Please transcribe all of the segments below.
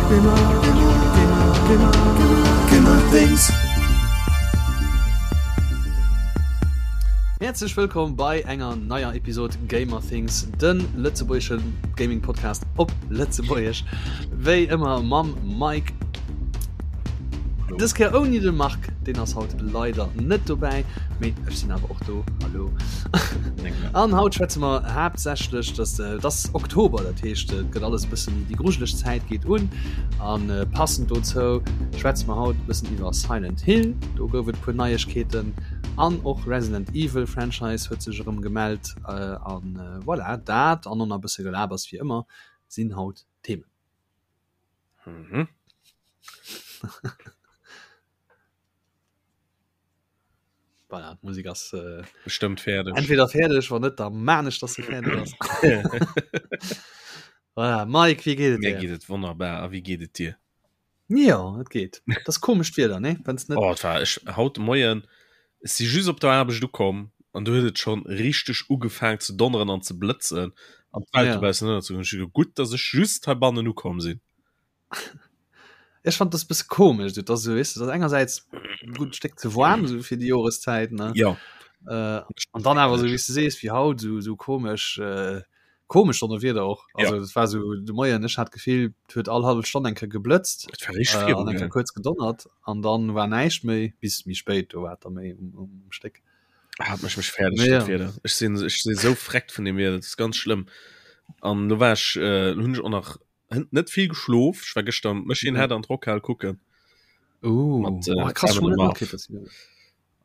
Gamer Things. Häerzlech wëllkomm bei enger neier Episod Gamer Things, de lëtzebuergesche Gaming Podcast op Lëtzebuergesch. Wéi ëmmer mam Mike. Dës Kéier ouni de Marc, deen ass haut leider net dobäi, mee ech sinn awer och do. Hallo. An haut schwätze mer haaptsächlech, dass äh, das Oktober, dat heescht et gëtt alles bëssen méi déi grujeleg Zäit geet un. An äh, passend dozou schwätze mer haut bëssen iwwer Silent Hill, do gouf et puer Neiegkeeten an och Resident Evil Franchise huet sech erëm gemellt äh, an äh, voilà, dat an och nach e bësse Gelabers wéi ëmmer sinn haut d'Themen. Mhm. Voilà, d'Musek ass äh, Bestëmmt fäerdeg. entweder fäerdeg, wann net, da maan ech, dass se fäerdeg ass. Voilà, Mike, wéi geet et Mir dir? geet et wonnerbar. A wéi geet et dir? Ja, et geet. Dat ass komescht Wieder, ne? Wenn's net Oh, et war ech haut de Moien, ech si just op der Aarbecht ukomm an du huet et schonn richteg ugefaang ze donneren an ze blëtzen an d'Welt Ja. dobaussen ënnerzegoen. Ech hu geduecht, gutt, dass ech just heibannen ukomm sinn. Ech fand das bësse komesch, du dass so weißt du, das engersäits e gutt Stéck ze waarm so fir déi Joreszäit ne Ja. äh, an dann awer so wéi s du sees wéi haut so so komesch äh, komesch Donnerwieder och also Ja. das war so de Moien ech hat d'Gefill et huet all hallef Stonn eng Kéier geblëtzt Et war richteg äh, viru, an eng Kéier gell? kuerz gedonnert an dann war näischt méi bis méi spéit do war et da méi um, um Stéck. Hat mech mech fäerdeg Mee dat ja. Wieder. Ech sinn ech si sou freckt vun dem Wieder, dat ass ganz schlëmm. An lo war ech äh, hunn ech och nach hënt net vill geschlof. Ech war gëschter Machine Ja. Head an d'Rockhal kucken. Uh, Mat, äh, oh, krass, Kevin schon net Marv. matkritt, dass sie-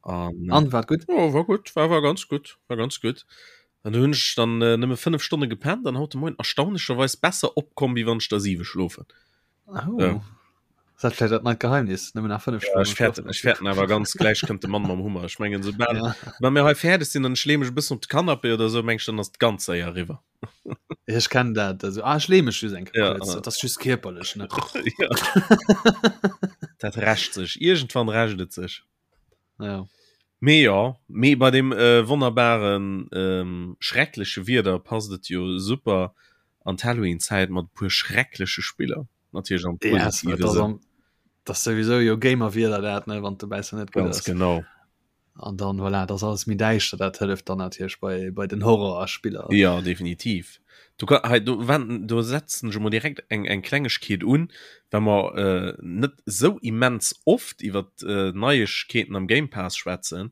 An, An wat gutt? Oh, war gutt, war, war ganz gutt, war ganz gutt. An du hunn ech dann äh, nëmme 5 Stonne gepennt an haut de Moien erstaunlecherweis besser opkomm, wéi wann ech der 7 schlofen. Oh. Ja. Ist dat vielleicht dat neit Geheimnis? Nëmmen nach 5 Ja, Stonnen ech fäerten, schlofen. ech fäerten awer ganz gläich kënnt de Mann mam Hummer. Ech mengen, soubal Ja. wa mir hei fäerdeg sinn an ech lee mech e bëssen op de Canapé oder sou, meng ech, dann ass et ganz séier eriwwer. Ech kennen dat. Also, ah, ech lee mech just eng Kéier Ja, kuerz. ah. Dat ass just kierperlech, ne? Ja. Dat rächt sech. Iergendwann rächt et sech. Ja. Mee jo, mee bei dem äh, wonnerbaren ähm, schreckleche Wieder passt et jo super an d'Halloween-Zäit mat e puer schreckleche Spiller. Natierlech am Ja, es- positive dat ass Sënn. am- dat ass souwisou jo Gamer-Wieder dat, ne, wann dobäi net gutt Ganz ass. genau. An dann voilà, dat ass alles méi däischter, dat hëlleft dann natierlech bei, bei den Horrorspiller. Ja, definitiv. Du kann, hei, do, wenn, do setzen ech emol direkt eng, eng Klengegkeet un, well mer äh, net sou immens oft iwwer äh, Neiegkeeten am Game Pass schwätzen.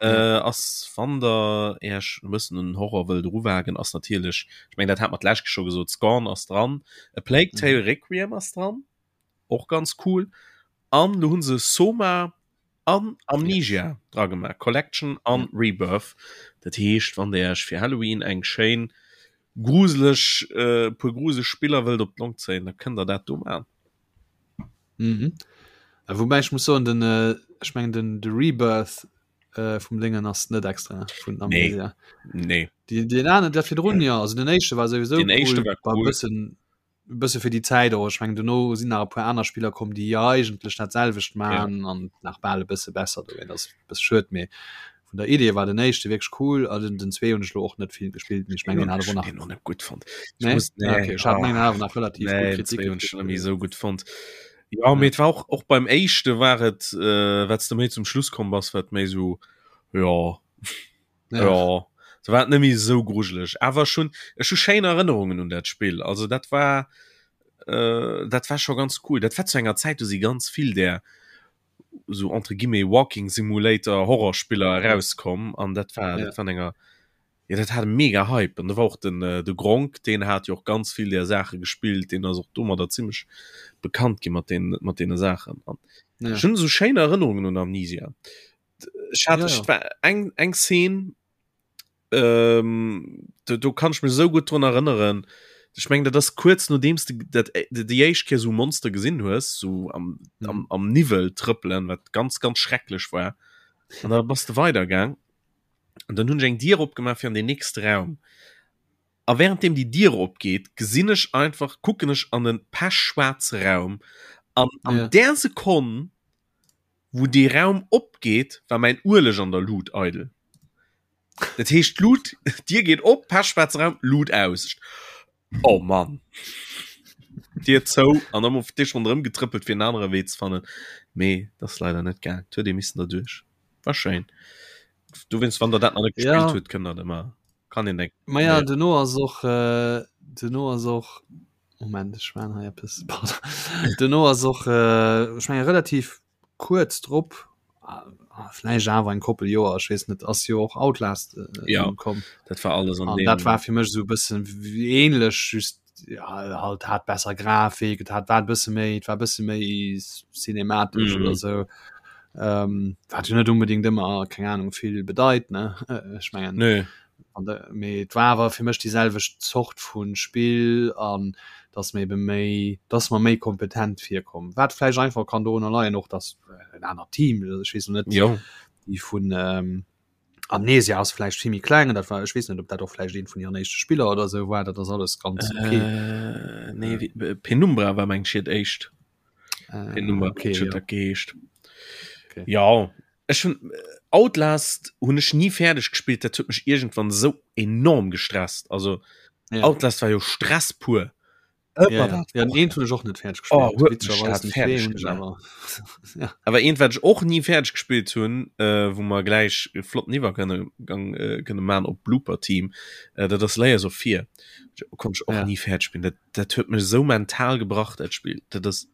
Äh, ass wann der Iech e bëssen un den Horror wëllt eruwagen, ass natierlech, ech mengen dat hat mer d'lescht scho gesot, Scorn ass dran, A Plague Tale mhm. Requiem ass dran, och ganz cool. An lo hunn se Soma an Amnesia yes. dra gemaach, Collection an ja. Rebirth. Dat heescht, wann der Iech fir Halloween eng schéin gruseleg äh, puer gruseleg Spiller wëllt op d'Long zéien, da kënnt der dat do man. Mhm. Äh, wobei ich muss soen den äh, ich mengen den de Rebirth äh, vum Dingen ass net extra vun Amnesia. Nee. Nee. Die, den anderen der virdrun ja also den éischte war sowieso den éischte war war cool. bëssen bësse fir déi Zäit och. Ech mengen dono sinn nach e puer aner Spiller komm, déi eigentlech dat selwecht man ja. an nach bal e bësse besser do. Dat ass bësse schued, mee vun der Idee war den éischte wierklech cool a den, den zwee hunn ech lo och net vill gespillt, mee ech mengen den hat awer nach den net gutt fonnt. Nee? Muss, nee. Ah, okay. Ech hat mengen awer nach relativ nee, gutt Kritik. Hunn ech net esou gutt fonnt. Ja, ja. mee et war och, och beim éischte war et äh, wat s de méi zum Schluss komm bass, wat méi sou ja. Ja. ja. So war et net méi esou grujeleg. Awer schon ech hu schéin Erënnerungen un dat Spill. Also dat war äh, dat war scho ganz cool. Dat war zu enger Zäit, do si ganz vill där so entre guillemets Walking Simulator Horrorspiller erauskomm an dat war ja. dat war enger ja, dat hat mega Hype an da war och den äh, de Gronk den hat jo och ganz vill der Sache gespillt den ass och domadder ziemlich bekannt gi mat den mat deene Saachen an ja. schon so schéin Erënnerungen un Amnesia ech hat ja, ja. war eng eng Szene ähm, do, do kann ich mir so gut dran erinnern ich meng dat das kurz nodeems du dat äh, déi éischt Kéier so Monster gesinn hues so am, mhm. am, am Niwwel trëppelen wat ganz ganz schrecklech war an da bass du weidergang an dann hunn ech eng Dier opgemaach fir an den nächste Raum a währenddem die Dier opgeht gesinn ech einfach kucken ech an den pechschwarze Raum an an ja. der Sekonn wou dee Raum opgeet, war mäin Ueleg an der Lut eidel. Dat heescht d'Lut, d'Dier geet op, pechschwaarze Raum, Lut aus. Oh Mann. Dier zou an dann op Tisch ronderëm getrëppelt fir en anere Wee ze fannen. Mee dat ass leider net gaang. Et huet ee missen derduerch. War schéin. Dowéinst, wann der dat nach net gespillt Ja. hutt, kënnt der dat ëmmer, kann een eng. Ma ja, duerno ass och, duerno ass och, Moment, ech maan hei eppes, pardon. Duerno ass och, ech menge relativ kuerz drop, vläicht awer eng Koppel Joer, ech weess net, ass jo och Outlast Ja, komm. dat war alles an deem. Dat war fir mech esou e bëssen ähnlech, just ja, halt hat besser Grafik, et hat war e bësse méi, et war e bësse méi cinematesch mm. oder sou. Ähm, wat jo net unbedingt ëmmer, keng Ahnung, vill bedeit, ne? Ech mengen. Nö. An de, mee et war awer fir mech déi selwecht Zort vu Spill an dass mir ebe méi, dass mer méi kompetent virkomm. Wat vläicht einfach kann dorunner leien och, dass en anert Team, ech weess lo net, Jo. déi vun ähm, Amnesia ass vläicht vill méi kleng, dat war, ech weess net, ob dat och vläicht eent vun hiren éischte Spiller oder sou war, dat ass alles ganz okay. Äh, nee, wéi, Penumbra war meng ech hiert éischt. Äh, Penumbra okay, huet jo. dat geheescht. Okay. Ja, ech hunn Outlast hunn ech ni fäerdeg gespillt, dat huet mech iergendwann esou enorm gestresst. Also Ja. Outlast war jo Stress pur. Ëmmer Ja, ja. dat Ja, och. eent hunn ech och net fäerdeg Oh, gespillt. huet mech Witzegerweis dat den fäerdeg zwee hunn ech gemaach. awer. Ja. Awer eent wat ech och ni fäerdeg gespillt hunn, äh, wou mer gläich e flotten Iwwergang äh, kënne man op Blooper Team, äh, dat ass Layers of Fear. Konnt ech och Ja. ni fäerdeg spillen. Dat, dat huet mech esou mental gebrach dat Spill. Dat ass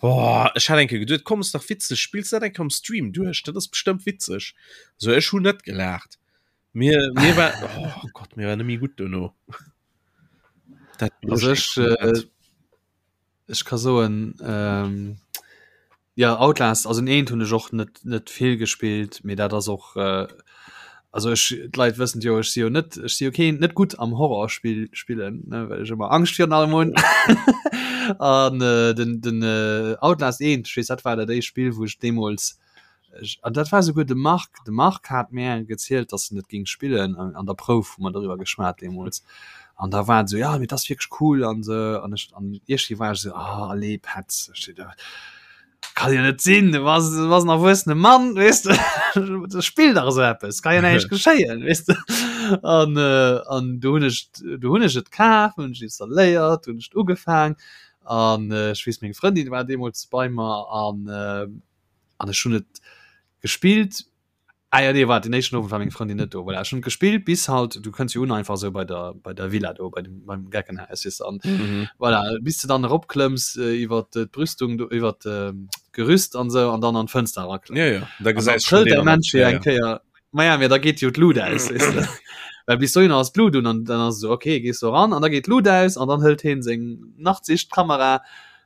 Oh, ech hat eng Kéier geduet, komm, ass dach witzeg, spills dat eng Kéier am Stream duerch, dat ass bestëmmt witzeg. So, ech hunn net gelaacht. Mir, mir war, oh Gott, mir war net méi gutt dono. Dat Also ech, äh, ech ka soen, ähm, ja, Outlast, also den eent hunn ech och net, net vill gespillt, mee dat ass och, äh, also ech, d'Leit wëssen jo, ech si jo net, ech si jo keen, net gutt am Horrorspill spillen, ne, well ech ëmmer Angscht virun allem hunn. An äh, den, den äh, Outlast 1, ech weess, dat war dat éischt Spill, wou ech deemools, ech, an dat war souguer de Marc, de Marc hat mär gezielt, dass en et géing spillen, an, an der Prouf hu mer doriwwer geschwat deemools. An da war et esou, ja, mee dat ass wierklech cool an esou, an ech, an iergendwéi war ech esou, ah, allez, Petz, ech si da, Kann jo net sinn, du bass, du bass en erwuessene Mann, weess de, spill dach esou eppes, kann jo näischt geschéien, weess de. An, äh, an du hunn ech, du hunn ech et kaf, hunn ech installéiert, hunn ech et ugefaang an äh, ech weess, meng Frëndin war deemools bei mer an, äh, an ech hunn et gespillt Ah ja, nee, wart, den éischten Owend war meng Frëndin net do. Voilà, ech hunn gespillt bis halt, du kënns jo un einfach sou bei der, bei der Villa do, bei dem, beim Geckenhaus, weess de, an Mhm. voilà, bis de dann eropklëmms äh, iwwer d'Brüstung do, iwwer d'Gerüst an sou, an dann an d'Fënster eraklëmms. Ja, ja, da An dann gesäis schon trëllt deen der an der, Mensch jo ja, eng ja. Kéier, ma ja, mee da geet jo d'Lut aus, weess de. Well bis dohinner ass d'Lut un, an dann ass et sou, okay, gees du eran, an da geet d'Lut aus, an dann hëlt heen seng Nachtsichtkamera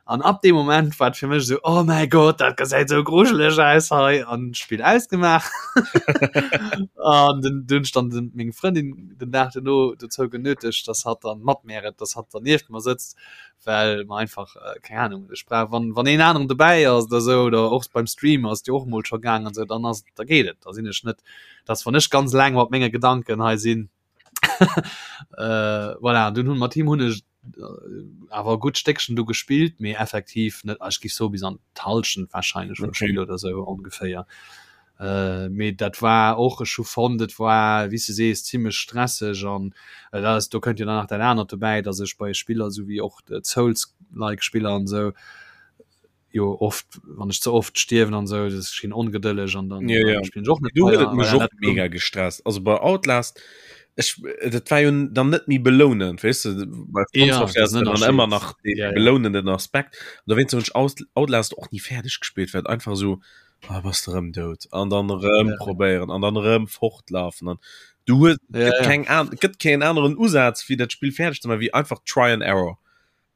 An ab deem Moment war et fir mech esou, oh mäi Gott, dat gesäit esou grujeleg aus hei an d'Spill ausgemaach. An den dunn stand den meng Frëndin den Dag duerno dozou genötegt, dass hatt dann mat mär et, dass hatt dann nieft mer sëtzt, well mer einfach, keng Ahnung, ech brauch wann wann een aneren dobäi ass oder esou oder och beim Stream ass et jo och emol scho gaang an esou, dann ass da geet et, da sinn ech net, dass wann ech ganz eleng mat menge Gedanken hei sinn, äh, voilà, dunn hunn mat him hunn ech äh, awer e gutt Stéckchen du gespillt, mee effektiv net, ech géif soe bis an d'Hallschent wahrscheinlech vum Okay. Spill oder sou ongeféier. Äh, mee dat war och, ech hu fonnt, et war, wéi s de sees, zimmlech stresseg an äh, dat ass, do kënnt jo dann nach dat anert dobäi, datt ech bei Spiller, sou wéi och d'Souls-like Spiller an esou, jo oft wann ech ze oft stierwen an sou das schien ongedëlleg an dann ja, ja. spielen och net du huet mech och mega gestresst also bei Outlast ech dat war jo dann net méi belounend weißt du bei ja, dann ëmmer nach den ja, ja. belounenden Aspekt da wéinst hunn ech Outlast och nie fäerdeg gespielt well einfach so ah, bass de rëm dout an dann rëm ja. probéieren an dann rëm fortlafen an du hues ja, ja. keng an gëtt keen aneren Usaz wéi dat Spiel fäerdeg ze maachen wéi einfach try and error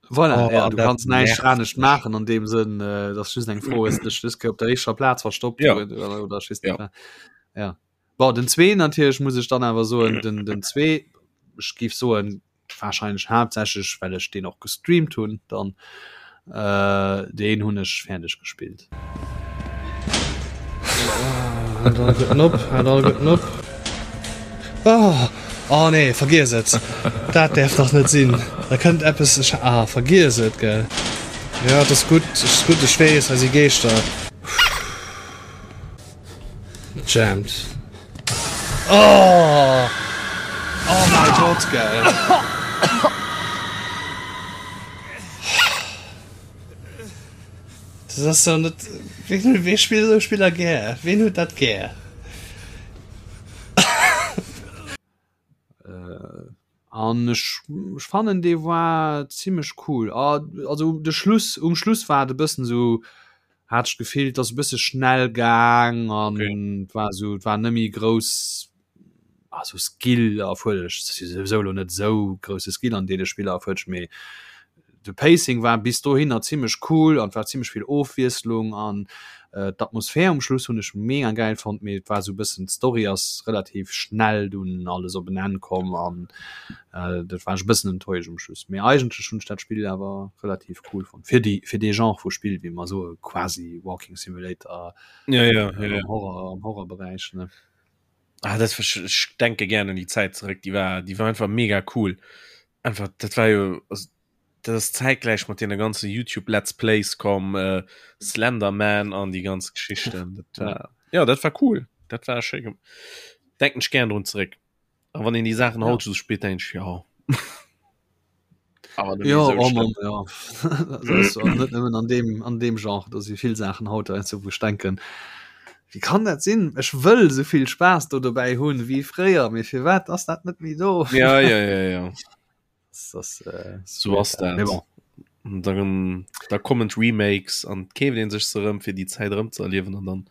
Voilà, oh, ja, du dat kannst näischt nervt anescht mech. maachen an deem Sënn, äh, dass just eng Fro ist, dech dës Kéier op der éischer Plaz verstoppt Ja. oder, oder, oder ech weess net Ja. wat. Ja. Bon, den zwee natierlech muss ech dann awer soen, den, den zwee, ech géif soen, wahrscheinlech haaptsächlech, well ech deen och gestreamt hunn, dann, äh, deen hunn ech fäerdeg gespillt. Haalt all gutten op, haalt all gutten op. Oh, oh nee, vergiess et. Dat däerf dach net sinn. Da kënnt eppes, ech, ah, vergiess et, gell. Jo, et ass gutt, et ass gutt, ech weess, hei si Geeschter. Jammed. Oh! Oh mäi Gott, gell. Dat ass doch net ween wee spillt esou Spiller gär? Ween huet dat gär? An ech ech fannen dee war zimmlech cool. Also de Schluss um Schluss war et e bëssen esou hat ech d'Gefill, et ass e bësse schnell gaang an et war esou et war net méi grouss also Skill erfuerderlech. Et ass jo souwisou elo net esou grousse Skill an deene Spiller erfuerderlech, mee de Pacing war bis dohinner zimmlech cool an et war zimmlech vill Ofwiesslung an d'Atmosphär um Schluss hunn ech mega gäil fonnt, mee et war esou e bëssen d'Story ass relativ schnell dunn alles op en Enn komm an dat war ech e bëssen enttäuscht um Schluss. Mee eigentlech hunn ech dat Spill awer relativ cool fonnt fir déi fir dee Genre vu Spill, wéi mer soe quasi Walking Simulator ja, ja, ja, ja. am Horror am Horrorberäich ne. Ah, dat war, ech denke gern un déi Zäit zeréck, déi war déi war einfach mega cool. Einfach dat war jo also, dat ass zäitgläich mat deene ganze YouTube Let's Plays komm, äh, Slenderman an déi ganz Geschichten. Dat war, ja dat war cool, dat war schéi gem denken ech gern drun zeréck. A wann een déi Saachen Ja. haut sou spillt, denkt ech ja. Awer net méi Ja, sou oh schlëmm. Mann, ja. Dat ass och net nëmmen an deem, an deem Genre, do si vill Saachen haut heiansdo, wou ech denken, Wéi kann dat sinn? Ech wëll sou vill Spaass do dobäi hunn wéi fréier, mee firwat ass dat net méi do? Ja, ja, ja, ja. Das ass, äh, So ass dat. Mee bon. Dann, da kommen d'Remakes an keeft een sech se erëm fir déi Zäit erëm ze erliewen an dann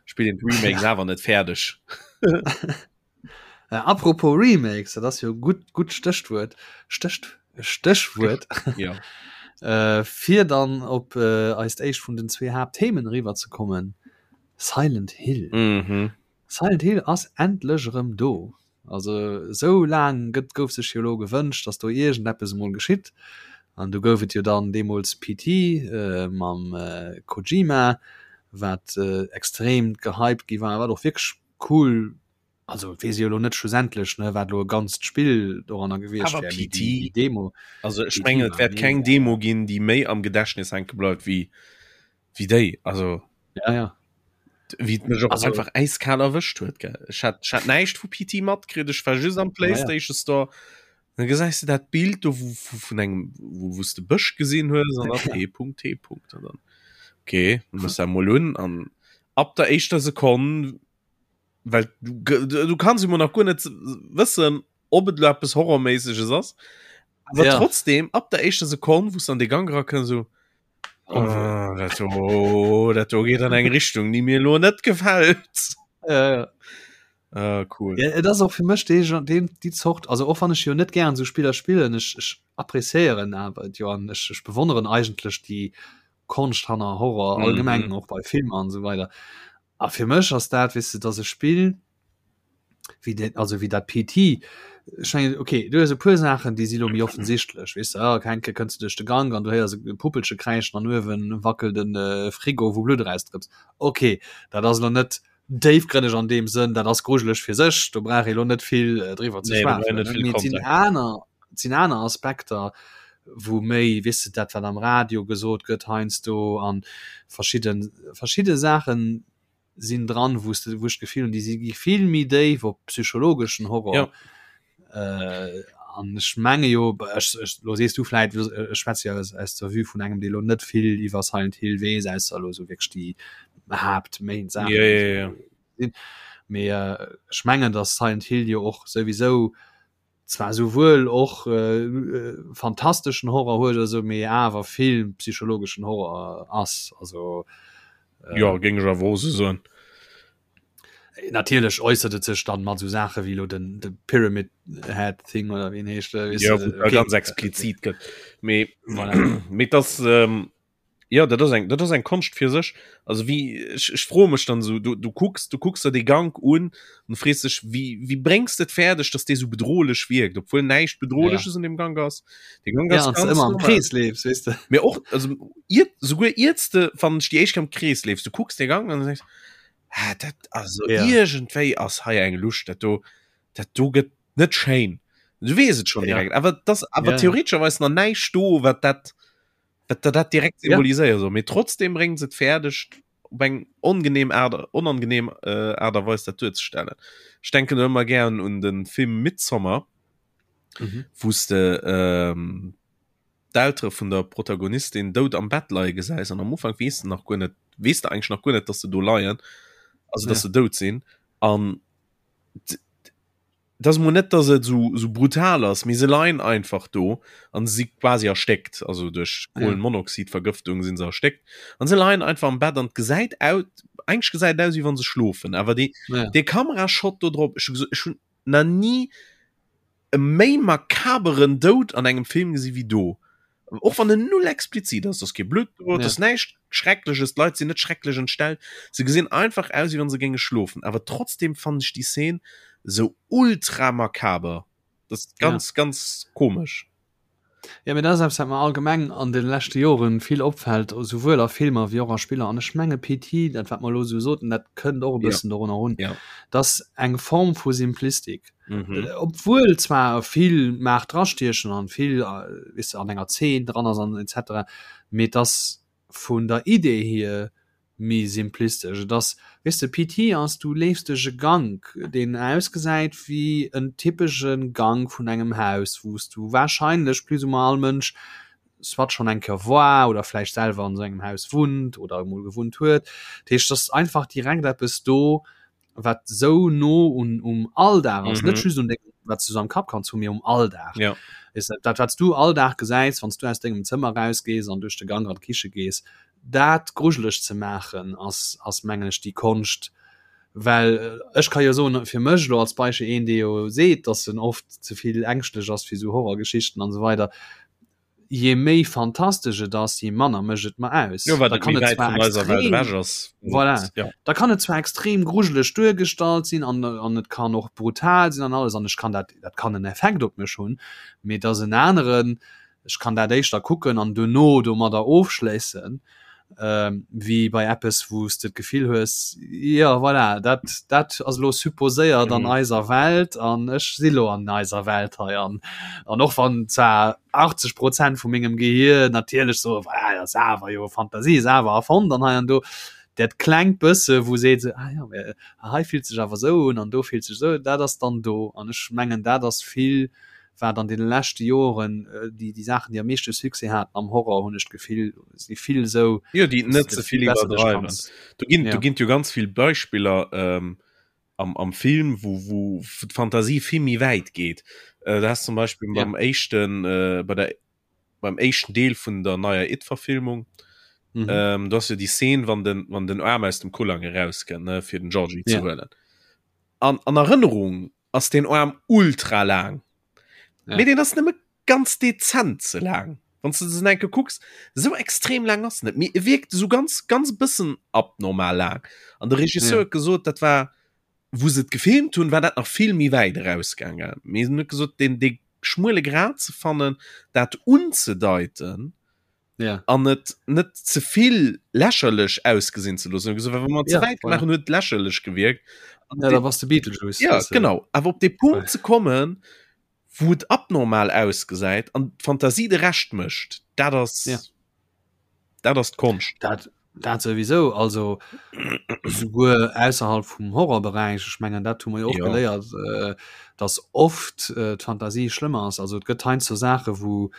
spillt een d'Remakes awer net fäerdeg. Äh, apropos Remakes, dat ass jo gutt gutt Stéchwuert Stécht Stéchwuert ja. äh, fir dann op äh, eist éischt vun den zwee Haaptthemen eriwwer ze kommen. Silent Hill. Mhm. Silent Hill ass endlech erëm do. Also esou laang gëtt gouf sech jo elo gewënscht, datt do iergendeppes emol geschitt. An du gouf et jo dann deemools PT äh, mam äh, Kojima, wat äh, extrem gehypt gi war, wat och wierklech cool also weess ech jo elo net schlussendlech ne wat elo e ganzt Spill doranner gewiescht Awer wär, mee PT, déi déi Demo also ech PT mengen et war wäert keng mega. Demo ginn, déi méi am Gedächtnis hänke bleift wéi wéi déi. Also Ja ja. wéi et mech och Also einfach äiskal erwëscht huet gell. Ech hat ech hat näischt vu PT matkritt, ech war just am ja ja. Playstation Store, dann gesäis de dat Bild do wou vu vun engem wou wou s de Bësch gesinn hues an da P Punkt T Punkt an dann okay, muss dat mol un an ab der éischter Sekonn well du, du kannst immer nach guer net wëssen ob et lo eppes horrorméisseges ass awer Ja. trotzdem ab der éischter Sekonn wous an de Gang rakënns so oh, dat do, dat do geet an eng Richtung déi mir lo net gefält Ja, ja. ah, cool Ja, et ass och fir mech dee Gen- deen déi Zort also och wann ech jo net gären sou Spiller spillen ech ech appréciéieren awer et jo an ech ech bewonneren eigentlech déi Konscht hanner Horror allgemeng mhm. och bei Filmer an esou weider A fir mech ass dat, weess de, dass e Spill wéi dat, also wéi dat PT, ech mengen, okay, du hues e puer Saachen, déi si lo méi offensichtlech, weess de, ah, eng Kéier kënns du duerch de Gank an du héiers e Puppelche kräischen an uewe wackelt e Frigo, wou Blutt erausdrëpst. Okay, dat ass elo net déifgrënneg an deem Sënn, dat ass grujeleg fir sech, do brauch ee lo net vill driwwer ze Nee, do brauch een schwafelen, net ne? vill Mee et sinn Kontext. aner, et sinn aner Aspekter, wou méi, weess de, dat wat am Radio gesot gëtt heiansdo an verschidde verschidde Saachen sinn dran, wou s de, wou ech d'Gefill hunn, déi si gi vill méi déif op psychologeschen Horror. Ja. Äh, an ech menge jo, ech, ech, lo sees du vläit, ech schwätze jo aus, aus der Vue vun engem, dee lo net vill iwwer Silent Hill weess, ausser elo sou wierklech déi Haapt-Main-Saachen, Ja, déi ja, ja. sou sinn. Mee ech mengen, datt Silent Hill jo och souwisou zwar souwuel och fantasteschen Horror huet oder sou, mee awer vill psychologeschen Horror ass. Also ja géing ech awer och sou soen. Natierlech äussert et sech dann mat sou Saache wéi elo den de Pyramid Head Thing oder wéi en heescht, weess Ja, de, wou et okay. ganz explizit gëtt. Mee Voilà. mee et ass ähm, Ja dat ass eng dat ass eng Konscht fir sech. Also wie ech, ech froe mech dann so du, du kucks du kucks der dee Gank un an frees dech wie wie bréngs de et fäerdeg, dass dee sou bedrohlech wierkt, obwuel näischt bedrohleches an dem Gank ass. De Gank Ja, ass an ganz ëmmer am normal. Krees leefs, weess de. Mee och also iert souguer iert s de fannen ech déi éischt Kéier am Krees leefs, du kucks dee Gank an du denks ah dat also Ja. iergendwéi ass hei eng Lusch, dat do dat do gëtt net schéin. Du weess et schonn Ja. direkt, awer et ass awer Ja, ja. theoretescherweis nach näischt do, wat dat dat dat dat direkt Ja. symboliséiere soll. Mee trotzdem bréngt se et fäerdeg, op eng ongenehm Aart, onangenehm äh, Aart a Weis dat duerzestellen. Ech denken do ëmmer gären un de Film Midsommar, Mhm. wou s de ähm, d'Eltere vun der Protagonistin dout am Bett leie gesäis an am Ufank weess de nach guer net, weess de eigentlech nach guer net, dass se do leien, also dass ja. se dout sinn an dat ass mol net, dass et sou, sou brutal ass, mee se leien einfach do an si quasi erstéckt, also duerch Kohlenmonoxidvergëftung sinn se erstéckt an se leien einfach am Bett an et gesäit aus, eigentlech gesäit et aus wéi wann se schlofen, awer dee, ja. dee Kamerashot do drop, ech hu gesot, ech hunn nach ni e méi makaberen Doud an engem Film gesi wéi do. Och wann en null explizit ass, ass kee Blutt do, ja. ass näischt Schreckleches, d'Leit sinn net schrecklech entstellt. Se gesinn einfach aus, wéi wann se géinge schlofen. Awer trotzdem fannen ech déi Szene sou ultra makaber. Dat ass ganz, ja. ganz komesch. Ja, mee dat ass eppes, wat mer allgemeng an de leschte Joren vill opfält, esouwuel a Filmer wéi och a Spiller. An ech menge PT, dat wat mer elo esou soten, dat kënnt och e bëssen ja. dorunner run. Ja. Dass eng Form vu Simplistik. Mhm. Äh, obwuel zwar vill mag drastiechen an vill äh, weess de, an enger Zeen dran ass an etc. Mee dass vun der Idee hier méi simplistesch. Et ass, weess de, PT ass, du leefs duerch e Gank, deen ausgesäit wéi en typesche Gank vun engem Haus, wou s du warscheinlech plus ou moins all Mënsch soit schonn eng Kéier war oder vläicht selwer an esou engem Haus wunnt oder emol gewunnt huet. Dat heescht, et ass einfach direkt eppes do, wat sou no un um Alldag ass, mm -hmm. net just un dengem, wat du so am Kapp kanns hu, mee um Alldag. Ja. Is dat, dat wat du all Dag gesäis, wann du aus dengem Zëmmer rausgees an duerch de Gang an d'Kiche gees, dat grujeleg ze maachen ass ass mengen ech déi Konscht, well äh, ech ka jo soen fir mech lo als Beispiel een dee jo seet, dass en oft ze vill ängschtlech ass fir sou Horrorgeschichten an esou weider je méi fantastesch et ass, je manner mécht et mer aus. Jo, wat da kann et zwar extrem, ass. Voilà. Ja. Da kann et zwar extrem grujeleg duergestallt sinn an, an et kann och brutal sinn an alles an ech kann dat, dat kann en Effekt op mech hunn, mee dass en aneren, ech kann dat éischter kucken an duerno domadder ofschléissen, ähm, wéi bei eppes, wou s de d'Gefill hues, jo voilà, dat, dat ass elo supposéiert an mhm. eiser Welt an ech si lo an eiser Welt hei an an och wann zwar 80 Prozent vu mengem Gehir natierlech so voilà, dat ass awer jo Fantasie, ass awer erfonnt an hei an do dat klengt bësse wou seet se ah ja, hei fillt sech awer sou un an do fillt sech sou, dat ass dann do an ech mengen dat ass vill wat an deene leschte Joren déi déi Saachen, déi am meeschte Succès haten am Horror, hunn ech d'Gefill, si vill esou, Jo, déi net ze vill iwwerdreiwen. Do ginn, do ginn jo ganz vill Beispiller ähm, am, am Film, wou, wou d'Fantasie vill méi wäit geet. Äh, da hast zum Beispill ja. beim éischten, äh, bei der, beim éischten Deel vun der neier It-Verfilmung, mhm. ähm, du hast jo déi Szene, wann den, wann den Aarm aus dem Kullang erauskënnt, ne, fir den Georgie ja. ze huelen. An, an Erënnerung ass den Arm ultra laang. Ja. Mee den ass nëmme ganz dezent ze laang. Wann du se enke kucks, sou extrem laang ass net. Mee e wierkt sou ganz ganz bëssen abnormal laang. An de Regisseur huet ja. gesot, dat war wou se et gefilmt hunn, war dat nach vill méi wäit erausgaangen. Mee en huet gesot, den dee schmuele Grad ze fannen, dat unzedeiten, ja. an et net zevill lächerlech ausgesinn ze loossen. Gesot, wa mer ze ja, wäit gemaach hunn, huet lächerlech gewierkt. Ja, da warst de Beetlejuice. Ja, genau. Awer op de Punkt ze kommen, wou et abnormal ausgesäit an d'Fantasie de Rescht mécht, dat ass ja. dat ass d'Konscht. Dat, dat sowieso also souguer ausserhalb vum Horrorberäich ech mengen dat hu mer jo och ja. geléiert äh, dass oft äh, d'Fantasie schlëmmer ass also et gëtt heiansdo Saache wou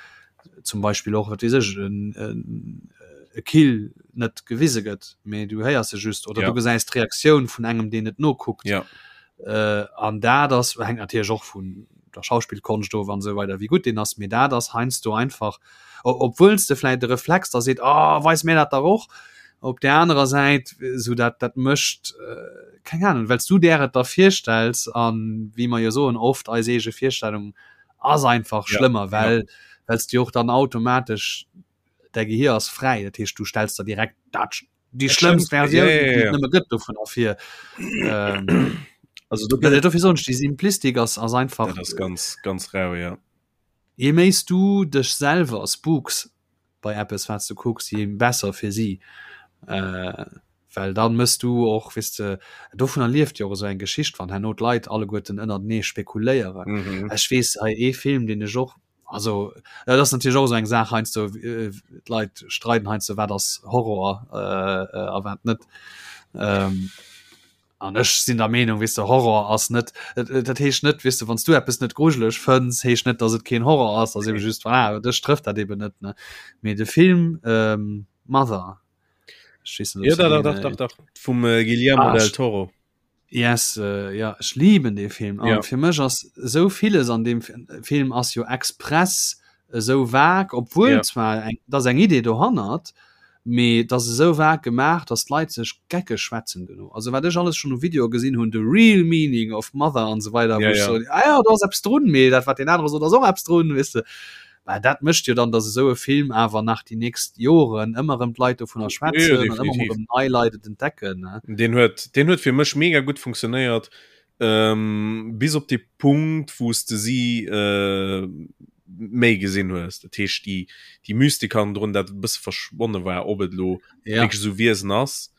zum Beispill och wat weess ech en, en, e Kill net gewise gëtt mee du héiers se just oder ja. du gesäis d'Reaktioun vun engem deen et nokuckt ja. äh, an dat ass hängt natierlech och vun der Schauspielkonscht of an esou weider wéi gutt deen ass mee dat ass heiansdo einfach obwuel s de vläit de Reflex da seet oh, weis mir dat dach och op der anerer Säit sou dat dat mécht äh, keng Ahnung well s du där et der virstells an wéi mer jo soen oft eis eege Virstellung ass einfach ja, schlëmmer well ja. well s du och dann automatesch däi Gehir ass fräi dat heescht du stells der direkt dat déi schlëmmst Versioun ja, ja, ja. nëmme gëtt dovun ervir ähm, also du dofir soen ech déi Simplistik ass ass einfach dat ass ganz ganz rau ja Je méi s du dech selwer spooks bei eppes wat s du kucks, je besser fir si. Well dann mëss du och, weess de, dovunner lieft jo och esou eng Geschicht, wann herno d'Leit alleguerten ënnertenee spekuléieren. Ech weess hei ee Film, deen ech och, also dat ass natierlech och esou eng Saach heiansdo, d'Leit streiden heiansdo, wat ass Horror a wat net. An ech sinn der Meenung, weess de, Horror ass net, dat heescht net, weess de, wann s du eppes net grujeleg fënns, heescht net, datt et keen Horror ass, ass ebe just, voilà, dech trëfft dat eben net, ne. Mee de Film ähm, Mother, ech weess net, ob Ja, s du dach, deen, dach, dach, dach, vum äh, Guillermo ah, del Toro. Yes, äh, ja, ech lieben dee Film. An ja. fir mech ass esou villes an deem Film ass jo express esou vag, obwuel ja. zwar eng, dass eng Idee dohannert, mee et ass esou vag gemaach, dass d'Leit sech geckeg schwätzen duerno. Also wat ech alles schonn u Videoe gesinn hunn, the real meaning of mother an esou weider, wou ech soen, ah ja, do ass eppes drun, mee dat wat deen anere sot ass och eppes drun, weess de. Well dat mécht jo dann, dass esou e Film awer nach déi nächst Joren ëmmer erëm d'Leit dovunner schwätzen an ëmmer erëm nei Leit et entdecken, ne. Deen huet, deen huet fir mech mega gutt funktionéiert, bis op dee Punkt, wou s de si méi gesinn hues, dat heescht déi déi Mystik hannendrun, dat e bësse verschwonne war, ob et elo ja. wierklech esou Wiesen ass.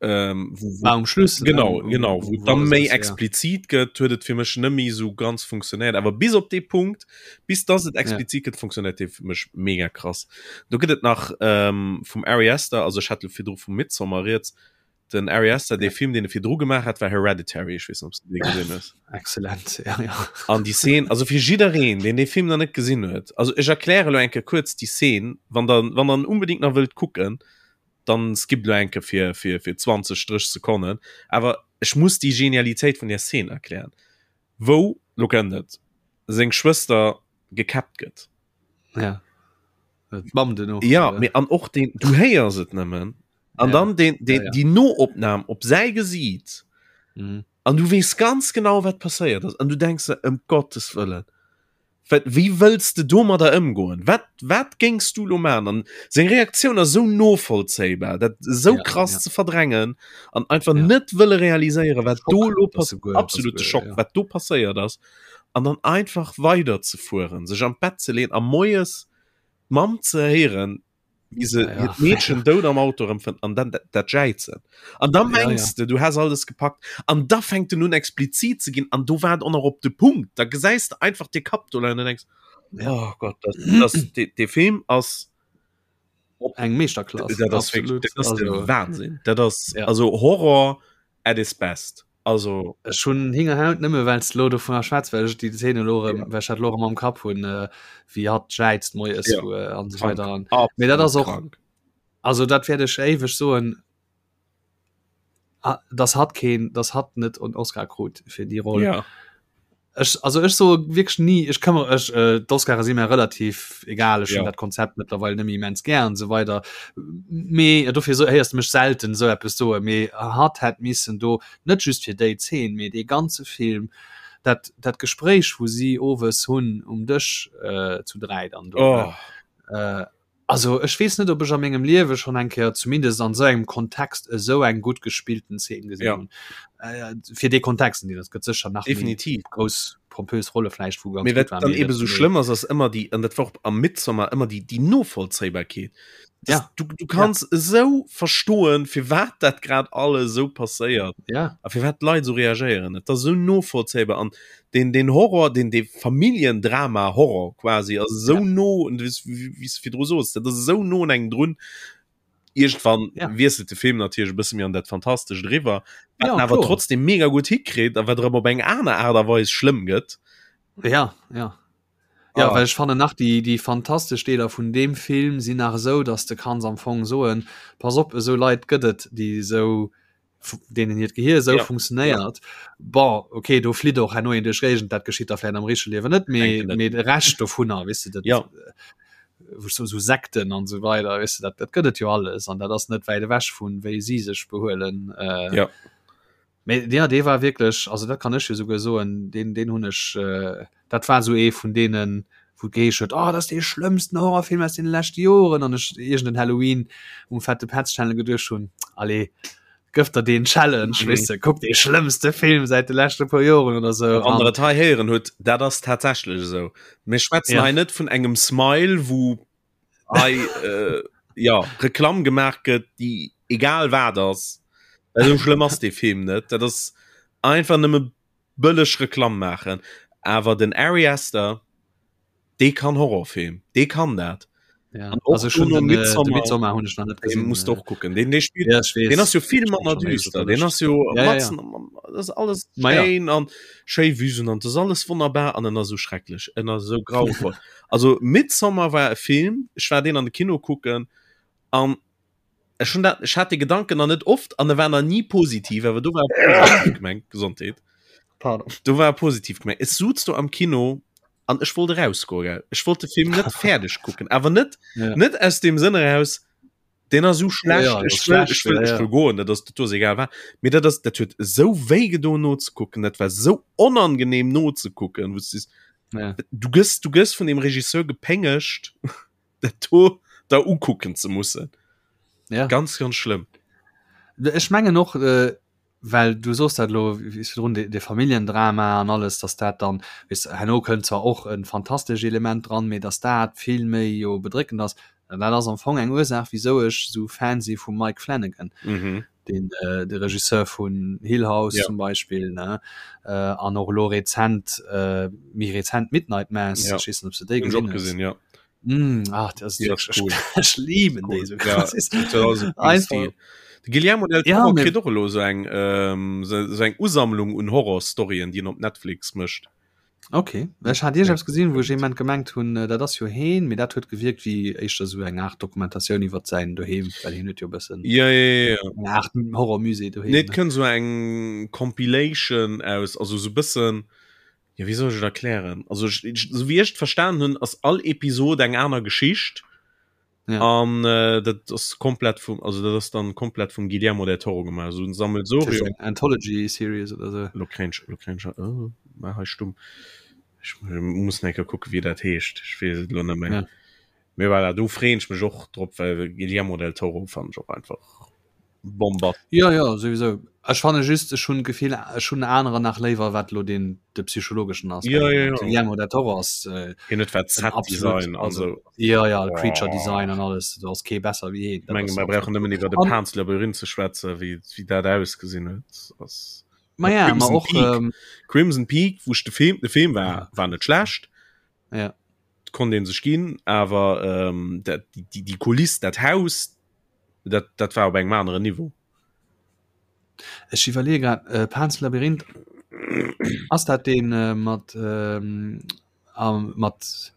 Ähm, wo, wo, war um Schluss genau ne? genau wo, wo dann méi explizit ja. gëtt huet et fir mech nëmmi so ganz funktionéiert awer bis op dee Punkt bis dass et explizit ja. gëtt funktionéiert dee fir mech mega krass do gëtt et nach ähm, vum Ari Aster also ech hat virdru vum Midsommar rieds Den Ari Aster, dee Film, deen e virdru gemaach hat, war Hereditary. Ech weess net, ob s de dee gesinn hues. Excellent, ja, ja. An déi Szene, also fir jiddereen, deen dee Film nach net gesinn huet, also ech erkläre lo eng Kéier kuerz déi Szene, wann der, wann der en unbedingt nach wëllt kucken, dann skippt lo eng Kéier fir, fir, fir 20, 30 Sekonnen. Awer ech muss déi Genialitéit vun där Szene erklären, wou, lo kënnt et, seng Schwëster gekäppt gëtt. Ja. D'Mamm duerno. Ja, mee an och deen, du héiers et nëmmen. An ja. dann den, den, ja, ja. die Noopnam op säi Gesiit. Mhm. An du wees ganz genau wat passéiert ass. An du denkst dir, ëm Gottes Wëllen. Wat, wéi wëlls de domadder ëmgoen? Wat, wat géings du lo man? An seng Reaktioun ass sou novollzéibar, dat sou ja, krass ja. ze verdrängen an einfach ja. net wëlle realiséieren, wat do lo passiert. Absolute Schock, ja. wat do passéiert ass. An dann einfach weider ze fueren, sech am Bett ze leen a moies d'Mamm ze héieren, wie se ja, ja. Mädchen dout am Auto erëmfënnt an dann dat, dat jäizen. An da mengst ja, ja. du, du has alles gepackt an da fänkt den nun explizit ze ginn an do war et och nach op de Punkt. Da gesäis de einfach de Kapp do leien an denkst, ja. oh Gott, das, das, de, de Film ass op eng Meeschterklass. Dat ass, wirklich, dat ass also, Wahnsinn. Dat ass ja. also Horror at its best. Also ech hunn Hingerhaut nëmme well s de lo dovunner schwätz, well ech déi Zeen elo erëm, well ech dat elo erëm am Kapp hunn, wéi hatt jäizt moies Ja. wou an esou weider an mee dat ass och krank. also dat wäert ech éiweg soen, dass hatt keen, dass hatt net en Oscar krut fir déi Roll. Ja. Ech, also ech soe wierklech ni, ech këmmere ech, äh, d'Oscare si mir relativ egal, ech hunn ja. dat Konzept mëttlerweil net méi immens gär an esou weider. Mee dofir so, héiers de mech selten esou eppes soe, mee hatt hätt missen do net just fir déi Zeen, mee dee ganze Film, dat, dat Gespréich wou si owes hunn um Dësch äh, zu 3 dann do, oh. äh, Also ech weess net, ob ech a mengem Liewe schonn eng Kéier, zumindest an esou engem Kontext, esou eng gutt gespillten Zeen gesinn Ja. hunn. Äh, fir dee Kontext, an deem, et gëtt sécher nach méi Definitiv. grouss pompös Rolle vläicht, wou ganz Mee gutt wat waren, dann mee eben dat, esou mee schlëmm ass, ass ëmmer déi, an dat war och am Midsommar ëmmer déi, déi Novollzéibarkeet. Das, Ja. du, du Ja. kanns esou verstoen, firwat dat grad alles esou passéiert Ja. a firwat d'Leit esou reagéieren. Et ass esou novollzéibar an den den Horror den de Familiendrama Horror quasi ass esou ja. no und wéi s virdru soos dat ass esou no un engem drun irgendwann ja. wiesselt de Film natierlech e bësse méi an dat Fantastescht eriwwer wat ja, awer trotzdem mega gutt hikritt a wat erëm op eng aner Aart a Weis schlëmm gëtt ja ja Ja, ah. well ech fannen nach déi, déi fantastesch Deeler vun deem Film sinn nach esou, dass de kanns am Fong soen, pass op, esou Leit gëtt et, déi esou deenen hiert Gehir esou ja. funktionéiert. Ja. Bon, okay, do flitt och herno een duerch Géigend, dat geschitt da vläicht am richtege Liewen net, mee mee de Rescht dovunner, weess de, dat ja. wou so, so Sekten an esou weider, weess de, dat, dat gëtt et jo alles an dat ass net wäit ewech vun wéi si sech behuelen. Äh, ja. Mee ja, dee war wierklech, also dat kann ech jo souguer soen, deen, deen hunn ech äh, dat war sou ee vun deenen, wou et geheescht huet, oh, dat ass dee schlëmmsten Horrorfilm aus deene leschte Joren, an ech iergend en Halloween um Fette Petz Channel geduecht hunn, allez, gëff der deen Challenge, mhm. weess de, kuck dee schlëmmste Film säit de leschte puer Joren oder sou. Wann der et hei héieren hutt, dat ass tatsächlech esou. Mir schwätzen ja. hei net vun engem Smile, wou hei äh, ja, Reklamm gemaach gëtt, déi egal wat ass. Esou schlëmm ass dee Film net. Dat ass einfach nëmme bëlleg Reklamm maachen. Awer den Ari Aster, dee kann Horrorfilm, dee kann dat. Ja. Also schon den, äh, Midsommar, Midsommar hun ich noch net gesehen. Musst och kucken. Den, den spielt, ja, den ass jo vill manner düster. Den ass jo ja, ja, ja. das alles schéin ja. an schéi Wüsen an das alles wunderbar an en ass so schrecklech. En ass so grauvoll. also Midsommar war e Film, ech war den an de Kino kucken an ech hun dat ech hat de Gedanken an net oft an e war na nie positiv, awer du war positiv gemengt Gesondheet. Pardon. Du war positiv gemengt. Es suz du am Kino an ech wollt erausgoen gell ech wollt de Film net fäerdeg kucken awer net ja. net aus dem Sënn eraus den ass so schlecht ja, ja, ech will, ech will, ja, ja. ech will goen dat ass dat egal war mir dat ass dat huet sou wéi gedo no ze kucken dat war sou onangenehm no ze kucken wou ja. du gëss du gëss vun dem Regisseur gepéngecht dat do da ukucken ze mussen ja. ganz ganz schlimm ech mengen och äh, Well du soos dat elo wéi virdrun, dee Familljendrama an alles, datt dat dann, weess de, herno kënnt zwar och e fantastesch Element dran, mee datt dat vill méi jo bedréckend ass. An dat ass am Fong eng Ursaach, wisou ech esou Fan si vum Mike Flanagan, deen de Regisseur vun Hill House zum Beispill, ne, an och elo rezent, méi rezent Midnight Mass, ech weess net, ob s de déi gesinn hues. Mm, ach, das ist ja, cool. Ich liebe cool. diese ja, einfach Guillermo del ja, Toro kritt och elo so eng ähm, so, so eng Usammlung un Horrorstoryen, déi en op Netflix mécht. Okay. Ech hat Dir gesinn, wou ech jemand gemengt hunn, äh, dat ass jo heen, mee dat huet gewierkt wéi éischter sou eng Art Dokumentatioun iwwer säin Doheem, well hien huet jo e bëssen ja, ja, ja, ja. eng Art Horrormusée doheem. Nee, et kënnt so eng Compilation aus, also so bëssen Ja, wéi soll ech et erklären? Also ech, ech, so wéi ech et verstanen hunn, ass all Episod eng aner Geschicht. Ja. An äh, dat ass komplett vum, also dat ass dann komplett vum Guillermo del Toro gemaach. So ein Sammelsurium. Eng Anthology Series oder so. Lo kréien ech, lo kréien ech, oh, mar hei stumm. Ech muss eng Kéier kucken, wéi dat heescht. Ech weess et lo net méi. Ja. Mee voilà, do freeën ech mech och drop, well Guillermo del Toro fannen ech och einfach Bombast. Jo, jo, souwisou. Ech fanne just, ech hunn d'Gefill, ech hunn anerer nach léiwer, wat elo deen de psychologeschen ass. Jo, jo, jo. Guillermo del Toro ass äh, Hien huet wat en absolut, Set-Design an also, sou. jo, jo, Creature Design an alles, do ass kee besser wéi hien. Ech menge mer brauchen nëmmen iwwer de An- Pan's Labyrinth ze schwätzen, wéi, wéi dat ausgesinn huet. Ass Ma ja, ma Crimson och, Peak. ähm, Crimson Peak, wou ech de Film, de Film war, Ja. war net schlecht, ja. konnt een sech ginn, awer ähm, dat, déi, déi, déi Kuliss, dat Haus, dat, dat war op engem aneren Niveau. Ech iwwerleeë grad, äh, Pan's Labyrinth, ass dat deen äh, mat, ähm, am, mat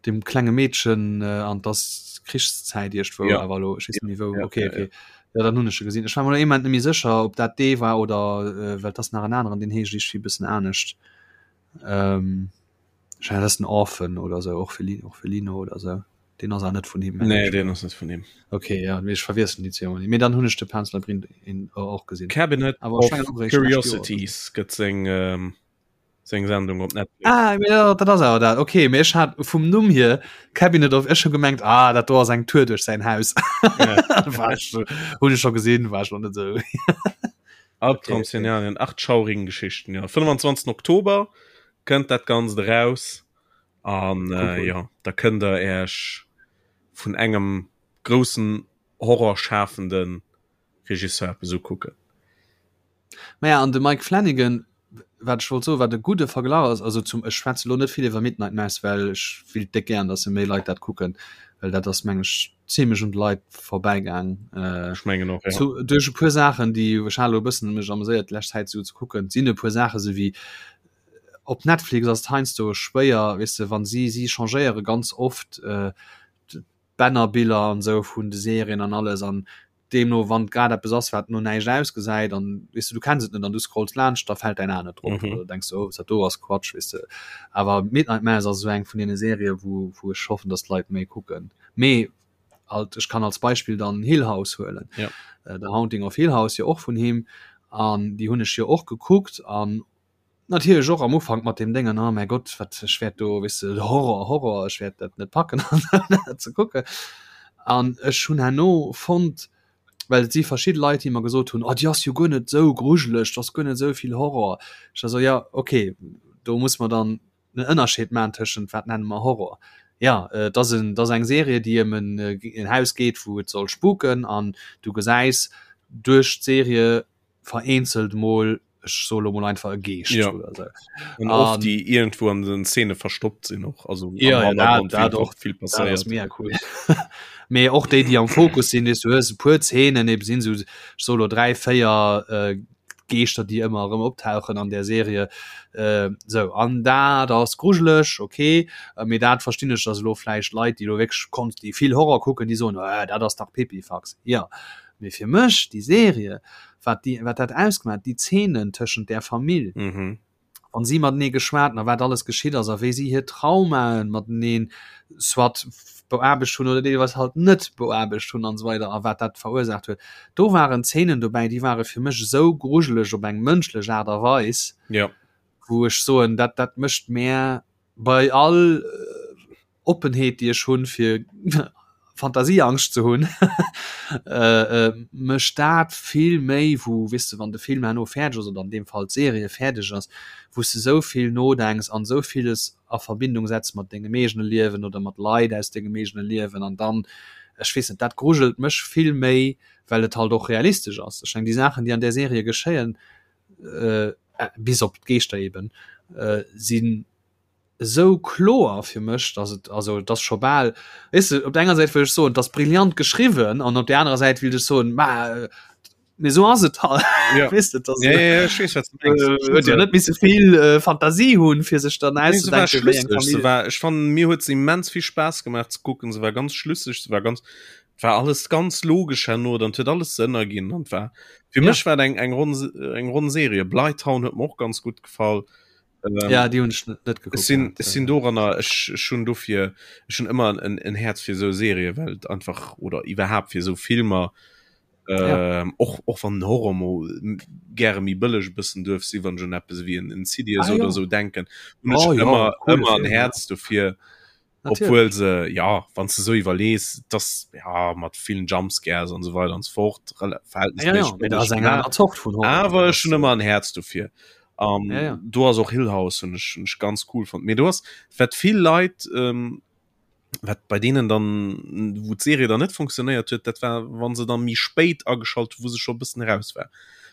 dem klenge Meedchen äh, an dass Krichszäit iergendwou, Ja. awer elo, ech weess net méi wou. Ja, Okay, ja, okay. Ja, dann hunn ech e gesinn. Ech war mer elo ee Moment net méi sécher, ob dat dee war oder äh, well et ass nach en aneren, deen heescht iergendwéi e bëssen anescht. Ähm, ech mengen, dat ass den Orphan oder sou, Orphelin, Orphelino oder sou. Den ass awer net vun him. Nee, den ass net vun him. Okay, ja, mee ech verwiesselen déi zwee ëmmer. Mee dann hunn ech de Pan's Labyrinth in, och gesinn. Cabinet Awer of ech mengen och eréischt d'lescht Joer. Curiosities gëtt seng, ähm, seng Sendung op Netflix. Ah, mee ja, dat ass awer dat. Okay, mee ech hat vum Numm hier Cabinet of, ech hu gemengt, ah, dat do ass eng Tour duerch säin Haus. Ja. War ech, hunn ech scho gesinn, war ech noch net esou. Albtraum-Szenarien, 8 schaurigen Geschichten, ja. 25. Oktober kënnt dat Ganzt eraus. An Cool, äh, cool. ja, da kënnt der Äech vun engem groussen horrorschafenden Regisseur eppes ukucken. Naja, an de Mike Flanagan, wat ech wollt soen, wat e gudde Verglach ass, also zum, ech schwätze lo net vill iwwer Midnight Mass, well ech willt déck gären, datt se méi Leit dat kucken, well dat ass, meng ech, zimmlech un de Leit vorbäigaang. Äh, Ech mengen och, ja. zu, duerch e puer Saachen, déi ech hat elo e bëssen mech ameséiert d'lescht Zäit esou ze kucken, sinn e puer Saache sou wéi Op Netflix ass et heiansdo schwéier, weess de, wann si si changéiere ganz oft d'Bannerbiller an esou vun de Serien an alles an deemno wann grad eppes ass wat no näischt ausgesäit an weess de du kenns et net an du scrolls laanscht, da fält däin A net drop oder du denks oh dat do ass Quatsch weess de. Awer Midnight Mass ass esou eng vun deene Serië wou wou ech hoffen, datt d'Leit méi kucken. Mee alt ech kann als Beispill dann Hill House huelen, The Haunting of Hill House jo och vun him an déi hunn ech jo och gekuckt an Natierlech och am Ufank mat deem Déngen, oh mäi Gott, wat ech wäert do, weess de, Horror, Horror, ech wäert dat net packen an dat ze kucken. An ech hunn herno fonnt, well et si verschidde Leit, déi mer gesot hunn, oh déi ass jo guer net esou grujeleg, do ass guer net esou vill Horror. Ech war esou, jo okay, do muss mer dann en Ënnerscheed maachen tëschent wat nenne mer Horror. Jo, et ass en, et ass eng Serie, déi ëm en en Haus geet, wou et soll spuken an du gesäis duerch d'Serie vereenzelt mol. Ech soe lo mol einfach e Geescht ja. oder so. Und oft déi irgendwo an den Szene verstoppt sinn och also ja, ja, dat, dat och vill passéiert mega cool. Mee och déi déi am Fokus sinn, du hues e puer Szenen eben sinn sou solo 3 4 äh, Geeschter déi ëmmer erëm optauchen an der Serie äh, sou an dat ass grujeleg okay äh, mee dat verstinn ech dass elo vläicht Leit déi lo wierklech konnt déi vill Horror kucken déi soen äh, dat ass dach Pipifax ja mee fir mech déi Serie wat déi wat dat ausgemaach déi Zeenen tëschent där Famill mhm. wann si matenee geschwat hunn a wat alles geschitt ass a wéi si hir Traumaen mateneen soit beaarbecht hunn oder deelweis halt net beaarbecht hunn an esou weider a wat dat verursaacht huet. Do waren Zeenen dobäi, déi ware fir mech esou grujeleg op eng mënschlech Aart a Weis, ja. wou ech soen, dat dat mécht mär bei all Oppenheet déi ech hunn fir Fantasieangscht ze hunn, mécht dat vill méi wou weess de wann de Film herno fäerdeg ass oder an deem Fall d'Serie fäerdeg ass, wou s de esou vill nodenks an esou villes a Verbindung setz mat dengem eegene Liewen oder mat Leit aus dengem eegene Liewen an dann, ech weess net, dat grujelt mech vill méi, well et halt och realistesch ass. Ech meng déi Saachen déi an där Serie geschéien, bis op d'Geeschter eben, sinn esou kloer fir mech, dass et also et ass scho bal weess de, op der enger Säit wëll ech soen, et ass brillant geschriwwen an op der anerer Säit wéilt ech soen, ma mee esou ass et halt ja. weess de, dass ja, ja, ja, ech weess, wat du mengs. äh, huet jo net misse vill äh, Fantasie hunn, fir sech dann Nee, se war auszedenken, wéi eng schlüsseg. Se Famill. war, ech fand, mir huet se immens vill Spaass gemaach ze kucken. Se war ganz schlüsseg, se war ganz, war alles ganz logesch herno, dann huet alles Sënn erginn an war fir Ja. mech war eng eng ronn eng ronn Serie. Bly Town huet mir och ganz gutt gefall. Ähm, ja die hun net geguckt sinn sinn doranner ech schon dofir schon immer en, en Herz fir so Serie Welt einfach oder iwwerhaupt fir so Filmer ja. ähm, och och van Horror mo gäre mi bëlleg bëssen duerf si wann schon Apps wie en Insidious ah, oder ja. so denken und oh, ja, immer immer en Herz dofir obwohl se ja wann du so iwwerlees das ja mat vielen Jumpscares und so weiter und so fort ja, ja, awer schon immer ein Herz dofir um, ja, ja. du hast auch Hill House und ich, ich ganz cool fand mir du hast wat viel Leid ähm, wat bei denen dann wo Serie dann net funktioniert huet dat war wann se dann mi spéit ageschalt wo se schon bisschen raus war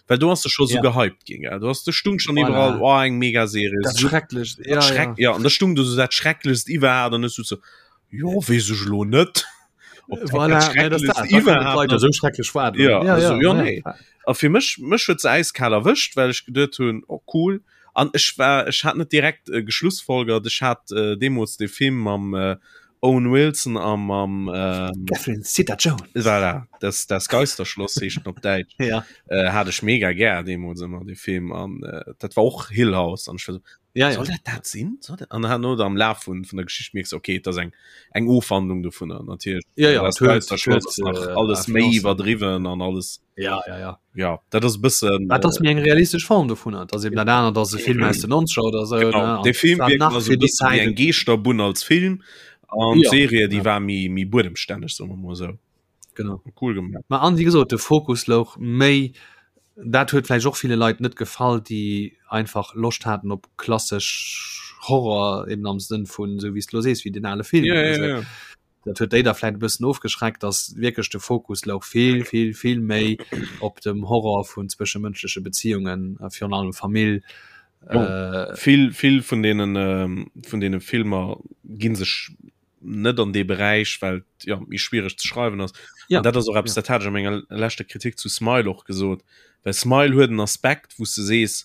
well du hast du schon so ja. gehypt ging ja? du hast du stung schon voilà. überall oh, eng mega Serie das so, schrecklich ja, schreck, ja. ja und da stung du so dat schrecklechst iwwerhaupt dann ist du so jo wees ech lo net voilà, nee, das das, das so schrecklich war ja, ja, also, ja, ja, ja, nee. ja. A fir mech mech huet se eiskal erwëscht well ech geduet hunn oh cool an ech war ech hat net direkt äh, geschlussfolgert ech hat äh, deemools de Film mam äh, Owen Wilson a mam ähm, Catherine Zeta-Jones voilà, das, das Geisterschloss heescht op Däitsch ja. äh, hat ech mega gär deemools ëmmer de Film an äh, dat war och Hill House an ech war so, ja, ja. soll dat dat sinn soll dat? an herno am Laf vun vun der Geschicht mierks okay dat ass eng eng Ofwandlung dovunner natierlech ja, ja, das huet, Geisterschloss ass huet, nach äh, alles méi iwwerdriwwen an alles ja ja ja ja dat ass bëssen dat ass mir eng realistesch Form dovun dat ass eben dat anert ass e Film aus den 90er oder so genau, ne? de Film War wirkt nach also fir déi bëssen wéi Zäit eng Geeschterbunn als Film an Ja, d'Serie déi ja. war méi méi buedemstänneg soe mer mol esou genau cool gemaach Ma an wéi gesot de Fokus louch méi dat huet vläicht och ville Leit net gefall déi einfach Loscht haten op klassesch Horror eben am Sënn vun esou wéi s de lo sees wéi den ale Film ja, oder ja, esou. ja. Dat huet déi da vläit e bëssen ofgeschreckt, dass wierklech de Fokus louch vill, vill, vill méi op dem Horror vun zwëschemënschleche Beziungen, virun allem Famill. Jo, vill, vill vun deenen, vun deene Filmer gi sech net an dee Beräich, well et jo méi schwiereg ze schreiwen ass. Ja, An dat ass och eppes, ja. dat hat ech a menger leschter Kritik zu Smile och gesot, well Smile huet en Aspekt, wou s de sees,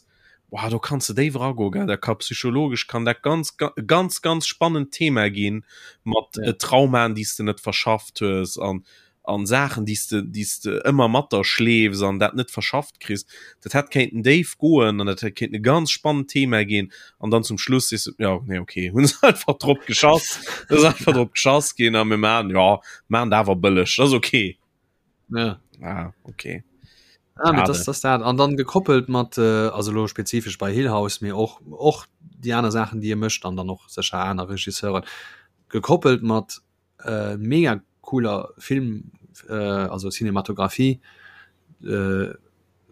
Wow, do kanns de déif eragoen, gell? Dat ka psychologesch kann dat ganz ganz ganz spannend Thema ginn mat Ja. äh, Traumaen, déi s de net verschafft hues an an Saachen, déi s de déi s de ëmmer mat der schleefs an dat net verschafft kriss. Dat hätt kéinten déif goen an dat hätt kéinten e ganz spannend Thema ginn an dann zum Schluss sees du, ja, nee, okay, hunn se einfach drop geschass, ass einfach drop geschass ginn a mir maachen, ja, maachen dat awer bëlleg, dat ass okay. Ja. Ah, okay. Ah, mit das, das dat. An dann gekoppelt mat äh, also lo spezifesch bei Hill House mir och och die aner Sachen die e mëscht an dann och secher aner Regisseuren gekoppelt mat äh, mega cooler Film äh, also Cinematografie äh,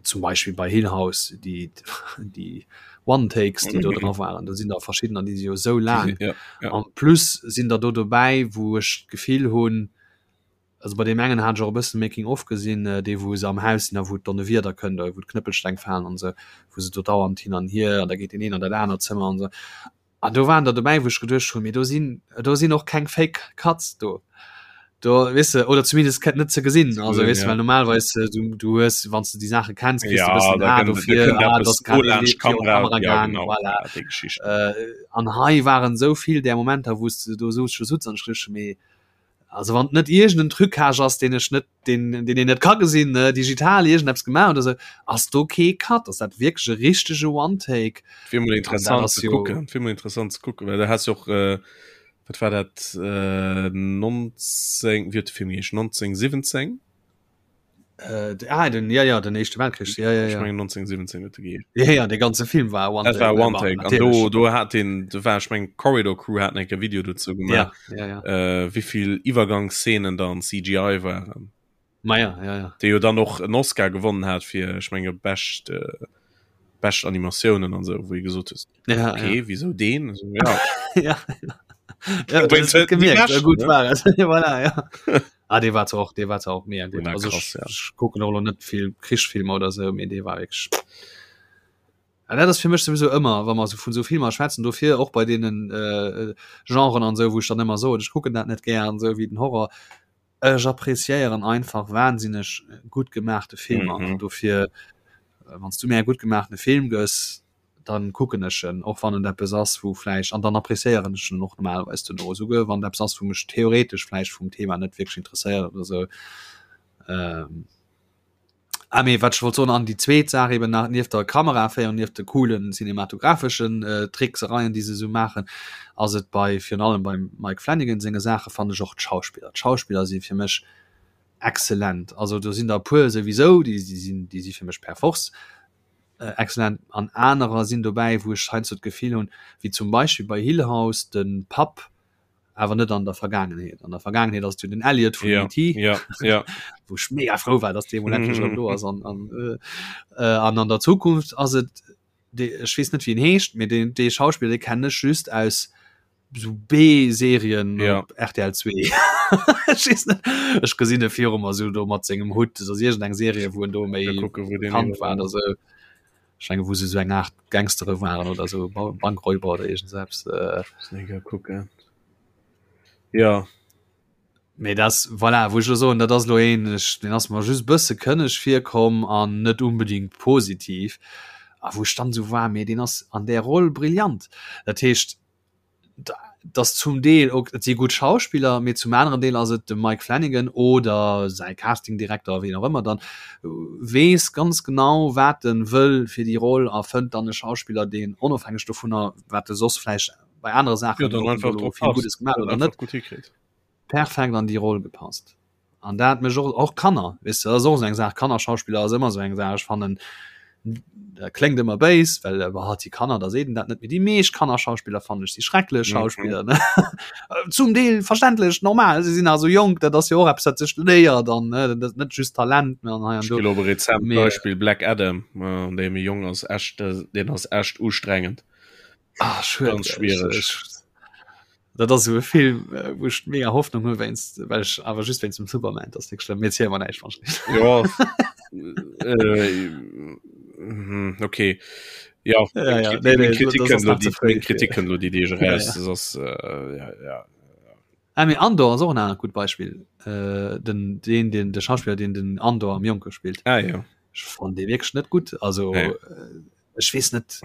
zum Beispiel bei Hill House die die One Takes die do dra waren da sinn da verschiedener die si jo sou laang Ja, ja. an plus sinn der do dobäi wou ech d'Gefill hunn. Also bei deem engen hat ech och e bëssen Making of gesinn, dee wou se am Haus sinn a wou d'Donnewieder kënnt, wou d'Knëppelsteng falen an esou, wou se do dauernd hin an hier an da geet deen een an dat anert Zëmmer an esou. An do waren der dobäi, wou ech geduecht hunn, mee do sinn, do sinn och keng Fake Cuts do. Do, weess de, oder zumindest net ze gesinn. Also weess de, well normalerweis du, du hues, wann s de déi Saache kenns, kriss de e bëssen en A dofir, ah, do ass grad dee virun d'Kamera gaang, voilà. An hei waren esou vill där Momenter, wou s de do sutz an ech geduecht hunn, mee Also wann et net iergend en Trucage ass, deen ech net, deen, deen een net ka gesinn, ne, digital iergendeppes gemaach oder sou, ass do kee Cut, ass dat wierklech e richtege One-Take. Wier mol interessant ze kucken, wier mol interessant ze kucken, well du has jo och, wat war dat, 19, wéi huet de Film geheescht, 1917? Äh, ah, den, ja, ja, den Éischte Weltkrich, ja, ja, ja. Ech mengen 1917 huet e geheescht. Ja, ja, de ganze Film war One Take. Dat war One Take. An do, do hat den, do war, ech mengen Corridor Crew haten enke Video dozou gemaach. Ja, ja, ja. Äh, wéivill Iwwergangsszenen da an CGI waren. Ma ja, ja, ja. Dee jo dann och en Oscar gewonnen hat fir, ech menge bescht, äh, bescht Animatiounen an sou, wou ee gesot huet, ja, okay, ja. wieso deen? Also, ja. ja. Ja, das hat gemerkt, ja, gut war es. voilà, ja. Ah, dee war zwar och, dee war zwar och mega gutt. Also krass, ja. ech kucken och lo net vill Krichsfilmer oder sou, mee dee war wierklech. An dat ass fir mech sowieso ëmmer, wa mer sou vun sou Filmer schwätzen, dofir och bei deenen äh, Genren an sou, wou ech dann ëmmer soen, ech kucken dat net gär an sou wéi den Horror. Ech appreciéieren einfach wahnsinneg gutt gemaachte Filmer. Mhm. An dofir, wann s du mir e gutt gemaachtene Film gëss, dann kucken ech en, och wann et eppes ass wou vläicht, an dann appréciéieren ech en och normalerweis duerno, esouguer wann et eppes ass wou mech theoretesch vläicht vum Thema net wierklech interesséiert oder esou. Ähm, ah mee wat ech wollt soen, an déi zweet Saach eben nach, nieft der Kameraféierung, nieft de coolen cinematographeschen äh, Tricksereien déi se esou maachen, ass et bei, virun allem beim Mike Flanagan senge Saache fannen ech och d'Schauspiller. D'Schauspiller si fir mech exzellent, also do sinn der e puer souwisou, déi sinn, déi si fir mech per force Excellent. An anerer sinn dobäi, wou ech heiansdo d'Gefill hunn, wéi zum Beispill bei Hill House, de Papp, awer net an der Vergaangenheet. An der Vergaangenheet ass et jo den Elliot vun Ja, ET, ja, ja. wou ech mega frou war, dass dee mol endlech erëm do ass. An, an, äh, an an der Zukunft ass et, dee, ech weess net, wéi en heescht, mee deen, dee Schauspiller, dee kennen ech just aus sou B-Serien Ja. op RTL 2. Ech weess net, ech gesinn e viru mer sou do mat sengem Hutt, dat ass iergendeng Serie, wou en do méi Mal kucken, wou deen bekannt war oder sou. Ech menge wou se sou eng Aart Gangstere waren oder sou, Ba Bankräuber oder iergend sou eppes. Äh. Muss eng Kéier kucken. Ja. Mee dat, voilà, wou ech elo soen, dat ass elo een, ech, deen ass mer just e bësse kënneg virkomm an net unbedingt positiv, a wou ech dann esou war, mee deen ass an där Roll brillant. Dat heescht, dat ass zum Deel, ok, et si gutt Schauspiller, mee zum aneren Deel ass et de Mike Flanagan oder säi Castingdirekter, wien och ëmmer dann, weess ganz genau, wat en wëll fir déi Roll a fënnt dann e Schauspiller, deen onofhängeg dovunner, wat e soss vläicht bei anere Saachen ja, dann einfach vill Gutes gemaach oder net perfekt an déi Roll gepasst. An dat mech och och Kanner wis du ass och eng Saach Kannerschauspieler ass ëmmer sou eng Saach ech fannen dat kléngt ëmmer béis well äh, hat die Kanner da seet dat net méi déi meescht Kannerschauspieler fannen ech si schrecklech mhm. Schauspieler ne zum Deel verständlech normal se sinn also jonk dat ass jo och eppes dat sech léiert dann ne dat net just Talent mehr an hei an do rezent Beispiel Black Adam äh, dee méi jong ass echt äh, den ass echt ustrengend Ah, schued, ganz schwierig. Dat ass esou e Film, äh, wou ech mega Hoffnung hu wéinst well ech awer just wéinst dem Superman, dat ass net schlëmm. Mir ziele mer näischt wann Ja. äh, mhm, okay. Ja, ja, ja. Nee, nee, Kritik das ass nach ze fréi Kritik fir. kënnt lo déi Deeg Ja, eraus. ja. Das ass äh, ja, ja. Ah, mee Andor ass och en anert gutt Beispill. Äh, den, den, den, de Schauspiller, deen den Andor am Jonke spillt. Ah, ja. Ech fannen dee wierklech net gutt. Also Nee. äh, ech weess net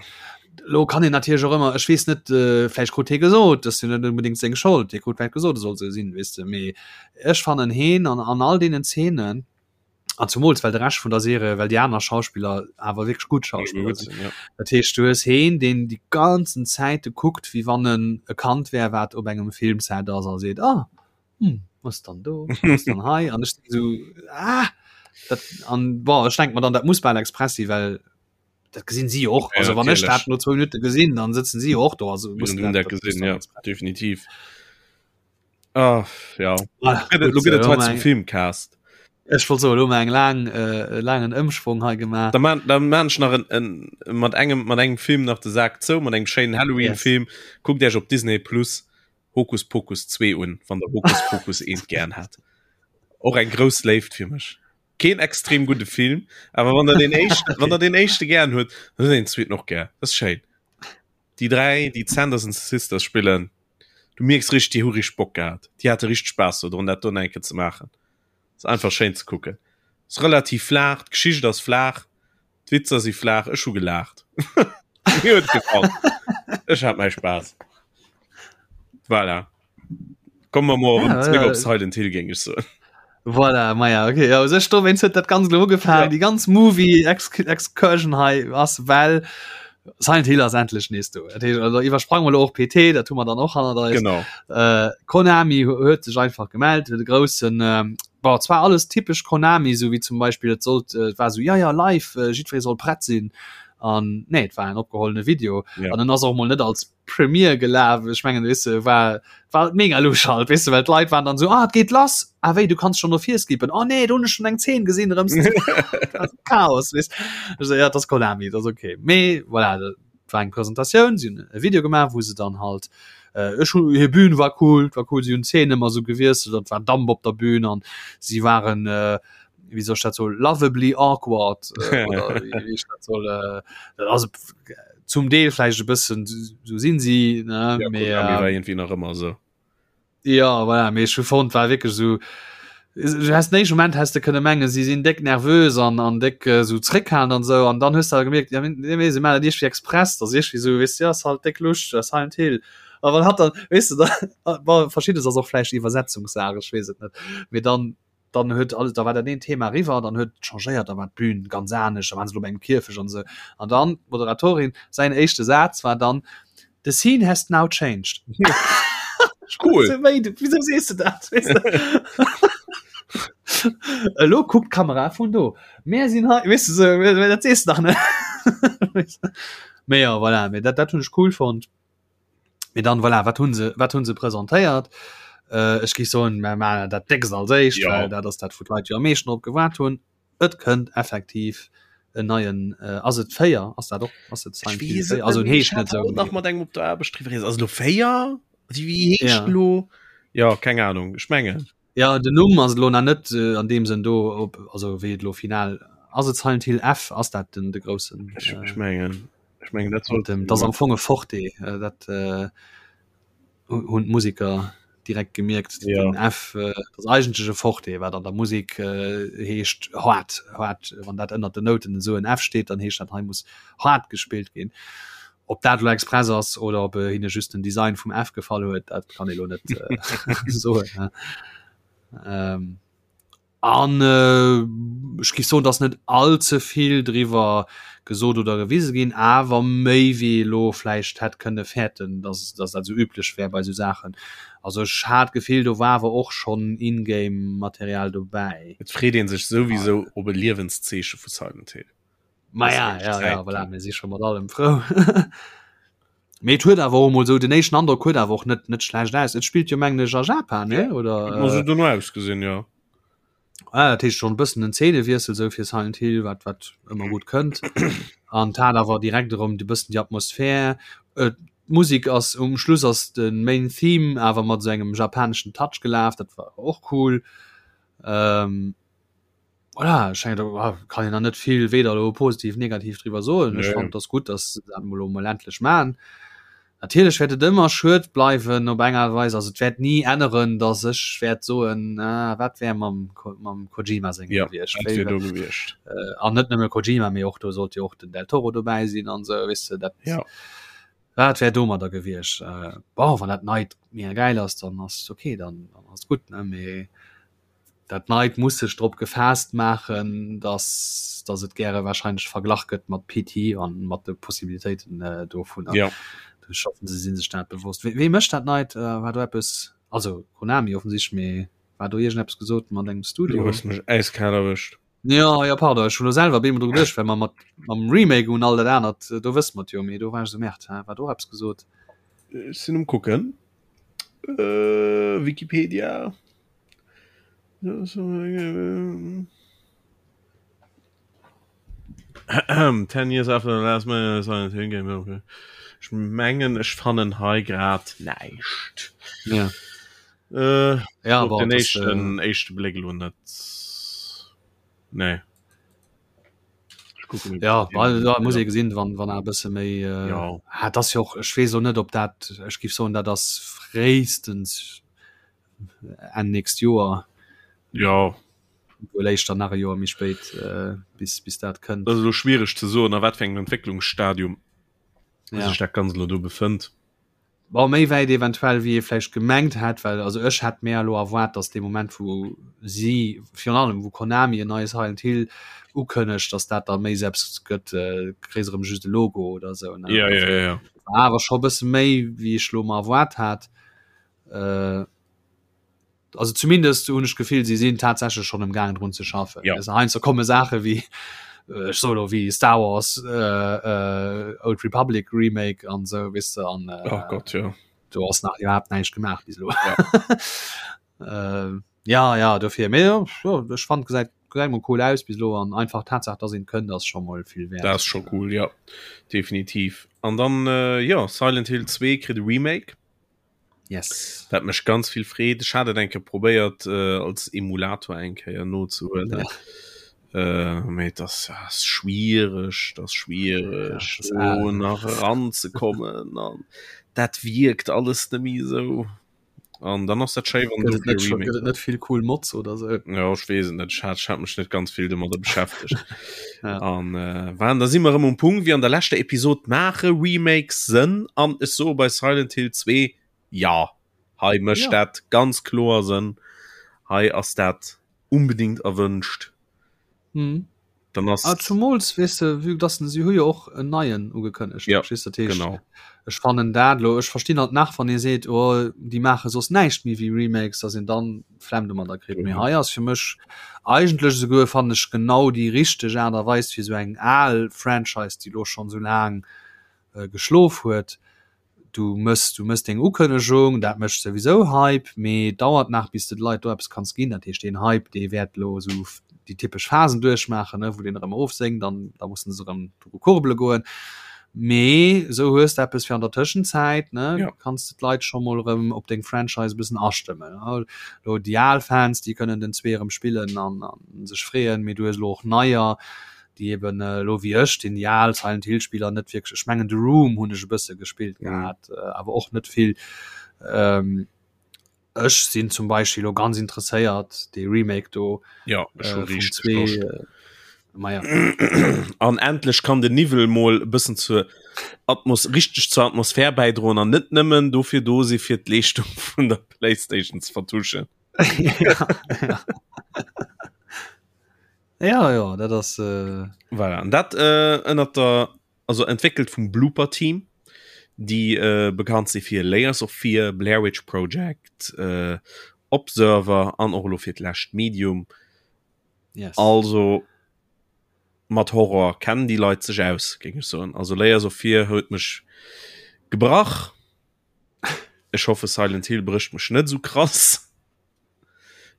lo kann een natierlech och ëmmer ech weess net äh, vläicht krut hie gesot dat ass jo net unbedingt seng Schold hie krut vläicht gesot e soll sou sinn weess de mee ech fannen heen an an all deenen Zeenen an zumools well de Rescht vun der Serie well déi aner Schauspiller awer wierklech gutt Schauspiller Gutt sinn sinn, ja. dat heescht du hues heen deen déi ganzen Zäite kuckt wéi wann en e Kand wär wat op engem Filmset ass a seet ah hm, was dann do was dann hei an ech sou ah dat an bon ech denk mer dann dat muss bal express si well dat gesinn si och Ja, also wann ech natierlech. dat no zwou Minutte gesinn dann sëtzen si och do also muss Hunn dat, dat dat muss gesinn, dann ja, express. definitiv. Ah, ja. Voilà, Gëtt et- gut, Lo gëtt et äh, hei hu zum mer eng- Filmcast. Ech wollt soen, hu mer eng laang äh, laangen Ëmschwong hei gemaach. Da man, da man ech nach en, en, mat engem mat engem Film nach de Sak zou, mat engem schéinen Halloween-Film. Kuckt Iech op Disney Plus Hokus Pokus 2 un, wann der Hokus Pokus 1 gern hat. Och eng grouss Léift fir mech. Keen extrem gudde Film, awer wann der den éischten, wann der den éischte gären huet, dann huet een den zweeten och gär. Dat ass schéin. Déi 3, déi d'Sanderson Sisters spillen, du mierks richteg, déi hu richteg Bock gehat. Déi hate richteg Spaass dodrun, dat do nach eng Kéier ze maachen. Ass einfach schéin ze kucken. Ass relativ flaach, d'Geschicht ass flaach, d'Witzer si flaach. Ech hu gelaacht. Mir huet gefall. Ech hat mäi Spaass. Voilà. Komme mer mol erëm zréck op Silent Hill, géing ech soen. Voilà, maja, okay. Ja, sech do wéinst huet dat ganz lo ugefaangen. Ja. Déi ganz Movie Excursion hei ass well Silent Hill ass endlech nees do. Dat heescht, also iwwersprange mer lo och PT, dat hu mer dann och hannert eis. Genau. Äh, Konami huet sech einfach gemellt, huet e groussen ähm, bon, zwar alles typesch Konami, sou wéi zum Beispill et sollt äh, et war sou ja ja live, äh, jiddweree soll prett sinn. An nee, et war en opgehollene Video. Ja. An en ass och mol net als Premiere gelaf ech mengen weess de war war et mega lusch halt weess de well d'Leit waren dann sou ah et geet lass ah wéi du kanns schon no vir skippen oh nee do hunn ech schon eng Zeen gesinn erëm Chaos weess ech sou ja dat ass Konami dat ass okay mee voilà dat war eng Presentatioun si hunn e Video gemaach wou se dann halt äh, ech hu hir Bühn war cool war cool si hunn d'Zeen ëmmer sou gewiesselt an et war Damp op der Bühn an si waren äh, wéi soll ech dat soen lovably awkward äh, oder wéi wéi ech dat soll äh, also zum Deel vläicht e bëssen sou sinn si ne ja, mee, Konami war äh, irgendwie nach ëmmer sou. ja voilà, mee ech hu fonnt war wierklech sou du hast den éischte Moment häss de kënne mengen si sinn déck nervös an an déck äh, sou zréckhalen an sou an dann hues de awer gemierkt ja mee nee, si maachen dat iergendwéi express dat ass iergendwéi sou weess de ass halt déck Luscht äh, Silent Hill a wann hatt dann weess de da bon verschiddes ass och vläicht Iwwersetzungssaach ech weess et net mee dann dann huet alles da war dat een Thema eriwwer, dann huet et changéiert, da war d'Bün ganz anescht, da waren se lo bei engem Kierfecht an esou. An dann d'Moderatorin, säin éischte Saz war dann, The scene has now changed. Cool. Wéi, wieso sees du dat? Weess de? Elo kuckt d'Kamera vun do. Mär sinn hei, weess de sou, dat sees de dach net. Mee jo, voilà, mee dat, dat hunn ech cool fonnt. Mee dann voilà, wat hunn se wat hunn se presentéiert? Äh, ech géif soen, mer maachen dat déckst als éischt, Ja. well dat ass dat wou d'Leit jo am meeschten drop gewaart hunn. Et kënnt effektiv en neien äh, ass et 4? Ass dat och ass et Ech Silent Hill weess et 4? Also net en méi. Ech heescht hat net esou, haut nach mee mat engem op der Aarbecht driwwer geredet. Ass et elo 4? Wéi wéi heescht Ja. elo? Ja, keng Ahnung. Ech mengen. Ja, den Numm ass elo nach net äh, an deem Sënn do, ob also wéi et elo final ass et Silent Hill F? Ass dat den de groussen Ech, äh, ech mengen. Ech mengen dat Mat sollt dem, dat ass am Fong e Forte, äh, dat äh, hunn d'Museker direkt gemierkt. Ja. Den F äh, dat ass eigentlech e Forte, wat an der Musek äh, heescht haart, haart. Wann dat ënnert den Nouten esou en F steet, dann heescht dat hei muss haart gespillt ginn. Ob dat elo express ass oder ob äh, hinne just den Design vum F gefall huet, dat kann ee lo net äh, soen. Ne? Ähm, An ech géif soen, dass net all ze vill driwwer gesot oder gewise ginn, awer méi wéi ee lo vläicht hätt kënne fäerten, dass dass dat esou üblech wär bei esou Saachen. Also ech hat d'Gefill, do war awer och schonn In-Game-Material dobäi. Et freet ee sech souwisou op e Liewenszeeche vu Silent Hill. Maja, ja, ja, voilà, mir si scho mat allem frou. Mee et huet awer och emol esou, den éischten Androck huet awer och net net schlecht aus. Et spillt jo mengen ech a Japan, ne? Oder? Huet mer sou dono ausgesinn, jo. Ah, dat heescht schonn e bëssen en Zeenewiessel sou fir Silent Hill, wat wat ëmmer gutt kënnt. An et hat awer direkt erëm de bëssen déi Atmosphär. D'Musek ass um Schluss ass de Main Theme awer mat esou engem japaneschen Touch gelaf, dat war och cool. Ähm, Voilà, ech mengen, do kann een nach net vill weder elo positiv, negativ driwwer soen. Ech fannen, et ass gutt, datt se dat emol elo emol endlech maachen. Natierlech wäert et ëmmer schued bleiwen op eng Aart a Weis. Also et wäert ni änneren, datt ech wäert soen, ah, wat wär mam, mam Kojima sengem Ja, gewiescht. wat wär do gewiescht. An net nëmme Kojima, mee och do sollt jo och den Del Toro dobäi sinn an esou, weess de, dat. Ja. Wat wär domadder gewiescht? Bon, wann dat Neit mega gäil ass, dann ass et okay, dann ass et gutt, ne, mee. Dat Neit muss sech drop gefaasst maachen, dass dass et gäre wahrscheinlech verglach gëtt mat PT an mat de Possibilitéiten dovunner. Ja. Ech hoffen, se si sech dat bewosst. Wee mécht dat Neit? War do eppes, also Konami offensichtlech, mee war do iergendeppes gesot mat engem Studio? Du hues mech äiskal erwëscht. Jo, jo, pardon, ech hunn elo selwer op eemol dru geduecht, well mer mat mam Remake un all dat anert, do wësse mer et jo, mee do war ech esou, Merde, hä, war do och eppes gesot? Ech sinn um kucken. Wikipedia. Ten years after the last man Silent Hill game okay. Ech mengen ech fannen hei grad näischt. Ja. Äh, ja, op den éischten äh, éischte Bléck lo net. Nee. Ja well, da muss ee gesinn, wann wann e bësse méi äh, ja. ah, das jo och ech weess lo net, ob dat ech giff soen, dat ass fréistens Enn nächst Joer. Ja. Wuel éischter nach e Joer méi spéit äh, bis bis dat kënnt. Dat ass elo schwiereg ze soen, a wat fir engem Entwécklungsstadium ja. sech dat Ganzt elo do befënnt. Bon, méi wäit eventuell wéi ee vläicht gemengt hätt, well also ech hätt mär elo erwaart, datt dee Moment wou si, virun allem wou Konami en neie Silent Hill ukënnegt, datt dat da méi selbst gëtt, kréis erëm just e Logo oder esou, ne? Ja, ja, ja, ja. War awer scho e bësse méi wéi ech lo mer erwaart hat. Also zumindest hunn ech d'Gefill, si sinn tatsächlech schonn am gaangen drun ze schaffen. Ja. Also heiansdo komme Saache wéi ech soe lo wéi Star Wars äh, äh, Old Republic Remake an sou weess de an äh, oh Gott, ja. do ass nach iwwerhaapt näischt gemaach bis elo. Ja. äh, ja, ja, dofir mee ja, ja, ech fand gesäit gesäit mol cool aus bis elo an einfach d'Tatsaach, dass een kënnt, ass scho mol vill wäert. Dat ass scho cool, ja. Definitiv. An dann äh, ja, Silent Hill 2 kritt e Remake. Yes. Dat mech ganz vill freet. Ech hat et eng Kéier probéiert äh, als Emulator eng Kéier nozehuelen. Ja. Äh, mee das ass schwiereg, das schwiereg ja, do nach eranzekommen an dat wierkt alles net méi esou. An dann ass dat schéi wann du net, schon, net vill cool Mods oder so. Ja ech weess et net, ech hat, ech hat mech net ganz vill domadder beschäftegt. ja. An äh, waren da si mer erëm um Punkt wéi an der leschter Episod maache Remakes Sënn an ech soe bei Silent Hill 2 ja hei mécht ja. dat ganz kloer Sënn. Hei ass dat unbedingt erwënscht. Mhm. Dann ass ah, zumols weess de vue dass si hu jo och en neien ugekënnegt ja, verstehst dat heescht genau. ech fannen dat lo ech verstinn halt nach wann ee seet oh déi maache soss näischt méi wéi Remakes dass een dann Flemm domadder kritt mee hei ass fir mech eigentlech esouguer fannen ech genau déi richteg Aart a Weis fir esou eng al Franchise déi lo schonn esou laang äh, geschlof huet Du mëss, du mëss deng Ukënnegung, dat mécht souwisou Hype, mee et dauert nach, bis de de Leit do eppes kanns ginn. Dat heescht, deen Hype, dee wäert elo esou déi typesch Phasen duerchmaachen, ne, wou deen erëm erofsénkt an da mussen se erëm dru kurbele goen. Mee esou hues de eppes fir an der Tëschenzäit, ne, Ja. kanns de d'Leit scho mol erëm op deng Franchise e bëssen astëmmen. Elo déi al Fans, déi kënnen den zwee erëm spillen an sech freeën, mee du hues elo och neier, déi eben elo wéi ech, deen déi al Silent Hill Spiller net wierklech, ech mengen The Room hunn ech e bësse gespillt mhm. gehat, äh, awer och net vill. Ähm, ech sinn zum Beispiel lo ganz interesséiert de Remake do ja, äh, zwee, äh, ja. An endlech kann den Niwwel mol e bëssen zur Atmos richtig zur Atmosphär bäidroen an net nëmmen dofir do si fir d'Leeschtung vun der Playstation ze vertuschen. ja, ja. Ja, ja, dat ass. Äh... Voilà. An dat äh, ënnert der also entwéckelt vum Blooper Team, déi äh, bekannt si fir Layers of Fear, Blair Witch Project, äh, Observer an och elo fir d'lescht Medium. Yes. Also mat Horror kennen déi Leit sech aus, géing ech soen. Also Layers of Fear huet mech gebrach. Ech hoffe Silent Hill brécht mech net sou krass.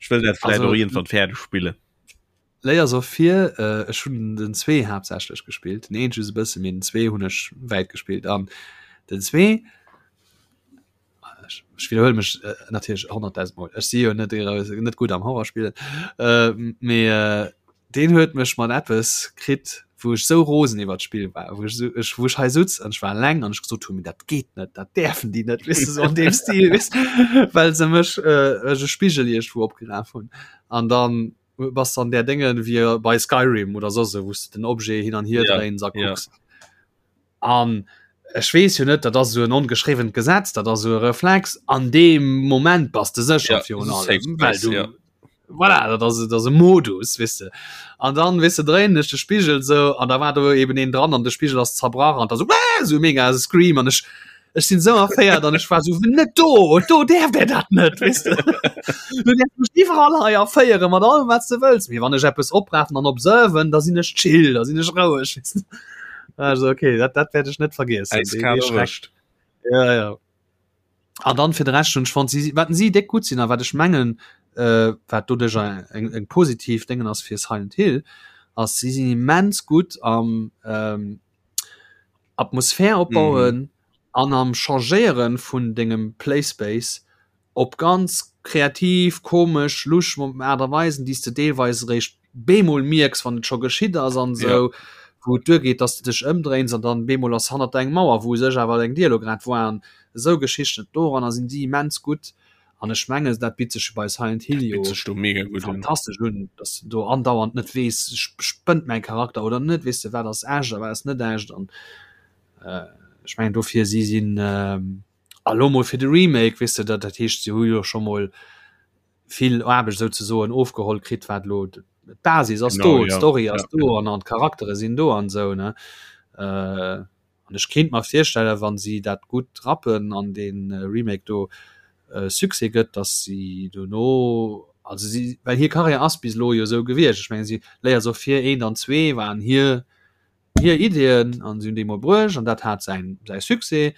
Ech wëll dat vläit och iergendwann fäerdeg spillen. Layers of Fear, äh, ech hunn den zwee haaptsächlech gespillt, den eent just e bësse, mee den zwee hunn ech wäit gespillt an den zwee, ech, ech widderhuele mech äh, natierlech 100.000 Mol, ech si jo net, net gutt am Horrorspillen, äh, mee äh, Deen huet mech mat eppes kritt, wou ech sou rosen iwwert d'Spill war, wou ech sou, ech, wou ech hei sutz an ech war eleng an ech gesot hunn, mee dat geet net, dat däerfen déi net, weess de, sou an deem Stil, weess de, well se mech äh, ech e Spigel iergendwou opgeraf hunn. An dann bass de an där Dénge wéi bei Skyrim oder soss esou, wou s de den Objet hin an hier Ja, dréins a ja. kucks. An ech weess jo net, dat ass esou en ongeschriwwent Gesetz, dat ass esou e Reflex, an deem Moment bass de sécher Ja, virun safe allem, well space, du ja. voilà, dat ass, dat ass e Modus, weess de. An dann, weess de, dréinen ech de Spigel esou an da war do eben een dran an de Spigel ass zerbrach an da sou, Wäh! esou mega Scream an ech, ech sinn esou erféiert an ech war esou, net do, do däerft der dat net, weess de. Du däerfs mech iwwerall hei erféiere mat allem, wat s de wëlls, mee wann ech eppes oprafen an observen, da sinn ech chill, da sinn ech roueg, weess de. Also okay, dat, dat werd ech net vergessen. Eiskal erwëscht. Ja, ja. An dann fir de Rescht hunn ech fonnt, si, wat si déck gutt sinn a wat ech mengen, äh, wat doduerch eng, eng positiv Déngen ass fir Silent Hill, ass si sinn immens gutt am ähm, Atmosphär opbauen mhm. an am Changéieren vun dengem Playspace op ganz. kreativ, komesch, lusch Aart a Weisen, déi s de deelweis eréischt bemol mierks, wann et scho geschitt ass an esou, ja. wou et duergeet, dass de dech ëmdréins an dann bemol ass hannert der eng Mauer, wou u sech awer eng Dier elo grad war an esou Geschichten. Doranner sinn si immens gutt an ech mengen, dat bitt sech bei Silent Hill jo fantastesch un, dass de do andauernd net weess, spënnt mäi Charakter oder net, weess de, wat ass echt a wat ass net echt an ech mengen dofir si sinn a lo mol fir de Remake, weess de, dat dat heescht, si hu jo scho mol vill Aarbecht souzesoen ofgeholl kritt, wat elo d'Basis ass do, d'Story ass do an an d'Charaktere sinn do an esou ne. An ech kéint mer virstellen, wa si dat gutt rappen an dee Remake do Succès gëtt, datt si dono, also si, well hir Karriär ass bis elo jo esou gewiescht, ech mengen si Layers of Fear eent an zwee waren hir hir Ideeën an si hunn déi mol bruecht an dat hat säin säi Succès.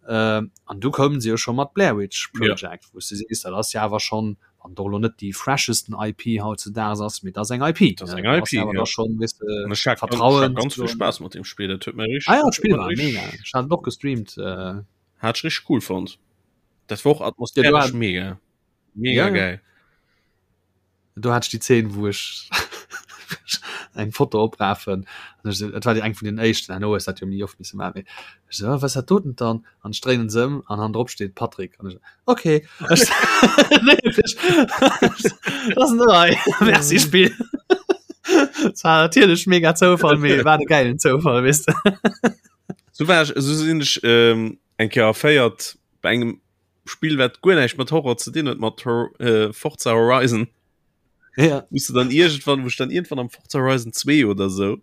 Äh, an du koumen se jo scho mat Blair Witch Project, ja. wou s de sees, dat ass jo awer schonn, wann et och elo net déi freshesten IP hautzedaags ass, mee dat ass eng IP. Dat ass eng IP, ja. Da schon, weess de, An ech hat Vertrauen. Ganz, ganz vill Spaass mat deem Spill, dat huet mir richteg. Ah ja, d'Spill war mega. Ech hat et och gestreamt. Äh. Hat ech richteg cool fonnt. Dat war och atmosphäresch ja, mega. Mega ja, geil. Do hat ech déi Zeen, wou ech eng Foto oprafen. Et war déi eng vun den éischten, herno hues dat jo méi oft misse maachen. Mee ech sou, oh, wat ass dat doten dann? An ech dréinen se ëm an hannendrop steet Patrick. An ech sou, okay. Dat ass nei. Merci Spill. Dat war natierlech mega Zoufall, mee war de gäilen Zoufall, weess de. Sou war ech, sou sinn ech eng Kéier erféiert bei engem Spill wat guer näischt mat Horror ze dinn huet mat äh, Forza Horizon. Ja. Wous du dann irgendwann, wou dann irgendwann am Forza Horizon 2 oder so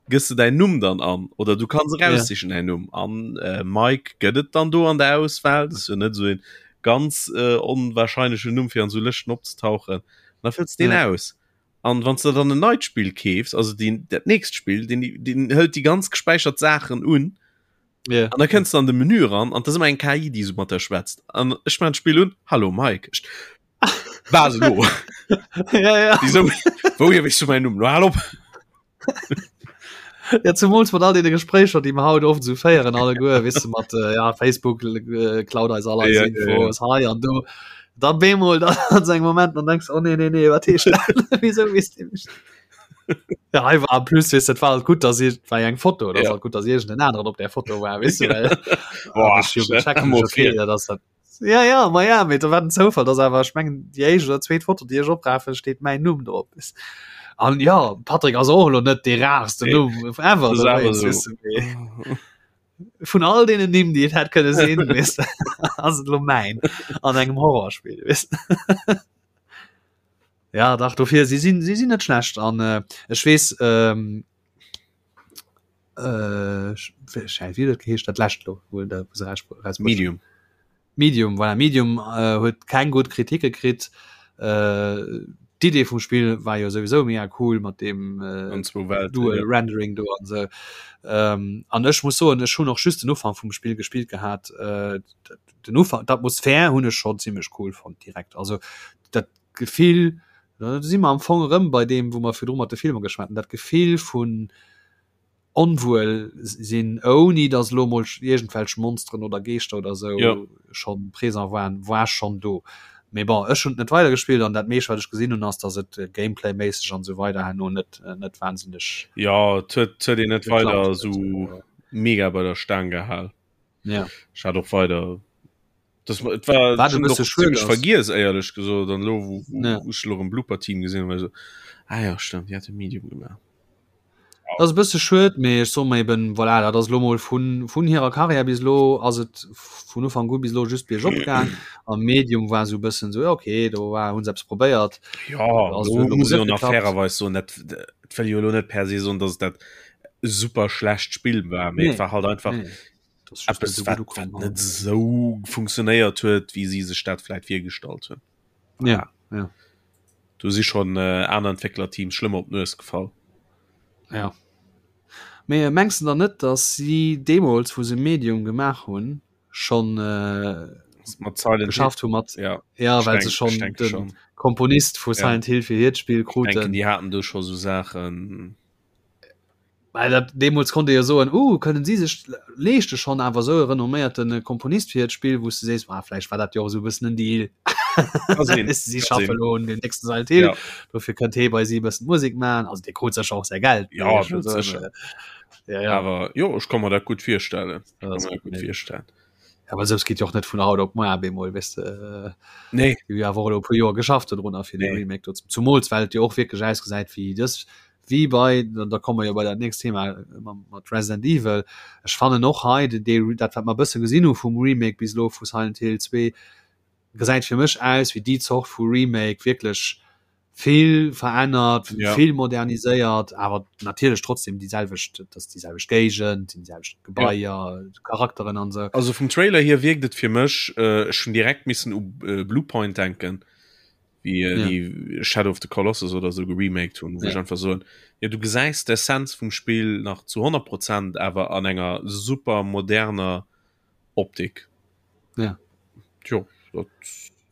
gëss du dein Numm dann an oder du kannst raussichen ja. dein Numm an äh, Mike gëtt et dann do an der Auswahl das ist ja net so en ganz äh, onwahrscheinlechen Numm fir an so Lëschten opzetauchen da fëlls den ja. aus an wann du dann en neit Spiel keefs also den dat nächst Spiel den den hëlt die ganz gespeichert Sachen un Yeah. An da kënns du an de Menü ran an das immer eng KI, déi so mat der schwätzt. An ech man Spiel un Hallo Mike. Ich, Was lo? ja, ja. Déi so, Wouhier weess du mäin Numm? Lo hal op! Ja, zumools mat all deene Gespréicher, déi mer haut oft esou féieren alleguer, weess de, mat äh, ja, Facebook äh, klaut eis all eis Ja, ja, Infos hei an do. Da bemol dann an so engem Moment, dann denkst du, oh nee, nee, nee, wat heescht dat? Wieso weess dee mech? Ja, hei war en plus, weess, dat war halt gutt, dass ich, war ja eng Foto, das Ja. halt gutt, dass irgend en aneren op der Foto war, weess du, well Boah, hab ich jo gecheckt, mal okay, vir. ja, das dat Ja, ja, ma ja, mee da war den Zoufall, dass awer, ech mengen, déi éischt oder zweet Foto, déi ech oprafen, steet mäin Numm drop. An ja, Patrick ass och elo net dee rarsten Nee, Numm ever, das da awer weess, so. weess du, mee vun all deenen Nimm, déi et hätt kënne sinn, weess du, ass et elo mäin an engem Horrorspill, weess du. Ja, dach, dofir, si sinn, si sinn net schlecht an äh, ech weess, ähm, äh, wéi huet dat geheescht, dat lescht lo, wou der wou se raus rausbruecht hunn? Medium. Medium, voilà, Medium äh, huet keng gutt Kritike kritt. Äh, D'Idee vum Spill war jo souwisou mega cool mat deem äh, An zwou Welten, Dual ja. Rendering do an sou. Ähm, an ech muss soen, ech hunn och just den Ufank vum Spill gespillt gehat. Äh, den Ufank, d'Atmosphär hunn ech schonn zimmlech cool fonnt direkt. Also dat Gefill, da si mer am Fong erëm bei deem, wou mer virdru mat de Filmer geschwat hunn, dat Gefill vun onwuel sinn, ouni datt elo mol iergendwelch Monsteren oder Geeschter oder esou Ja. schonn présent waren, war schonn do. Mee bon, ech hunn et net weidergespillt an dat meescht, wat ech gesinn hunn, ass, datt et Gameplay-méisseg an esou weider herno net, net wahnsinneg Ja, et huet, et huet een net geklappt weider huet. esou mega bei der Staang gehal. Ja. Ech hat och weider das et war Wat e schon bësse och schued ziemlech ass. vergiess éierlech gesot an lo wou wou Ja. wou ech lo erëm Blooper Team gesinn hunn war ech esou ah ja stimmt déi hate Medium gemaach. Dat ass e bësse schued, mee ech soe mer eben, voilà, dat ass elo mol vun vun hirer Karriär bis elo ass et vun Ufank u bis elo just biergop gaang a Medium war esou e bëssen esou, ja okay, do war hu se eppes probéiert. Ja, Ass do huet elo mol muss net een och nach geklappt. fairerweis soen, dat dat wëll jo elo net per se soen, dass et dat super schlecht Spill war, mee Nee, et war halt einfach nee. Dat ass just net eppes esou wat gutt wat ukomm net halt. esou funktionéiert huet, wéi si sech dat vläit virgestallt hunn. Ja, ja. Do si schonn aner Entwécklerteams schlëmmer op d'Nues gefall. Ja. Mee mengs de dann net, datt si deemools, wou se Medium gemaach hunn, schonn Mat Silent Hill geschafft hu mat ja, ja, ech well se denk, ech schonn denke de schon. Komponist vu Ja. Silent Hill fir hiert Spill Ech denken, kruten? déi haten do scho sou Saachen. Well dat deemools konnt ee jo soen, uh, kënnen si sech leeschte schonn awer esou e renomméierte Komponist fir hiert Spill, wou s de sees, ah, vläicht war dat jo och esou e bëssen en Deal. Si schaffe lo un dem nächste Silent Hill. Ja. Dofir kënnt hee bei si bëssen Musek man. Also dee krut sécher och säi Geld. Ja, sécher. Ja, ja. Awer jo, ech ka mer dat gutt virstellen. Gutt virstellen. Ja, well sou geet jo och net vun haut op muer bemol weess de. Nee. Déi hu awer och elo e puer Joer geschafft dodrunner fir de nee. Remake do. Zumools well et jo och wierklech ausgesäit wéi dës wéi bei, da komme mer jo bei dat nächst Thema mat Resident Evil, ech fannen och hei dee, dat wat mer e bësse gesinn hu vum Remake bis elo vu Silent Hill 2, gesäit fir mech aus wéi déi Zort vu Remake, wierklech vill verännert, ja. vill moderniséiert, awer natierlech trotzdem déi selwecht, dat ass déi selwecht Géigend, déi selwecht Gebaier, ja. Charakteren an esou. Also vum Trailer hier wierkt et fir mech, äh, ech hunn direkt missen u äh, Bluepoint denken. wie äh, ja. die Shadow of the Colossus oder so geremaked hun ja. einfach so ja du gesäis d'Essenz vum Spiel nach zu 100 Prozent awer an enger super moderner Optik ja jo, dat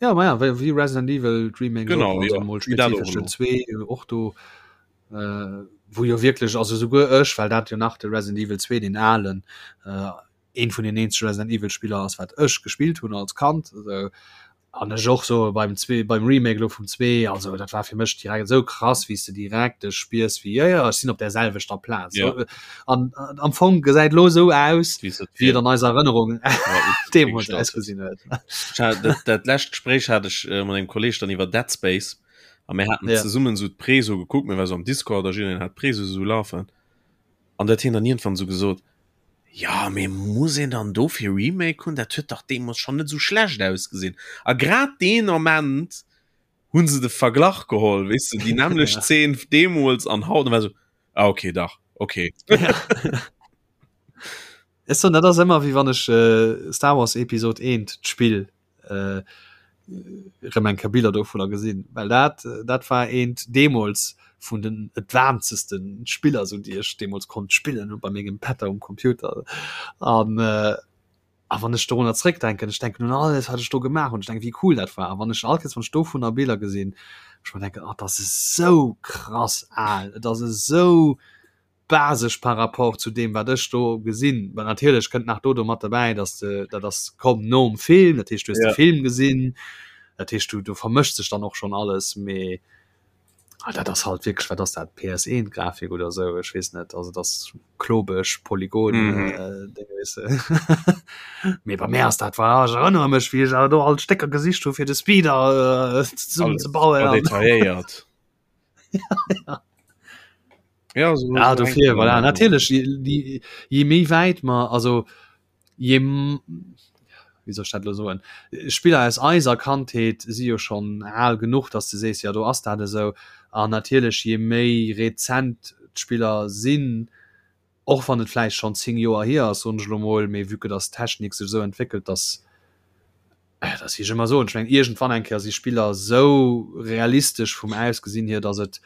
ja ma ja wéi Resident Evil Remake genau ja, mal 2 och do äh, wo jo wirklich also souguer ech well dat jo nach de Resident Evil 2 den alen äh, een vun den eenzege Resident Evil Spiller ass wat ech gespillt hunn als Kand also, an ech och so beim zwee beim Remake lo vum zwee also dat war fir mech direkt esou krass wéi s de direkt dech spiers wéi jo jo ech sinn op där selwechter Plaz Ja. an an am Fong gesäit lo esou aus Wéi se wéi et an eiser Erënnerung deemools ausgesinn huet. Ech hat dat, dat lescht Gespréich hat ech äh, mat engem Kolleg dann iwwer Dead Space a mir haten Ja. zesummen esou d'Preso gekuckt, mir war sou am Discord a jiddereen hat d'Preso esou lafen an dat hien dann iergendwann esou gesot, Jo, mee muss een dann dofir Remake hunn? Dat huet dach deemools schonn net esou schlecht ausgesinn. A grad deen Ament hu se de Verglach geholl, weess de, déi nämmlecht Zeen deemools an haut, an war esou, ah okay, dach, okay. Ech soen, dat ass ëmmer wéi wann ech Star Wars Episode 1, d'Spill, äh, rëm eng Kéier Biller dovunner gesinn, well dat dat war eent deemools vun den advancesten Spiller sou déi ech deemools konnt spillen bei mengem Pätter um Computer an äh, a wann ech dorunner zréckdenken, ech denken un alles wat ech do gemaach hunn, ech denken wéi cool dat war a wann ech all Kéiers wann ech dovunner Biller gesinn, ech mer denken, oh dat ass esou krass al, et ass esou basesch par rapport zu deem wat ech do gesinn. Well natierlech kënnt nach do do mat derbäi, dass de dat ass komm nom Film, dat heescht du hues de Film gesinn, dat heescht du do vermëscht sech dann och schonn alles, mee ah dat ass halt wierklech, wat ass dat PS1 Grafik oder esou, ech weess net, also et ass klobeg, Polygon Déng weess de. Mee bei mär ass dat voilà, ech erënnere mech wéi ech awer do all d'Stécker gesicht hu fir de Speeder zesummen ze bauen. Detailléiert. ja. Ja, so ja, dofir, voilà. Natierlech je, je méi wäit mer also je wéi soll ech dat lo soen Spiller aus eiser Kandheet si jo schonn al genuch, datt du sees, ja do ass dat esou. An natierlech je méi rezent d'Spiller sinn, och wann et vläicht schonn 10 Joer hier ass, soen ech elo mol, mee vue que datt d'Technik sech esou entwéckelt, datt dat wéi ech ëmmer soen, ech mengen iergendwann eng Kéier si Spiller esou realistesch vum Ausgesinn hier, datt et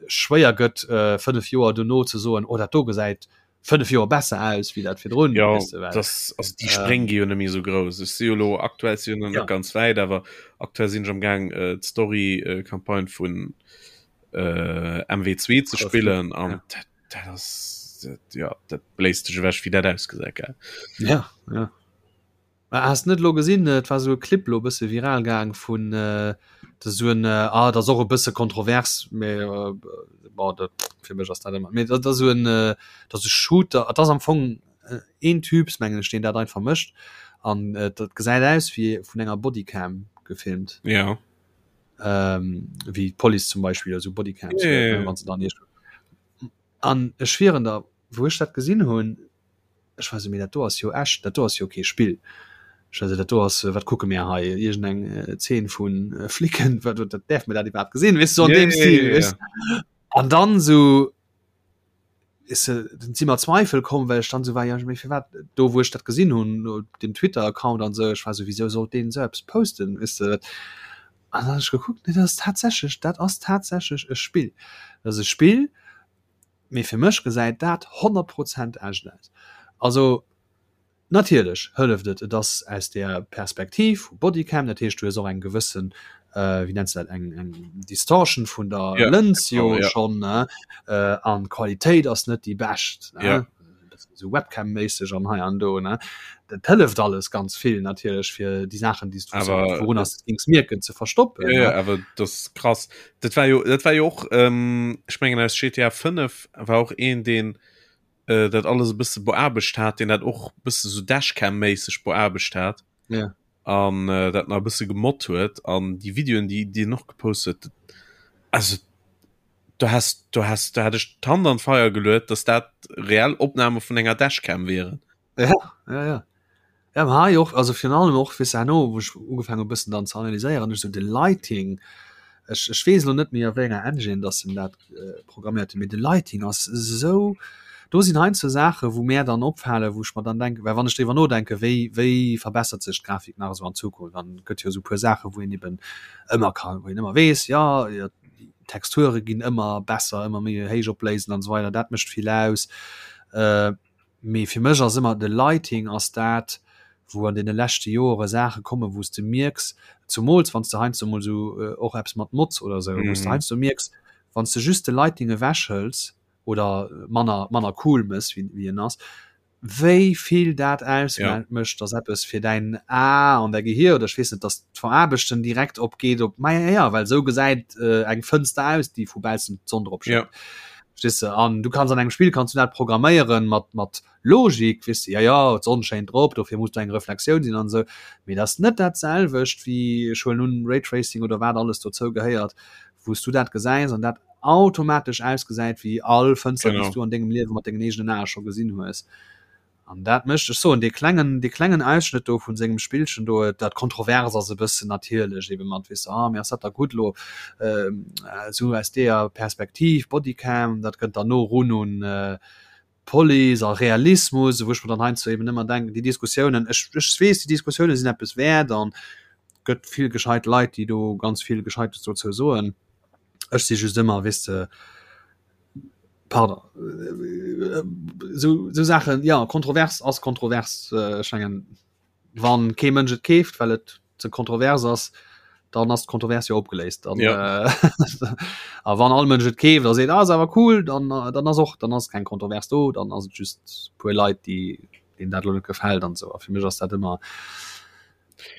schwéier gëtt 5 Joer dono ze soen, oh dat do gesäit 5 Joer besser aus wéi dat virdrun. Jo, weess de, well das, also déi Spréng gi jo net méi esou grouss. Ech si jo elo aktuell si jo nach net ganz wäit, awer aktuell sinn ech am Gaang d'Story-Campagne vun MW2 ze spillen an dat dat ass dat, ja dat bléist dech ewech wéi dat ausgesäit gell. Ja, ja. Mä has net lo gesinn, et war sou e Clip lo e bësse viral gaang vun dat ass sou en ah dat ass och e bësse kontrovers, mä bon dat fir mech ass dat ëmmer mee dat ass sou en dat ass e Shooter, et ass am Fong een Typs mengen ech deen dat einfach mécht an dat gesäit aus wéi vun enger Bodycam gefilmt. Ja. Wéi d'Police zum Beispill esou Bodycams huet, ne, wann se dann iergendwou an ech schwieren der wou ech dat gesinn hunn, Ech war sou, mee dat do ass jo echt, dat do ass jo kee Spill. Ech war sou, dat do ass, wat kucke mir hei, iergend eng Zeen vu Flicken, wat, dat däerf mir dat iwwerhaapt gesinn, weess du, sou an deem Stil, weess du. An dann sou, weess du, dann si mer Zweifel komm, well ech dann sou war, jo, mee firwat, do wou ech dat gesinn hunn, den Twitter-Account an sou, ech war sou, wisou sollt deen sou eppes posten, weess du. An dann hunn ech gekuckt, nee, dat ass tatsächlech, dat ass tatsächlech e Spill. Dat ass e Spill, Mee fir mech gesäit dat 100 Prozent echt aus. Also natierlech hëlleft et, et ass aus der Perspektiv vu Bodycam, dat heescht du hues och eng gewëssen, wéi nenns de dat, eng eng Distortion vun der Ja, Lëns jo genau, ja. schonn, ne, an d'Qualitéit ass net déi bescht, ne. Ja. Sou Webcam-méisseg an hei an do, ne? Dat hëlleft alles ganz vill natierlech fir déi Saachen, déi s du Awer- wourunner s de gings mierken, ze verstoppen. Ja, ja, ne? awer das ist krass. Dat war jo, dat war jo och, ähm, ech mengen aus GTA 5 war och een, deen äh, dat alles e bësse beaarbecht hat, deen dat och bësse sou Dashcam-méisseg beaarbecht hat. Ja. An äh, dat nach e bësse gemoddt huet. An déi Videoen, déi, déi en och gepost huet, dat, also du has, du has, du hat ech d'Hand an d'Feier geluet, dass dat reell Opname vun enger Dashcam wieren. Ja, ja, ja. Ja, ma hei och, also virun allem och, weess de, herno, wou ech ugefaangen hu bëssen dann ze analyséieren, ech sou de Lighting, ech, ech weess elo net méi a wéi enger Engine dass en dat programméiert huet, mee de Lighting ass esou, do sinn heiansdo Saache wou mär dann opfalen, wou ech mer dann denken, well wann ech driwwer nodenken, wéi, wéi verbessert sech d'Grafik nach esou an Zukunft, dann gëtt jo esou e puer Saache wou een eben ëmmer kann, wou een ëmmer weess, jo, jo, d'Texture ginn ëmmer besser, ëmmer méi héichopléisend an esou weider, dat mécht vill aus. Mee fir mech ass ëmmer de Lighting ass dat, wou an deene leschte Joere Saache kommen, wou s de mierks, zumools wann s de heiansdo emol esou och eppes mat Mods oder esou, wou s de heiansdo mierks, wann s de just de Lighting ewechhëls oder manner, manner cool mëss, wéi, wéi en ass, wéi vill dat ausmécht, dass eppes fir däin A an däi Gehier oder ech weess net, dass d'Veraarbechten direkt opgeet op, ma ja, well esou gesäit eng Fënster aus, déi vu baussen d'Sonn drop schéngt. Verstees de? An du kanns an engem Spill kanns du dat programméieren mat mat Logik, weess de, ja ja, d'Sonn schéint drop, dofir muss do eng Reflexioun sinn an esou. Mee dat ass net dat selwecht wéi, ech huelen un, Raytracing oder wat alles dozou gehéiert, wou s du dat gesäis an dat automatesch ausgesäit wéi all Fënster, déi s du an dengem Liewe mat dengen eegenen Ae scho gesinn hues. An dat mécht, ech soen, dee klengen, dee klengen Ausschnëtt do vun sengem Spillchen do, dat kontrovers ass e bëssen natierlech ebe mat, weess de, ah, mee ass dat da gutt elo esou aus deeër Perspektiv, Bodycam, dat kënnt dann no erun un Police a Realismus, wou ech mer dann heiansdo eben ëmmer denken, déi Diskussiounen, ech, ech weess, déi Diskussiounen sinn eppes wäert an gëtt vill gescheit Leit, déi do ganz vill Gescheites dozou soen. Ech si just ëmmer, weess de, Pardon, esou esou Saachen, jo, kontrovers ass kontrovers. Ech mengen, wann kee Mënsch et keeft, well et ze kontrovers ass, dann ass d'Kontrovers jo opgeléist. Dann, Ja. äh, a wann all Mënsch et keeft a seet, ah, ass awer cool, dann, dann ass och, dann ass keng Kontrovers do, dann ass et just puer Leit, déi deenen dat elo net gefält an esou. A fir mech ass dat ëmmer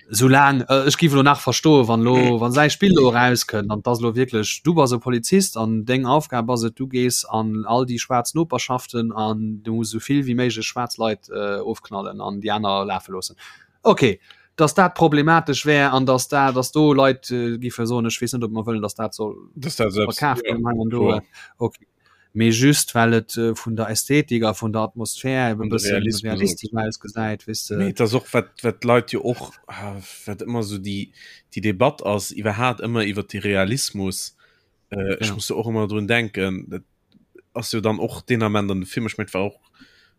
Soulaang, ech géif elo nach verstoen, wann elo, wann säi Spill elo erauskënnt an 't ass elo wierklech, du bass e Polizist an deng Aufgab ass et, du gees an all déi schwaarz Noperschaften an du muss esou vill wéi méiglech schwaarz Leit ofknallen an déi aner lafe loossen. Ok, datt dat problematesch wär an datt dat, datt do Leit géife soen, ech weess net, ob mer wëllen, datt dat soll verkaaft ginn hei an do. Ok. Mee just well et vun der Ästhetik a vun der Atmosphär eben e bëssen realistesch ausgesäit, weess de. Mee et ass och, wat, wat d'Leit jo och, wat ëmmer esou déi, déi Debatt ass iwwerhaat ëmmer iwwert de Realismus, ech muss do och ëmmer drun denken, dat ass jo dann och deen Ament an de Film, ech mengen et war och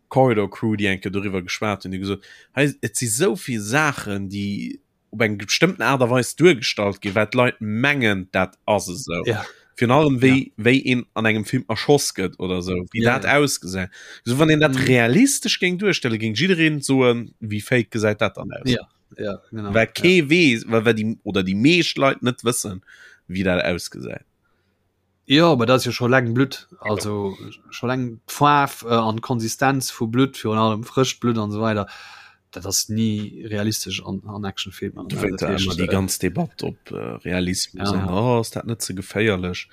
Corridor Crew, déi eng Kéier doriwwer geschwat hunn, déi gesot, hei et si sou vill Saachen, déi op eng bestëmmten Aart a Weis duergestallt ginn, wat d'Leit mengen, dat ass esou. Ja. Virun allem wéi, ja. wéi een an engem Film erschoss gëtt oder esou, wéi ja, dat ja. ausgesäit. So wann een dat mm. realistesch géing duerstelle, géing jiddereen soen, wéi fake gesäit dat dann aus. Ja. Ja, genau. Well kee ja. weess, well, well die, oder déi meescht Leit net wëssen, wéi dat ausgesäit. Jo, mä dat ass jo scho laang Blutt, also scho laang d'Faarf an d'Konsistenz vu Blutt, virun allem frëscht Blutt an esou weider, dat ass ni realistesch an an Actionfilmer. Du wéinst da ëmmer déi ganz Debatt op Realismus an oh ass dat net ze geféierlech?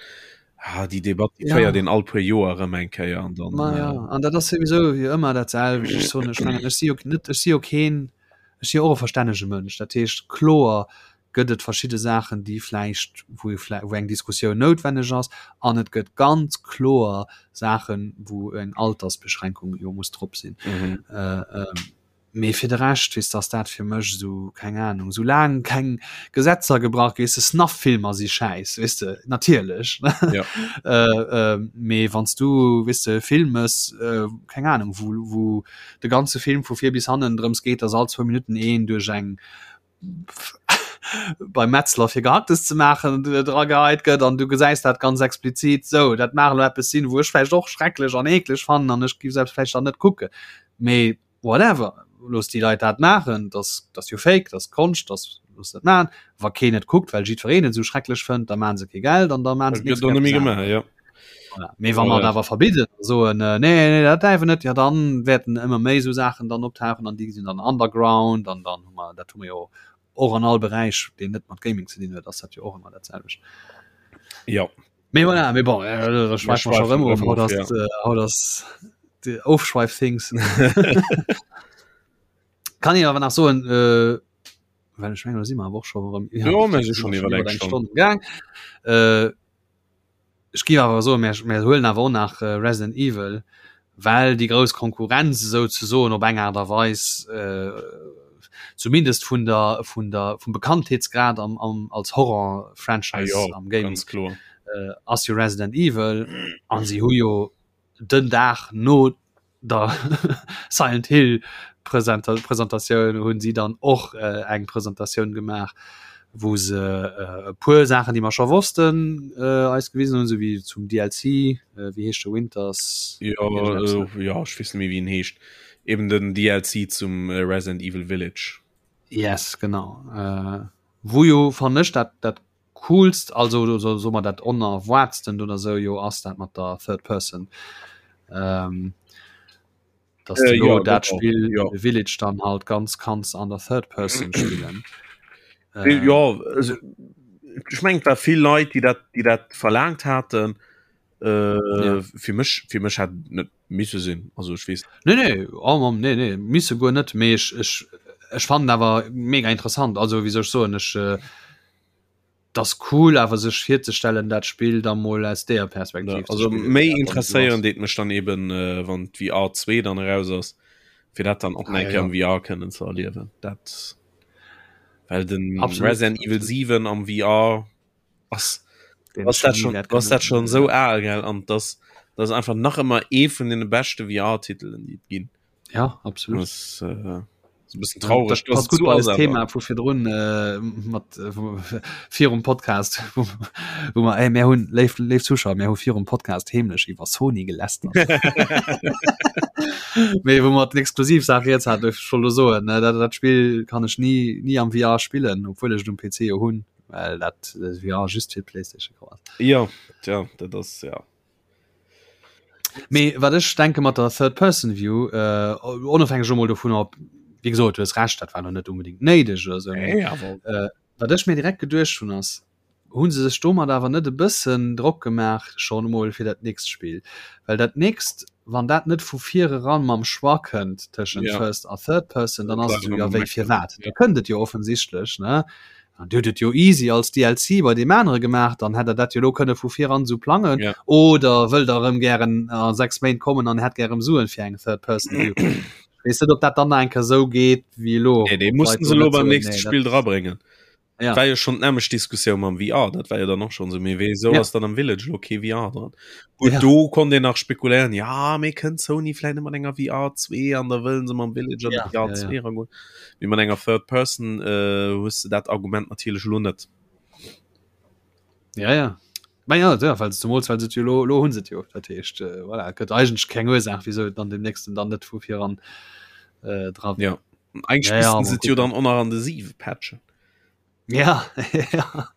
Ah déi Debatt déi féiert een all puer Joer erëm eng Kéier an dann. Ma jo, an dat ass souwisou wéi ëmmer dat selwecht. Ech soen, ech mengen ech si jo net, ech si jo keen, ech si jo och e verstännege Mënsch, dat heescht kloer gëtt et verschidde Saachen, déi vläicht, wou wou eng Diskussioun noutwenneg ass, an et gëtt ganz kloer Saachen, wou eng Altersbeschränkung jo muss drop sinn. Mhm. Äh, ähm, mee fir de Rescht, weess de, ass dat fir mech esou, keng Ahnung, soulaang keng Gesetzer gebrach gi, weess de, Snuff-Filmer si schäiss, weess de, natierlech. Ja. äh, äh, mee wann s du, weess de, e Film mëss, äh, keng Ahnung, wou, wou de ganze Film vu vir bis hannen drëms geet, dass all zwou Minutten een duerch eng beim Metzler fir Gehacktes ze maachen dra geheit gëtt an du gesäis dat ganz explizit sou. Dat mag elo eppes sinn, wou ech vläicht och schrecklech an eekleg fannen an ech giff selbst vläicht dann net kucken. Mee whatever, looss déi Leit dat maachen, dat ass jo fake, dat ass Konscht, dat looss dat maachen. Wa keen et kuckt, well jiddwereen et esou schrecklech fënnt, da maache se kee Geld an da maache se nächst Kéier eppes aneres. Mee wa mer et awer verbidden a soen, nee, nee, dat däerf een net, jo dann wäerten ëmmer méi esou Saachen dann optauchen an déi sinn dann underground an dann hu mer, dat hu mer jo och an all Beräich, deen net mat Gaming ze dinn huet, ass dat jo och ëmmer dat selwecht. Jo. Mee voilà, mee bon, da schwäife mer scho rëm of. Haut ass, haut ass de Ofschweif-Things. Kann een awer nach soen, well ech mengen, do si mer awer och scho erëm Jo, mir si schonn iwwer eng Stonn gaang. Ech géif awer soen, mir, mir huelen awer och nach Resident Evil, well déi grouss Konkurrenz esouzesoen op eng Aart a Weis, zumindest vun der, vun der, vum Bekanntheetsgrad am, am, als Horror-Franchise ah, jo, am Gaming, ganz kloer. ass jo Resident Evil. An si hu jo den Dag no der Silent Hill Presentatioun hunn si dann och eng Presentatioun gemaach, wou se e puer Saachen, déi mer scho wossten, eis gewisen hunn, esou wéi zum DLC, wéi heescht de Winters? Jo, jo, ech weess net méi wéi en heescht. Eben den DLC zum Resident Evil Village. Yes, genau. Wou jo fannen ech dat dat coolst, also so, so mer dat onerwaartsten oder sou jo ass dat mat der Third Person. Ähm, dass äh, du ja, dat Spiel ja. Village dann halt ganz kanns an der Third Person spillen. Äh, ja also, ich meng war vill Leit, die dat die dat verlangt hatten äh, ja. fir mech fir mech hat net misse sinn also ich wees nee nee oh, nee nee misse go net mee ich, ich, ich fand awer mega interessant also wie soll ich so ich äh, 't ass cool awer sech virzestellen dat Spill da mol aus deeër Perspektiv ja, also méi interesséieren deet mech dann eben äh, wann d'VR 2 dann eraus ass fir dat dann och ah, ja. am VR kënnen ze erliewen dat well den Absolut. Resident Evil 7 am VR ass was dat schon was dat schon so al gell an das das einfach nach ëmmer ee vun den beschte VR-Titelen déi et ginn. Ja absolut. Das, äh, so bisschen traurig das passt gut als Thema vu virdrun äh, mat äh, virum Podcast wo, wo man ey, mehr hunn léif léif Zuschauer mir hu virum Podcast heemlech iwwer Sony gelästert. Mee wo mat exklusiv Saach jetzt hat schon lo soen ne dat dat Spiel kann ech nie nie am VR spillen obwohl ech um PC jo hunn well dat äh, VR just fir PlayStation ass. Ja ja dat ass ja. Mee wat ech denke mat der Third Person View, äh, onofhängeg emol dovun ob, wéi gesot, du hues Recht, dat war lo net unbedingt néideg oder sou, mee Nee, awer. äh, wat ech mir direkt geduecht hunn ass, hu se sech domat awer net e bëssen Drock gemaach schonn emol fir dat nächst Spill? Well dat nächst, wann dat net vu vir eran mam Choix kënnt tëschent Ja. First a Third Person, dann ass et Bleiwen esou, jo am wéi Meckeren. firwat? Ja. Da kënnt et jo offensichtlech, ne? An Dir hutt et jo easy als DLC bei deem anere gemaach, dann hätt der dat jo elo kënne vu viran esou plangen. Ja. Oder wëllt der erëm gären a 6 Méint kommen an hätt gär erëm Suen fir eng Third Person View. Ech weess net, ob dat dann nach eng Kéier esou geet wéi elo. Nee, dee Ob d'Leit mussten do se elo net beim soen, nächste nee, dat Spill drabréngen. Ja. War jo schonn d'nämmlecht Diskussioun mam VR, dat war jo dann och schonn esou, mee wéisou Ja. ass dann am Village elo kee VR dran? Gutt, Ja. do konnt een nach spekuléieren, ja, mee kënnt Sony vläicht net mat enger VR 2 an da wëllen se mam Village an Ja, de VR ja, ja. 2 eragoen. Mee mat enger Third Person äh, hues de dat Argument natierlech elo net. Ja, ja. Ma ja, ja, well zemools well se et jo lo, lo hunn se et jo. Dat heescht, äh, voilà, et gëtt eigentlech keng Ursaach, wieso et dann dem nächsten dann net vu viran äh, dra Ja. Eigentlich Ja, ja, missten se mal et jo gucken. dann och nach an de 7 patchen. Ja, ja.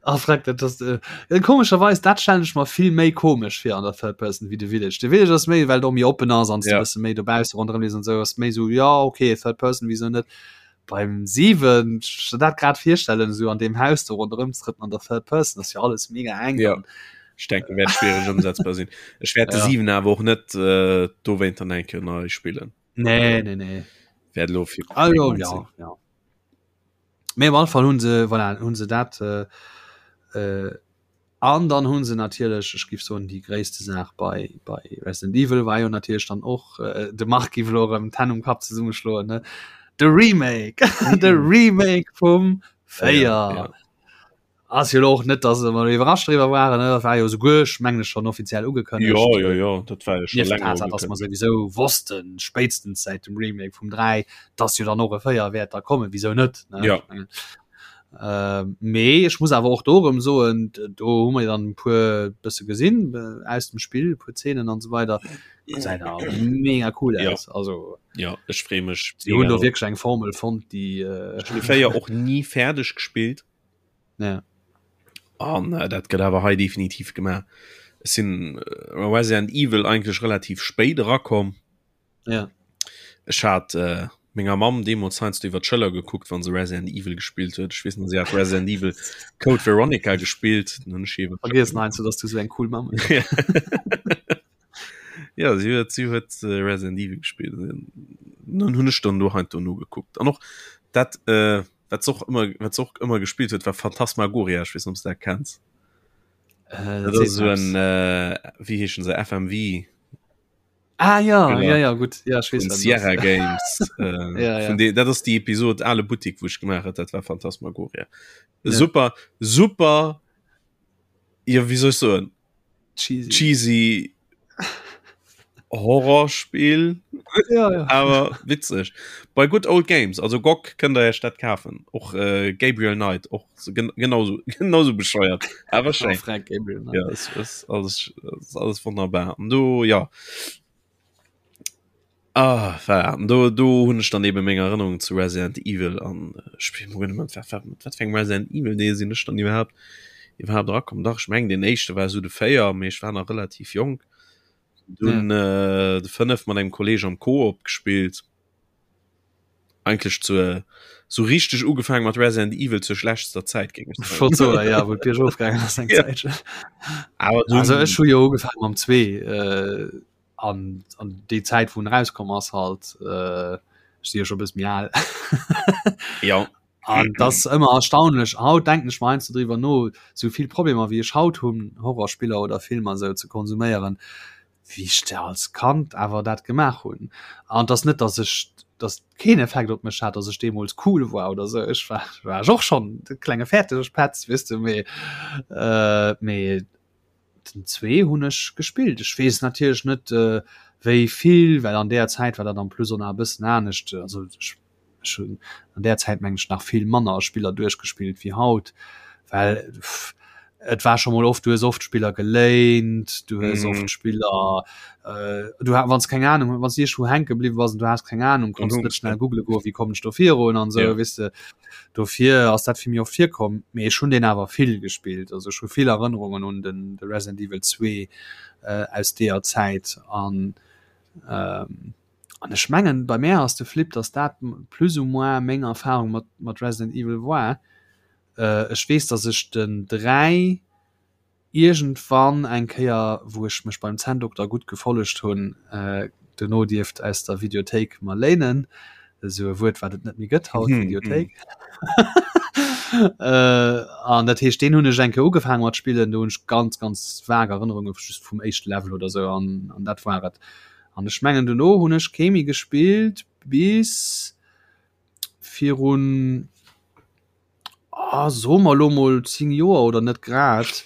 Ah, frag, dat ass, äh, komescherweis, dat stellen ech mer vill méi komesch fir an der Third Person wéi de Village. De Village ass méi, well et och méi oppen ass an s du Ja. bësse méi dobausse ronderëm lees an esou, ass méi esou, ja, okay, Third Person, wieso net? Beim 7, ech dat grad virstellen, esou an deem Haus do ronderëm ze trëppelen an der Third Person, ass jo alles mega enk Ja. an Ech denken, wäert schwiereg ëmsetzbar sinn. Ech wäert de Ja. 7 awer och net äh, dowéint dann eng Kéier nei spillen. Nee, nee, nee. Wäert elo fir Ah, jo, ja, ja. Mee op alle Fall hunn se, voilà, hunn se dat äh, äh, an dann hunn se natierlech, ech giff soen, déi gréisste Saach bei, bei Resident Evil war jo natierlech dann och, äh, de Marc giff elo erëm d'Hänn um Kapp zesummeschloen, ne, de Remake, de Remake vum 4. Ja, ja. Ass jo elo och net, dass mer iwwerrascht driwwer waren, ne? Dat war jo souguer, ech mengen, schonn offiziell ugekënnegt. Jo, jo, jo, dat war jo scho Nieft der länger Tatsaach, dass mer ugekënnegt. souwisou wossten, spéitstens säit dem Remake vum 3, dass jo dann och e 4 wäert da kommen. Wisou net, ne? Ja. Ech mengen, mee ech muss awer och do erëm soen, do hu mer jo dann e puer bësse gesinn aus dem Spill, e puer Zeenen an esou weider. Gesäit awer mega cool Ja. aus. Also, Ja, ech freeë mech si hunn mega do drop. wierklech eng Formel fonnt, déi, Ech hunn de 4 och ni fäerdeg gespillt. Ja. An äh, dat gëtt awer hei definitiv gemaach. Ech sinn äh, Resident Evil eigentlech relativ spéit erakomm. Ja. Ech hat äh, menger Mamm deemools heiansdo iwwer d'Schëller gekuckt, wann se Resident Evil gespillt huet. Ech weess nach, si hat Resident Evil Code Veronica gespillt. Dann hunn ech iwwer Vergiess heiansdo, dass du sou eng cool Mamm hues. Ja, si huet, si huet äh, Resident Evil gespillt. Dann hunn ech dann do heiansdo nogekuckt. An och dat, äh, wat se och ëmmer, wat se och ëmmer gespillt huet, war Phantasmagoria. Ech weess net, ob s du dat kenns. Äh, Dat ass esou en, äh, wéi heeschen se, FMV. Ah ja, genau. ja, ja, gut. Ja, ich weiß, Sierra Games. äh, ja, ja. De, dat ass die Episode Ale Boutique, wo ich gemacht hat, dat war Phantasmagoria. Ja. Super, super, ja, wie soll ich so cheesy, cheesy Horrorspiel ja, ja. awer witzeg bei Good Old Games also GOG kënnt der Iech dat kafen och äh, Gabriel Knight och so, gen genauso genauso bescheuert awer schéin Frank Gabriel Knight. ja, es ist alles, ist alles wunderbar an do ja ah, voilà. An do do hunn ech dann eben meng Erinnerung zu Resident Evil an äh, ech weess net wat wat wat fir eng Resident Evil Deel sinn ech dann iwwerhaapt iwwerhaapt erakomm dach ech meng den éischte war sou de 4 mee ech war nach relativ jonk Dunn ja. äh, de 5 mat engem Kolleg am Koop gespielt. Eigentlich zu so richtig ugefangen mat Resident Evil zur schlechtester Zeit ging ich so, ja, wo Bier ofgegangen ass eng Ja. Zäitchen. Aber dunn, Also ech hu jo ugefaangen mam 2 äh, an, an déi Zäit wou en rauskomm ass halt äh, ech si jo scho bëss méi al. ja An das ass ëmmer erstaunlech. Haut denken ech mer heiansdo driwwer no, sou vill Problemer wéi ech haut hunn, Horrorspiller oder Filmer sou ze konsuméieren, wéi ech da als Kand awer dat gemaach hunn. An et ass net, datt ech, datt et keen Effekt op mech hat, datt ech deemools cool war oder sou. Ech war, war ech och schonn de klenge Fäertegepetz, weess de, mee, mee Den 2 hunn ech gespillt. Ech weess natierlech net wéi vill, well an deeër Zäit war dat en plus och nach e bëssen anescht. Also ech ech hunn an där Zäit meng ech nach vill manner Spiller duerchgespillt wéi haut, well et war scho mol oft, du hues oft Spiller geléint, du hues oft Spiller du ha wann s keng Anung wann s de iergendwou hänke bliwwe bass an du has keng Anung, konns net schnell googele goen, wéi kommen ech do virun an esou, weess de. Dofir ass dat fir mir oft virkomm, mee ech hunn deen awer vill gespillt. Also ech hu vill Erënnerungen un den de Resident Evil 2 aus deeër Zäit an an ech mengen bei mär ass de Flip, datt dat plus ou moins meng Erfarung mat mat Resident Evil war. Ech weess, datt ech den 3 Iergendwann eng Kéier, wou ech mech beim Zänndokter gutt gefollegt hunn, dono dierft aus der Videothéik mer léinen, esou e Wuert, wat et net méi gëtt haut, Videothéik. An dat heescht, deen hunn ech eng Kéier ugefaange mat spillen, do hunn ech ganz, ganz vag Erënnerunge just vum éischte Level oder esou an an dat war et. An ech mengen, dono hunn ech kee méi gespillt bis virun, Ah, soe mer elo mol 10 Joer oder net grad,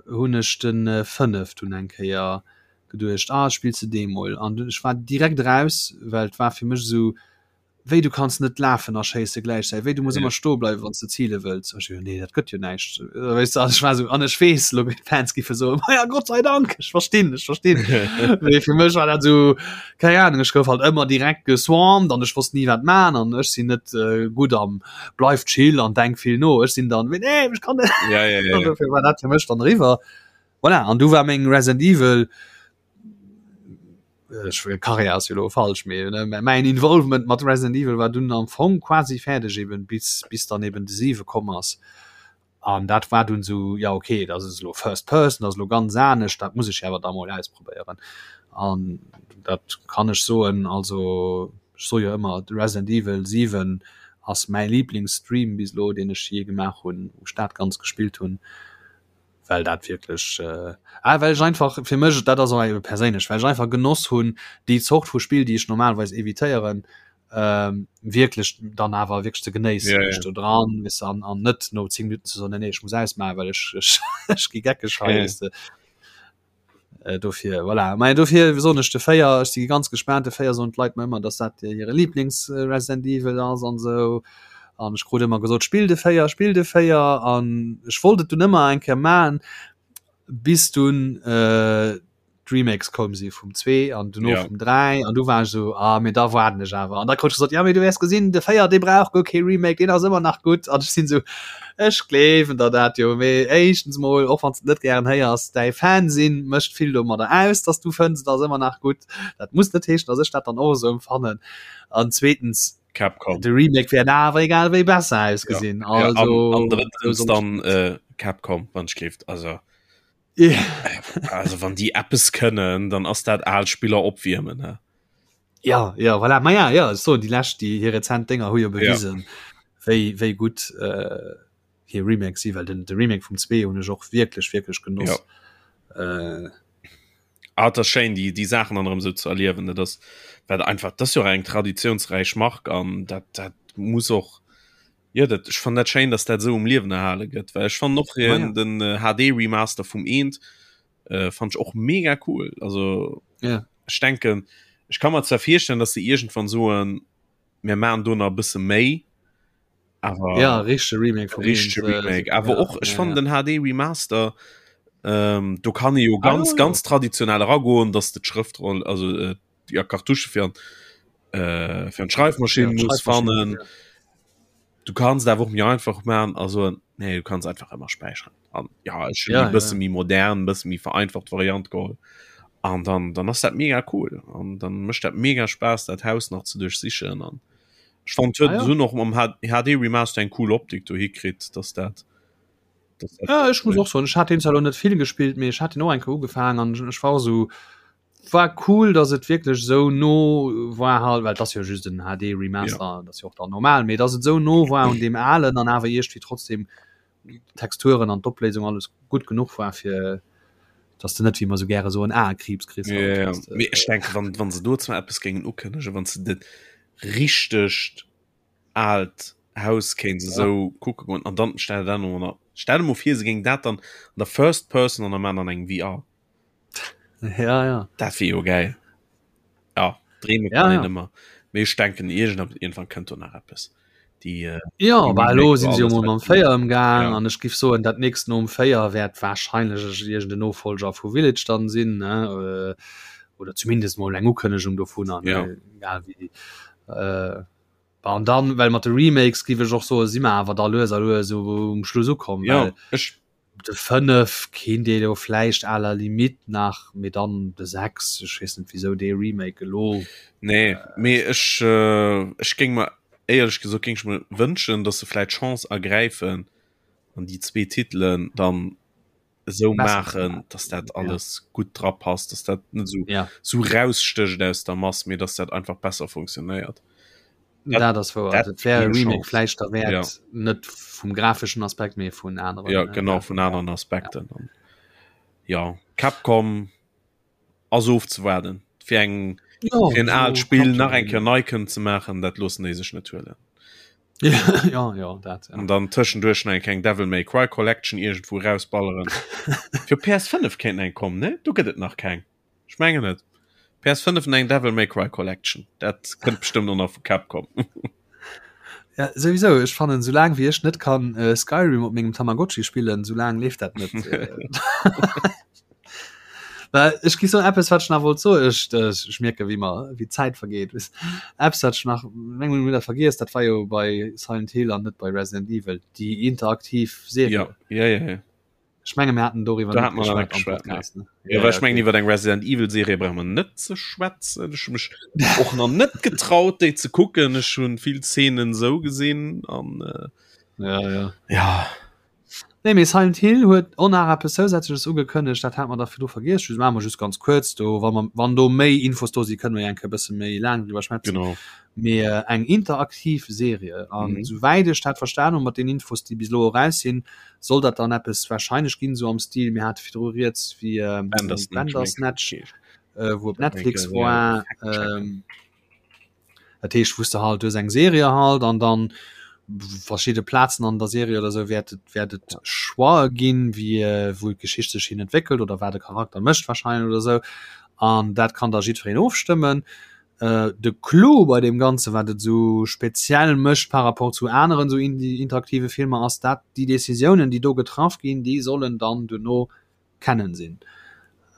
hunn ech de 5 dunn eng Kéier geduecht, ah spills de dee mol. An dunn, ech war direkt eraus, well et war fir mech esou, wéi du kanns net lafen a schéisse gläichzäiteg, wéi du muss ëmmer stoe bleiwen, wann s de zile wëlls. Ech esou, nee dat gëtt jo näischt, weess de. An ech war esou, an ech weess elo d'Fans giffe soen, ma ja Gott sei Dank, ech verstinn, ech verstinn. Mee fir mech war dat esou, keng Ahnung, ech gouf halt ëmmer direkt geswarmt an ech wosst ni wat man an ech sinn net gutt am bleif chill an denk vill no ech sinn dann nee, ech kann net ja, ja, ja, ja. war dat fir mech dann riwer voilà. an du war meng Resident Evil ech äh, Karriär ass jo lo falsch mee ne mäin Involvement mat Resident Evil war dunn am Fong quasi fäerdeg eben bis bis dann eben de 7 komm ass An dat war dunn esou, jo okay, dat ass elo First Person, dat ass elo ganz anescht, dat muss ech awer da mol ausprobéieren. An dat kann ech soen, also ech soe jo ëmmer, de Resident Evil 7 ass mäi Liblingsstream bis elo, deen ech jee gemaach hunn, wou ech dat Ganzt gespillt hunn, well dat wierklech, ah well ech einfach fir mech, dat ass och ebe perséinlech, well ech einfach genoss hunn, déi Zort vu Spill, déi ech normalerweis evitéieren, ähm, wierklech dann awer wierklech ze genéissen Ja, ja. ja, do dran wis an an net no 10 Minuten ze soen, nee, nee, ech muss ausmachen, well ech ech, ech gi geckeg hei Ja. weess de. Äh, dofir voilà. Mä dofir soen ech de 4, ech si ganz gespaant, de 4 soen d'Leit mer ëmmer, dass dat hire Lieblings äh, Resident Evil ass an esou. An ech krut ëmmer gesot, spill de 4, spill de 4 an ech wollt et dunn ëmmer eng Kéier man, bis dunn äh, d'Remakes koum si vum 2 an duerno ja. vum 3 an du war so ah, mir da warden ech awer an da krut gesot ja mee du wäers gesinn de 4 dee brauch guer kee Remake deen ass ëmmer nach gutt an ech sinn so ech gleewen der dat jo mee éischtens mol och wann s de net gären héiers däi Fan sinn mécht vill domadder aus dass du fënns et ass ëmmer nach gutt dat muss net heeschen dass ech dat dann och esou empfannen an zweetens Capcom de Remake wäert awer egal wéi besser ausgesinn ja. also ja, an, an drëttens dann äh, Capcom wann ech gleeft also Yeah. Also wann déi eppes kënnen, dann ass dat al Spiller opwiermen ne? Ja ja voilà. Ma ja ja so déi lescht déi hir rezent Dénger hu jo bewisen ja. wéi wéi gutt äh, hir Remake si well den de Remake vum 2 hunn ech och wierklech wierklech genoss. Ja. Äh, Ah, dat ass schéin déi déi Saachen dann erëm sou ze erliewen dat ass wat einfach dat ass jo och eng traditiounsräich Mark an dat dat muss och Jo dat ech fannen dat schéin dass dat esou um Liewen erhale gëtt well ech fannen och ah, ja. den äh, HD Remaster vum eent äh, fand ich och mega cool also ja. ech denken ech kann mir zwar virstellen dass se irgendwann soen mir machen do nach e bësse méi awer ja richtige Remake vum richtige äh, Remake awer ja, och ech ja, fand ja. den HD Remaster ähm, do kann e jo ah, ganz ah, ja, ganz traditionell eragoen dass de d'Schrëftroll also äh, ja Kartusche fir an äh, fir an d'Schreifmaschinn ja, muss fannen. Ja. Du kannst awer och mir einfach machen also nee du kannst einfach immer speichern an ja ech ja, bësse ja. mi modern bësse mi vereinfacht Variant geholl an dann dann ass dat mega cool an dann mëscht dat mega Spaß dat Haus nach ze duerchsichen an ech fand ah, ja. hunn och mam HD Remaster eng cool Optik do hikritt dass dat dass dat ja, ech muss och soen ech hat den zwar net vill gespillt mee ech hat den och eng Kéier ugefaangen an ech war sou War cool dass et wierklech esou no war halt, well et ass jo just en HD Remaster, ja. dat ass jo och dann normal, mee dass et esou no war un deem alen an awer iergendwéi trotzdem d'Texturen an d'Opléisung alles gutt genuch war fir dass de net wéi mer esou gäre soen Aekriibs kriss. Ja, ja. Mee ech denke wann, wann se do zwar eppes géingen ukënnegen, wann se dat richtegt aalt Haus kéint se esou kucke goen an dann stell der dat no, stell der mol vir se géingen dat dann an der First Person an der man an engem VR. Ja, ja. Dat wier jo geil. Ja, dreeme ja, kann ja. een ëmmer. Mee ech denken irgend irgendwann kënnt do nach eppes. Déi, äh, ja, déi bah, elo Remake sinn war se jo alles mol mam wat 4 ëmgaang Ja. an ech giff soen, dat nächst nom 4 wäert wahrscheinlech iergend en Nofolger vu Village dann sinn, ne? Äh, oder zumindest mol eng Ukënnegung dovunner, ne? Ja. Egal wéi. Äh, bah, an dann, well mat de Remakes giff ech och soen, si mer awer da lues a lues um Schluss ukomm, Ja, well ech De 5 kéint ee jo vläicht à la limite nach, mee dann de 6, ech weess net wisou dee Remake elo. Nee, mee ech ech géing mer éierlech gesot géing ech mer wënschen, datt se vläicht d'Chance ergräifen an déi zwee Titelen dann esou maachen, datt dat alles gutt dra passt, datt dat net esou esou rausstécht aus der Mass, mee datt dat einfach besser funktionéiert. Dat ass wouer. Dat wär e Remake vläicht derwäert, ja. Net vum grafeschen Aspekt, mee vun aneren. Ja, genau, vun aneren Aspekten. Ja, ja Capcom ass ofzewaarden. Fir eng ja, fir en aalt Spill nach eng Kéier nei kënnen ze maachen, dat loossen déi sech net huelen. Ja, ja, ja, dat, ja. An dann tëschenduerch nach eng kleng Devil May Cry Collection iergendwou rausballeren. Fir PS5 kéint eng kommen, ne? Do gëtt et nach keng. Ech mengen et. PS5 an eng Devil May Cry Collection. Dat kënnt bestëmmt och nach vu Capcom. Ja, souwisou, ech fannen, soulaang wéi ech net kann äh, Skyrim op mengem Tamagotchi spillen, soulaang leeft dat net. Well ech gi so eppes wat ech nach wollt soen, ech, äh, ech mierke wéi mer wéi d'Zäit vergeet. Eppes wat ech nach meng hunn dat vergiess, dat war jo bei Silent Hill an net bei Resident Evil, déi interaktiv Serie. Ja, ja, ja, ja. Ech menge mir haten doriwwer Da hat man net geschwat Podcast, ne? Ja, ja, ech mengen iwwer eng Resident Evil Serie brauche mer net ze schwätzen. Ech hu mech och nach net getraut déi ze kucken. Ech hunn vill Szenen sou gesinn an äh, ja, ja. ja. Nee, mee Silent Hill huet och nach eppes zousätzleches ugekënnegt, dat hat mer da virdru vergiess. Just maache mer just ganz kuerz do, wa mer wann do méi Infos do si, kënne mer jo eng Kéier e bësse méi laang driwwer schwätzen. Genau. Mee äh, eng interaktiv Serie an mhm. souwäit ech dat verstan hunn mat den Infos, déi bis elo eraus sinn, Soll dat dann eppes wahrscheinlech ginn, esou am Stil, mir hate virdru rieds, wéi Bandersnatch, wou op Netflix war. Dat heescht, wou s de halt, du hues eng Serie halt an dann verschidde Plazen an der Serie oder esou wäert et, wäert et Choixë ginn, wéi wou d'Geschicht sech hin entwéckelt oder wat e Charakter mécht wahrscheinlech oder esou. An dat kann da jiddwereen ofstëmmen. De Clou bei deem Ganzen, wat et esou speziell mécht par rapport zu aneren esou interaktive Filmer, ass dat déi Decisiounen, déi do getraff ginn, déi sollen dann duerno kennen sinn.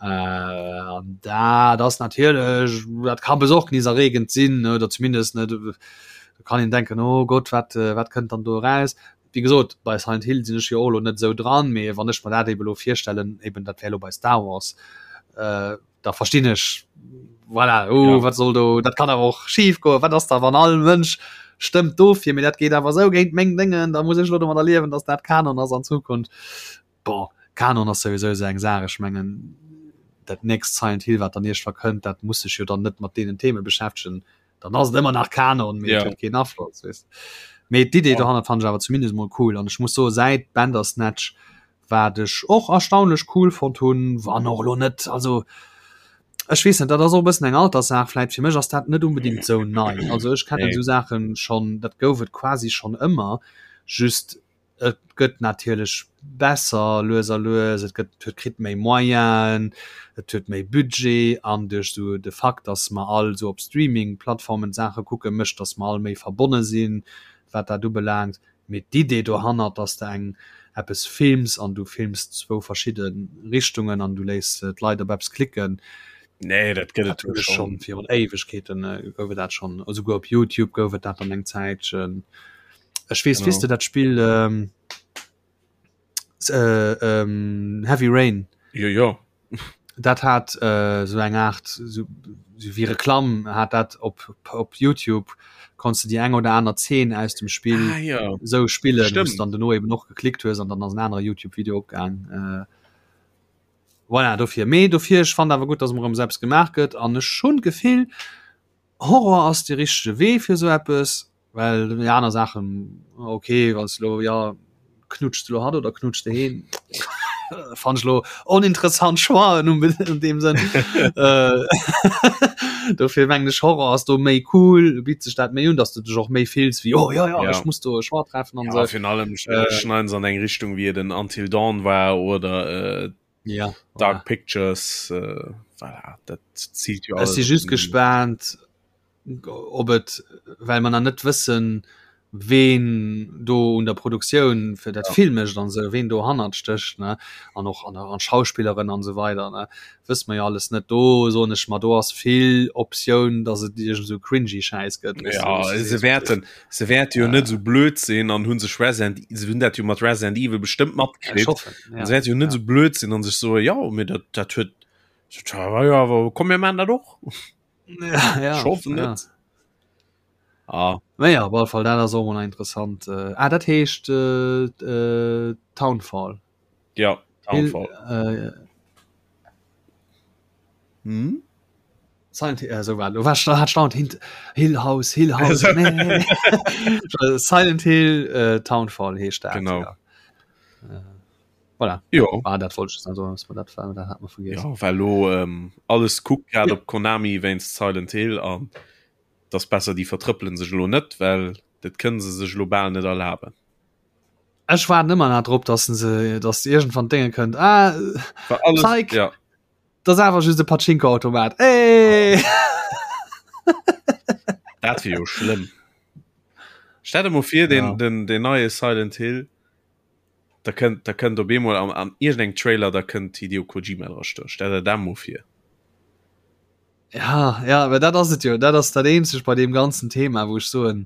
An dat ass natierlech, dat ka besorgniserregend sinn oder zumindest ne, do kann een denken, oh Gott, wat, wat kënnt dann do eraus? Wéi gesot, bei Silent Hill sinn ech jo och elo net esou dran, mee wann ech mer dat ebe lo virstellen, eben dat wär elo bei Star Wars, äh, da verstinn ech, voilà, oh, ja. wat soll do, dat kann awer och schief goen, wat ass da wann all Mënsch stëmmt dofir, mee dat geet awer esou géint meng Déngen, da muss ech elo domadder liewen, dass dat Kanon ass an Zukunft. Bon, Kanon ass souwisou esou eng Saach, ech mengen dat nächst Silent Hill, wat dann iergendwa kënnt, dat muss sech jo dann net mat deenen Theme beschäftegen, dann ass et ëmmer nach Kanon, mee et huet keen Afloss, weess. Mee d'Idee dohannert fannen ech awer zumindest mol cool an ech muss soen, säit Bandersnatch, wat ech och erstaunlech cool fonnt hunn, wann och elo net, also ech weess net, dat ass och e bëssen eng Alterssaach vläit, fir mech ass dat net unbedingt esou nei, also ech kennen esou Saachen schonn, dat gouf et quasi schonn ëmmer, just Et gëtt natierlech besser lues a lues, et gëtt huet kritt méi Moyenen, et huet méi Budget an duerch esou de Fakt, datt mer all esou op Streaming-Plattformen d'Saache kucken, mécht, datt mer all méi verbonne sinn, wat dat ubelaangt. Mee d'Idee dohannert, datt s de eng eppes films an du films zwou verschidde Richtungen an du léiss d'Leit op eppes klicken, Nee, dat gëtt et jo schonn virun Éiwegkeeten gouf et dat schonn, esouguer op Youtube gouf et dat dann eng Zäitchen. Ech weess, weess de dat Spill ähm, äh, ähm, Heavy Rain? Jo, jo. Dat hat äh, so eng Art so, so wie Reklamm hat dat op, op YouTube konntest du déi eng oder aner Zeen aus dem Spill ah, ja. so spillen, wous dann duerno eben och geklickt hues an dann ass en anere YouTube-Video opgaang. Äh, voilà, dofir. Mee dofir, ech fand awer gutt, dass emol erëm sou eppes gemaach gëtt an ech hunn d'Gefill, Horror ass de richtege Wee fir sou eppes. Well déi aner Saachen, okay, wann s de lo, jo, knutscht de lo hatt oder knutscht de heen? Fannen ech lo oninteressant Choixen an deem Sënn. Dofir mengen ech, Horror ass do méi cool, bitt sech dat méi un, datt s de dech och méi fills wéi, oh jo, jo, ech muss do e Choix treffen an esou. Ja, virun allem schneiden se an eng Richtung, wéi et en Until Dawn war oder ja, Dark Pictures, voilà, dat ziilt jo alles. Ech si just gespaant, ob et well mer nach net wëssen, ween do un der Produktioun fir dat ja. Film mécht an sou ween do hannert stécht ne an och an an Schauspilleren an sou weider ne wësse mer jo alles net do soen ech mer do ass vill Optioun dass et iergend sou cringy Schäiss gëtt ja, se wäerten se wäerte jo net sou blöd sinn an hunn sech Resident se hunn dat jo mat Resident Evil bestëmmt matkritt ja, se wäerte jo net ja. sou blöd sinn an sech soe ja mir dat dat huet ja, awer komm mir man dat och Ja, ja, Ich hoffe ja. net. Ah. Naja, op alle Fall dat ass och mol interessant. Äh, ah, dat heescht äh, äh, Townfall. Ja, Hill, Townfall. äh, Hm? Silent Hill, äh, so war, war, hat staunt hint Hill House, Hill House. nee, nee, nee. Silent Hill äh, Townfall heescht dat. Genau. Ja. Äh, Voilà. Jo. Ah, dat wollt ich also, dass man dat, dat hat man vergessen. Ja, well lo ähm, alles kuckt grad ja. op Konami wéinst Silent Hill an das besser die vertrëppelen sech lo net, well dat kënnen se sech lo bal net erlaben. Ech war ëmmer nach drop, dass se dass irgendwann Dinge kënnt. Ah, War alles, Zeig. ja. das awer just e Pachinko-Automat. Ey! Dat wier jo schlëmm. Stell dir mol vir, den, Ja. den, den neie Silent Hill Da kënnt, da kënnt op eemol an, an iergendengem Trailer, da kënnt Hideo Kojima dra stoen. Stell der dat mol vir. Ja, ja, awer dat ass et jo. Dat ass dat eenzegt bei deem ganzen Thema, wou ech soen,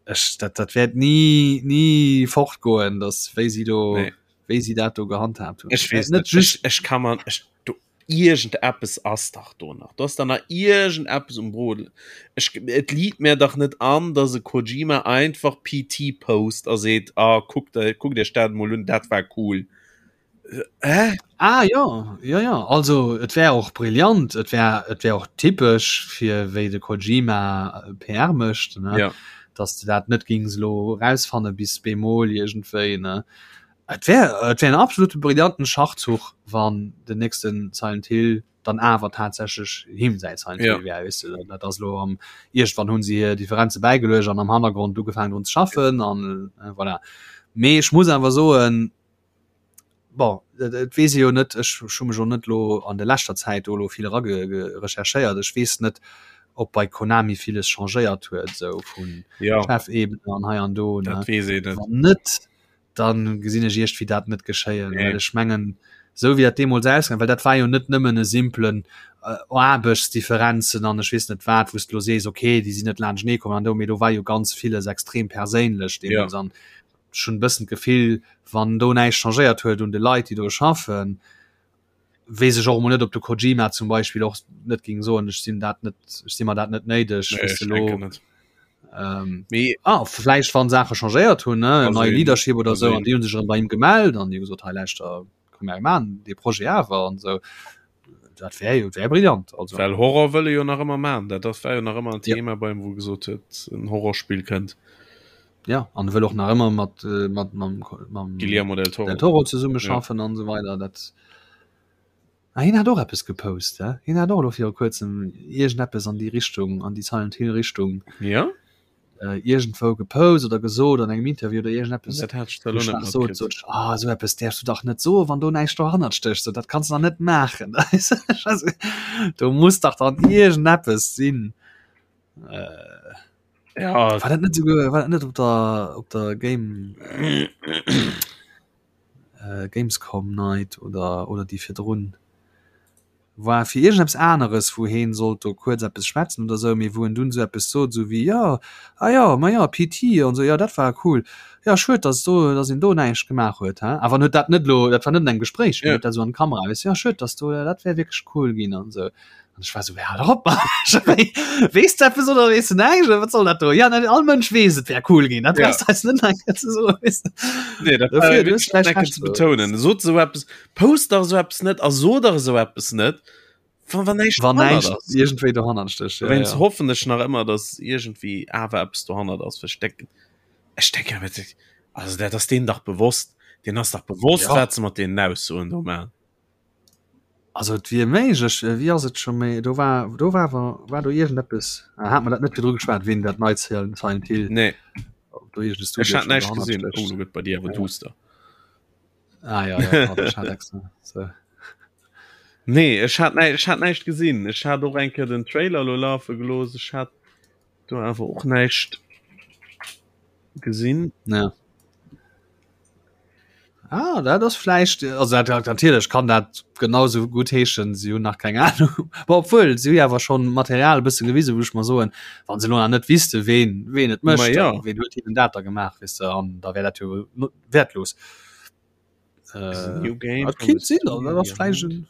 ech, dat, dat wäert ni, ni fortgoen, dass wéi si do, Nee. wéi si dat do gehandhabt hunn. Ech weess net net. just Ech, ech kann man, ech, do, iergendeppes ass dach do nach. Do ass da nach iergendeppes um Brodel. Ech, et liit mir dach net an, dass e Kojima einfach PT post a seet, ah, kuckt, kuckt iech dat mol un, dat war cool. Hä? Ah jo, jo, jo. Also et wär och brillant, et wär, et wär och typesch fir wéi de Kojima PR mécht, ne? Ja. Dass de dat net gings elo erausfanne bis bemol iergendwéi, ne? Et wär et wär en absolute brillanten Schachzuch, wann den nächsten Silent Hill dann awer tatsächlech him säi Silent Hill Ja. wär, weess de. Dat ass elo am iergendwann hunn se hir Differenze bäigeluecht an am Hannergrond ugefaangen drun ze schaffen an voilà. Mee ech muss awer soen, bon, et et weess ee jo net, ech hu mech och net elo an der leschter Zäit do elo vill erage recherchéiert, ech weess net, ob bei Konami villes changéiert huet esou vun Ja. Chefebene an hei an do, ne. Dat weess een net. Wann net, dann gesinn ech iergdwéi dat net geschéien, Nee. well ech mengen. Esou wéi dat deemools ausgaang, well dat war jo net nëmmen e simplen äh, Aarbechtsdifferenzen an ech weess net wat, wou s de lo sees, okay, déi sinn net laanschtenee komm an do, mee do war jo ganz villes extrem perséinlech deemools ja. an ech hunn e bëssen d'Gefill, wann do näischt changéiert huet un de Leit, déi do schaffen, weess ech och emol net, ob de Kojima zum Beispill och net géing soen, ech sinn dat net, ech si mer dat net néideg, Nee, weess ech de lo. denken net. Ähm, Mee ah, vläicht wann Saache changéiert hunn, ne, Ka nei sinn, Leadership oder ka sou, an sinn. déi hunn sech erëm bei him gemellt an déi hu gesot, hei lauschter, komm mir maachen dee Projet awer an sou. Dat wär jo wär brillant, also. Well Horror wëll e jo nach ëmmer maachen, dat ass war jo nach ëmmer en Ja. Thema bei him, wou e gesot huet, en Horrorspill kënnt. Ja, an e wëll och nach ëmmer mat, äh, mat mam, mam Guillermo del Toro. Del Toro zesummeschaffen an esou weider. Dat Ah, hien hat och eppes gepost, hä? Hien hat och elo viru kuerzem iergendeppes an déi Richtung, an déi Silent Hill Richtung Ja? äh, iergendwou gepost oder gesot an engem Interview oder iergendeppes. Dat hat ech zwar Wou elo ech net nach sot, matkritt. sot ech, ah, esou eppes däerfs du dach net soen, wann do näischt dohannert stécht, so dat kanns du dach net maachen. Also, do muss dach dann iergendeppes sinn. Äh, Ja, war dat net souguer, war dat net op der, op der Game, äh, Gamescom Night oder, oder déi virdrun? War fir iergendeppes aneres, wou heen sollt do kuerz eppes schwätzen oder sou, mee wou en dunn sou eppes sot, sou wéi, jo, ah jo, ma jo, PT an sou, jo, dat war cool, jo, schued, dass do, dass een do näischt gemaach huet, he. Awer en huet dat net elo, dat war net an engem Gespréich, mee en huet dat sou an d'Kamera, weess, jo, schued, dass do, dat wär wierklech cool ginn an sou. An ech war sou, hal dach op, Mann, weess de eppes oder weess de näischt oder wat soll dat do? Ja, all Mënsch weess, et wär cool ginn, dat Ja. brauchs de eis net nach eng Kéier ze soen, weess de. Nee, dat war Dofir, du hues wierklech vläicht eng Kéier Recht, ze so. betounen. Sot esou eppes, post dach esou eppes net a so dach esou eppes net, wann, wann näischt Wann dohannert näischt ass. iergendwéi dohannert stécht, ja, Dowéinst ja. hoffen ech nach ëmmer, dass iergendwéi awer eppes dohannert ass, well ech denken, ech denken awer, also dat ass deenen dach bewosst, deenen ass dach bewosst, Ja. wat se mat deenen Aussoen do maachen. Also et wier méiglech, wéi ass et scho méi, do war do war awer war do iergendeppes, hat mer dat net virdru geschwat, ween dat neit Silent Hill Nee. ob do iergend e Studio Ech hat schonn näischt dohannert gesinn. Oh, stécht. lo gëtt bei dir awer duster. Ah ja, ja, pardon, ech hat extra so. Nee, ech hat näi ech hat näischt gesinn. Ech hat och eng Kéier den Trailer lo lafe gelooss. Ech hat do awer och näischt gesinn. Ja. Ah, dat ass vläicht, also dat, dat, natierlech kann dat genauso gutt heeschen, si hunn nach keng Ahnung. Bon, obwuel, si hu jo awer schonn Material e bësse gewisen, wou ech mer soen, wa se elo nach net wüsste ween, ween et Ma mécht, ja. ween huet hinnen dat da gemaach, weess de, an da wär dat jo wäertlos. Is a Äh, new game dat from the kinnt sinn, also dat studio ass vläicht behind. en.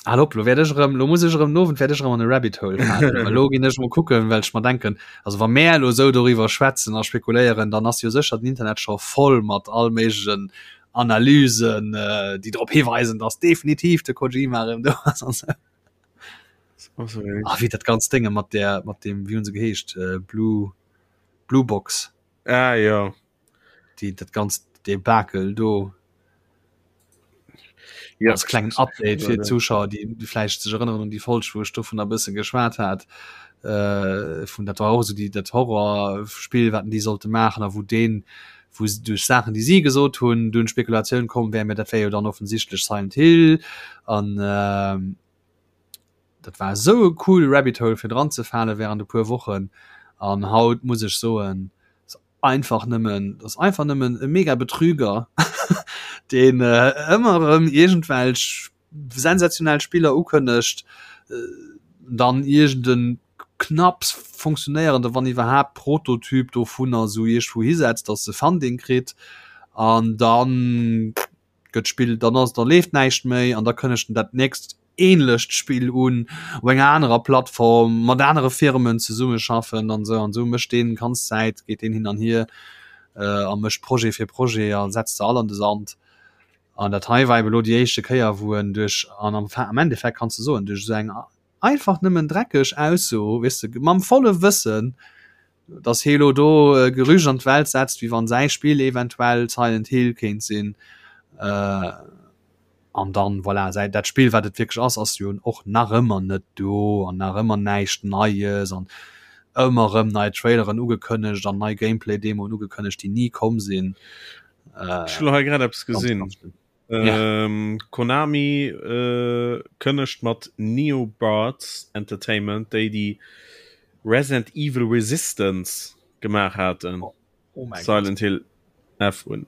Al op, lo wäert ech erëm, lo muss ech erëm, den Owend wäert ech erëm an e Rabbit Hole falen. Well lo ginn ech mol kucken, well ech mer denken, also wa mär elo esou doriwwer schwätzen a spekuléieren, dann ass jo sécher den Internet scho voll mat all méiglechen Analysen, déi drop hiweisen, dass definitiv de Kojima erëm do ass an esou. Ah, wéi dat ganzt Dénge mat där, mat deem, wéi hu se geheescht, Blue, Blue Box. Ah, jo. Déi, dat ganzt Debakel do. Ja, als klengen Update fir d'Zuschauer, déi déi vläicht sech erënneren un déi Folg, wou ech dovun e bësse geschwat hat. Äh, vun dat war och esou déi dat Horrorspill, wat déi sollte maachen a wou deen, wou se duerch Saachen, déi si gesot hunn, dunn d'Spekulatioun komm wär, mä dat wär jo dann offensichtlech Silent Hill an äh, dat war esou e cool Rabbit Hole fir dran ze fale während e puer Wochen an haut muss ech soen, einfach nëmmen, dat ass einfach nëmmen e mega Betrüger, deen ëmmer erëm iergendwelch sensationell Spiller ukënnegt, dann iergend e knapps funktionéierende, wann iwwerhaapt, Prototyp dovunner esou iergendwou hisetzt, datt e Funding kritt an dann gëtt d'Spill, dann ass, da leeft näischt méi an da kënnegt en dat nächst ähnlecht Spill un op enger anerer Plattform mat anere Firmen zesummeschaffen an esou an esou mécht deen ganz Zäit geet deen hin an hier äh, a mécht Projet fir Projet a setzt se all an de Sand. An dat hei war eben elo déi éischte Kéier wou en duerch an am, am Endeffekt kanns de soen duerch esou eng einfach nëmmen dreckeg Ausso, weess de, mam volle Wëssen, dass hie lo do e Gerücht an d'Welt setzt, wéi wann säi Spill eventuell Silent Hill kéint sinn. Äh, an dann, voilà, säi, dat Spill, wat et wierklech ass, ass jo och nach ëmmer net do an nach ëmmer näischt Neies an ëmmer erëm nei Traileren ugekënnegt an nei Gameplay-Demoen ugekënnegt, déi ni komm sinn. Äh, Ech hu lo hei grad eppes ganz, gesinn. ganz schlimm. Ja. Ähm, Konami äh, kënnegt mat Neobards Entertainment, déi déi Resident Evil Resistance gemaach haten, Oh, oh mein Silent Hill F un.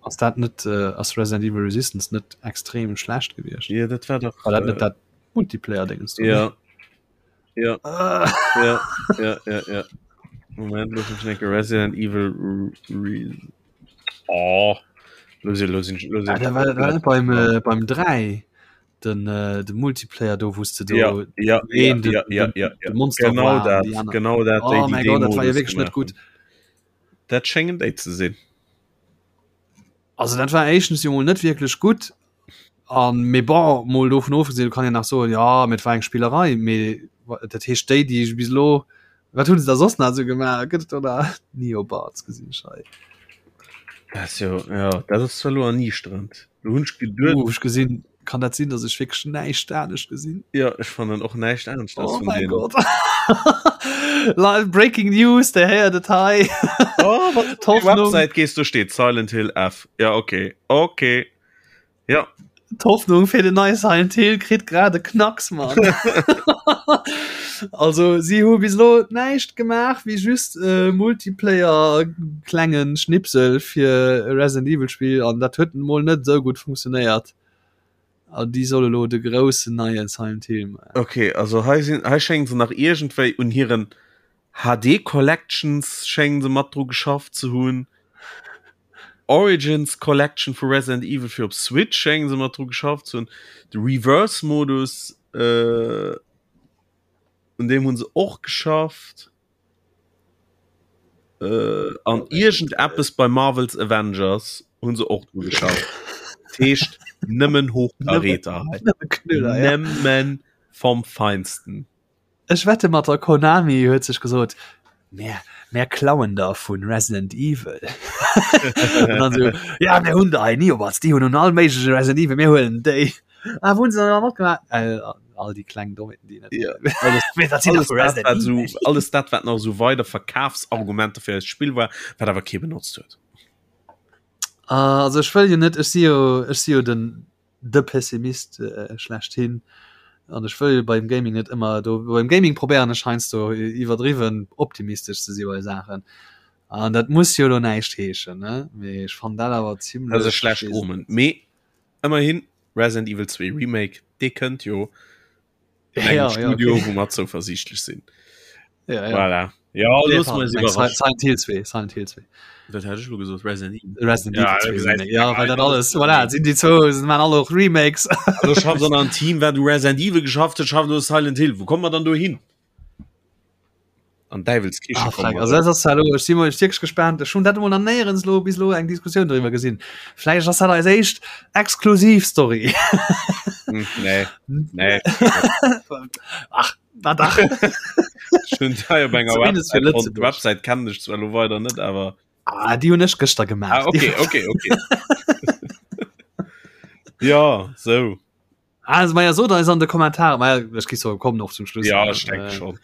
Ass dat net äh, ass Resident Evil Resistance net extrem schlecht gewiescht? Ja, dat war doch war dat net äh, dat Multiplayer Dingens do? Ja. Ja. Ah. Ja, ja, ja, ja. Moment, lass mich denken, Resident Evil Re Oh. Los, los, los, ah, da war, war beim, äh, beim 3 den, äh, de Multiplayer do wusste du ja, ja, ja, den, ja, ja, ja, ja. Monster genau war, dat, genau dat oh, mein Gott, dat war ja wirklich net gut dat schengen déi ze sinn also dat war éischtens jo mol net wierklech gutt an mee bon mol dovun ofgesinn, du kann jo nach soen ja mee et war eng Spillerei, mee dat heescht déi déi bis elo wat hunn se da soss nach esou gemaach gëtt et do nach Neobards gesinn ech hei. Dat ass jo ja dat ass zwar elo erniichterend do hunn ech geduet. Uh ech gesinn Kann dat sinn, dass ech wierklech näischt anescht gesinn? Ja, ech fannen och näischt anescht oh mein Gott. Live Breaking News, der héiert et hei. Oh, Website gehst du steht Silent Hill F. Ja okay okay. Ja. D'Hoffnung fir den neie Silent Hill kritt grad e Knacks Mann. also si hu bis lo näischt gemaach wéi just äh, Multiplayer klengen Schnipsel fir e Resident Evil Spiel an dat huet mol net esou gutt funktionéiert. An déi solle lo de groussen neie Silent Hill maachen. Okay, also hei sinn hei schéngen se nach iergendwéi un hiren HD Collections schéngen se mat dru geschafft ze hunn. Origins Collection vu Resident Evil fir op Switch schéngen se mat dru geschafft ze hunn. De Reverse Modus äh, un deem hunn se och geschafft. Äh, an iergendeppes bei Marvel's Avengers hunn se och dru geschafft. Dat heescht nëmmen Hochkaräter hei. Nëmme Knüller, ja. Nëmmen vom Feinsten. Ech wette mat der Konami huet sech gesot, Mär, mär klauen der vun Resident Evil. An dann so, ja mir hunn der hei Neobards, déi hunn un all méigleche Resident Evil, mir huelen déi. Ah, wou hunn se dann matgemaach? Äh, all déi kleng Dommheeten, déi net. Ja. Alles, Mee dat sinn alles, dat, wat so, alles dat, wat nach so weider Verkafsargumenter fir eist Spill war, wat awer kee benotzt huet. Ah, also ech wëll jo net, ech si jo, ech si jo den de Pessimist äh, schlechthin. An ech wëll beim Gaming net ëmmer do beim Gaming probéieren ech heiansdo iwwerdriwwen optimistesch ze si bei Saachen. An dat muss jo lo näischt heeschen, ne? Mee ech fannen dat awer zimmlech. Dat ass e schlecht Omen. Mee Ëmmerhin Resident Evil 2 Remake, dee kënnt jo ja, ja, Studio, okay. wou mer zouversiichtlech sinn. Ja, ja. Voilà. Ja, nee, los mal Silent Hill 2, Silent Hill 2. Dat hat ech lo gesot Resident Evil. Resident Evil ja, 2, ja, weil dat alles voilà, sinn déi zwou sind man alle och Remakes. Also schafft dann ein Team, wat du Resident Evil geschafft huet, schafft du Silent Hill. Wo kommt man dann do hin? An Däiwelskiche ah, kommen. Also, das ass hallo, ech si mol wierklech gespaant. Ech hunn dat emol nach néierens lo bis lo eng Diskussioun driwwer gesinn. Vläicht ass dat eis éischt exklusiv Story. Hm, nee, nee. Ach, na dach. Ech hunn hei op enger Zumindest fir Website fonnt. Lëtzebuerg. D'Website kennen ech zwar lo weider net, awer. Ah, déi hunn ech gëschter gemaach. Ah, okay, okay, okay. Ja, sou. Also maja sot eis an de Kommentare maja ech gi so kommen och zum Schluss ja ech denke äh, schon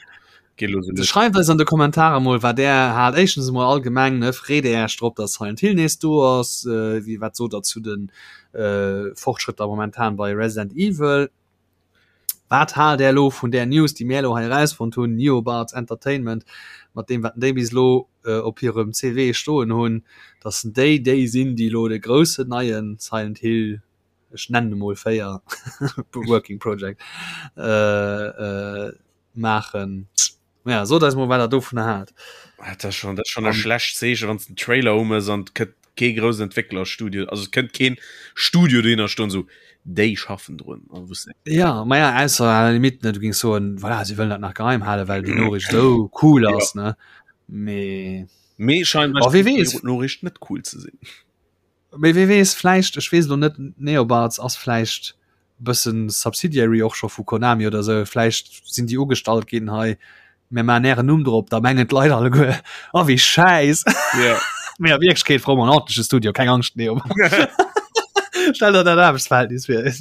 schreift eis an de Kommentare mol wat der hat éischtens mol allgemeng ne freet Dir Iech drop dass Silent Hill nees do ass äh, wéi wat sot der zu den äh, Fortschrëtter momentan bei Resident Evil wat haalt der lo vun der News déi mir lo hei erausfonnt hunn Neobards Entertainment mat deem wat déi bis lo äh, op hirem CV stoen hunn dass déi déi sinn déi lo de groussen neien Silent Hill ech nennen emol 4 Working Project äh, äh, maachen. Ja, sot eis mol wat der dovun haalt. Dat ass schon, dat ass schon e schlecht Zeechen, wann den Trailer um ass an kënnt kee groussen Entwécklerstudio, also et kënnt keen Studio dohinner stoen sou déi schaffen drun. An wou s Ja, ma ja, ausser à la limite, ne, du gings soen, voilà, si wëllen dat nach geheim halen, well déi Noriicht esou cool ass, ja. ne? Mee Mee scheinbar oh, wie weess. Noriicht net cool ze sinn. Mee wee weess, vläicht, ech weess elo net, Neobards ass vläicht e bëssen Subsidiary och scho vu Konami oder esou, vläicht sinn déi ugestallt ginn, hei mir maachen ären Numm drop, da mengen d'Leit alleguer, oh wéi schäiss. Ja. Mee a Wierklechkeet froe mer en ordentleche Studio, keng Angscht, Neobards. Stell der dat Aarbechtsverhältnis vir.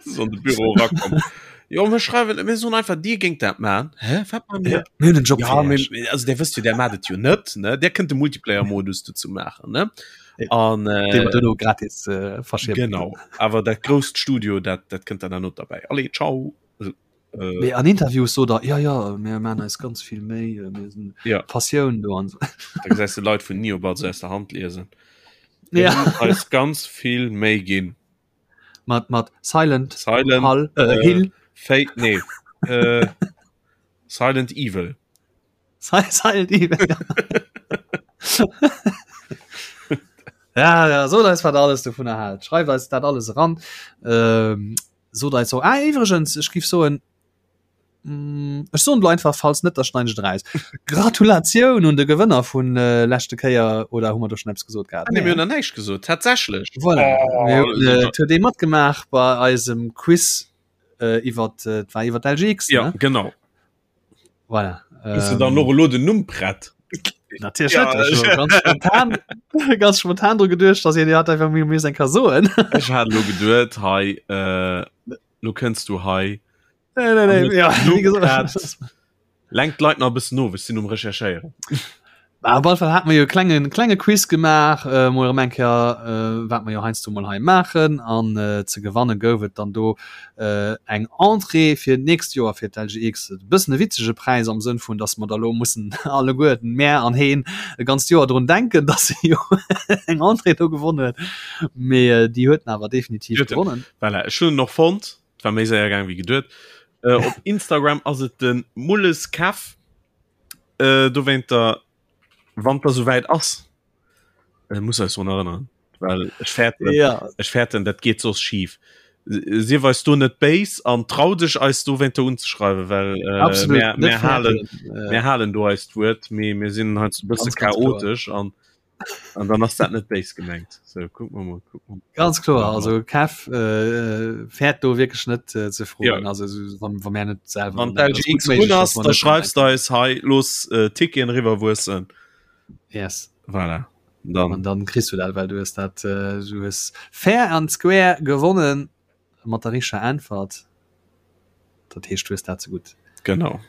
So an de Büro erakomm. Jo, mir schreiwen, mir soen einfach, Dir géingt dat maachen. Hä, wat maache mir? Mir hunn en Job Ja, fir mir, Iech. also der wësst jo, der maacht et jo net, ne? Der kënnt de Multiplayer-Modus dozou maachen, ne? Ja. An äh, Dee mer duerno gratis äh, verschippen. genau. Awer dat grousst Studio, dat, dat kënnt dann dann not derbäi. Allez, ciao. Also, äh, Mee an Interviews sot er, ja, ja, mir maachen eis ganz vill Méi, äh, mir sinn Ja. Passioun do an so. da gesäis de Leit vun Neobards aus der Hand liesen. Ja. Eis ganz vill méi ginn. Mat mat Silent Silent Hall, äh, äh, Hill Fate nee äh, Silent Evil. Silent Evil. Ja, ja, sot eis wat alles dovun erhält. Schreift eis dat alles eran. Ähm, sot eis so ah, iwwregens, ech giff soen mm, ech soen lo einfach falls net, da schneiden ech et eraus. Gratulatioun un de Gewënner vun äh, leschte Kéier oder hu mer do schon eppes gesot gehat? Ah, nee, mir hunn nach näischt gesot, tatsächlech. Voilà. Oh, Mir hunn, äh, et huet ee matgemaach bei eisem Quiz äh, iwwer äh, war iwwer d'LGX, ja, ne? genau. Voilà. Hues du dann och elo den Numm prett? Natierlech ja, net. Ech ganz spontan, ganz spontan dru geduecht, dass een hat einfach mir mir eng ka soen. Ech hat lo geduet hei äh, lo kënns du hei. Nee, nee, nee, ja, wie gesagt. Lenkt d'Leit nach e bëssen of, ech sinn um Recherchéieren. Bah, op alle Fall hat mer jo klengen klenge Quiz gemaach äh, mol erëm eng Kéier äh, wat mer jo heiansdo mol hei maachen an äh, ze gewanne gouf et dann do äh, eng Entrée fir d'nächst Joer fir d'LGX. E bëssen e witzege Präis am Sënn vun, dass mer da lo mussen alleguerten, mär an heen, e ganzt Joer drun denken, dass e jo eng Entrée do gewonnen huet. Mee äh, déi huet en awer definitiv Huet en. gewonnen. Voilà, ech hunn en och fonnt. Et war méi séier gaang wéi geduet. Äh, op Instagram ass et de Mulles Kev. Äh, dowéinter, wann der souwäit ass, äh, muss eis drun erënneren, well ech fäerten, Ja. ech fäerten, dat geet soss schif. Sief eis do net béis an trau dech eis dowéinter unzeschreiwen, well äh, Absolut, mir, net mir halen, fäerten. Äh, mir halen do eist Wuert, mee mir sinn heiansdo e bësse Ganz, ganz kloer. chaotesch an An dann ass dat net béis gemengt. So, guck mal, mal, guck mal. Ganz kloer also Kev äh, fäert do wierklech net äh, ze froen Ja. also so, wann, wann mir net selber Wann dran denken. d'LGX Ass gut méiglech, un ass, dass mer da net dran schreifst du denken. eis hei los äh, Ticketen riwwerwuessen. Yes. Voilà. Dann. An dann kriss du dat, well du hues dat äh, du hues fair and square gewonnen mat der richteger Äntwert. Dat heescht du hues dat ze gutt. Genau.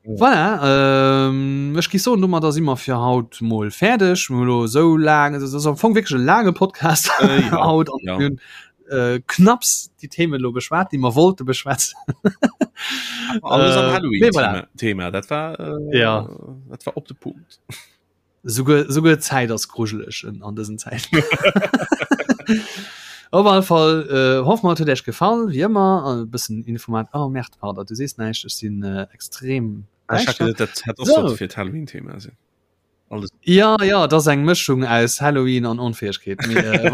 Voilà, ähm, ech gi soen, domadder si mer fir haut mol fäerdeg. Mir hu lo esou laang, et ass am Fong wierklech e laange Podcast äh, ja, haut an ja. mir hunn äh, knapps déi Themen lo beschwat, déi mer wollte beschwätzen. Alles am Äh, Halloween mee voilà. Thema, Thema. Dat war äh, Ja. dat war op de Punkt. Souguer, souguer d'Zäit ass grujeleg an dësen Zäiten. Op alle Fall äh, hoffe mer, et huet Iech gefall, wéi ëmmer. E bëssen Informat. Oh Merde, pardon, du sees näischt, ech sinn äh, extrem Ah, ich däischter. hatte, dat hätt och So. sollte fir d'Halloween-Thema sinn. Alles. Ja, ja, dat ass eng Mëschung aus Halloween an Onfäegkeet. Mee, äh,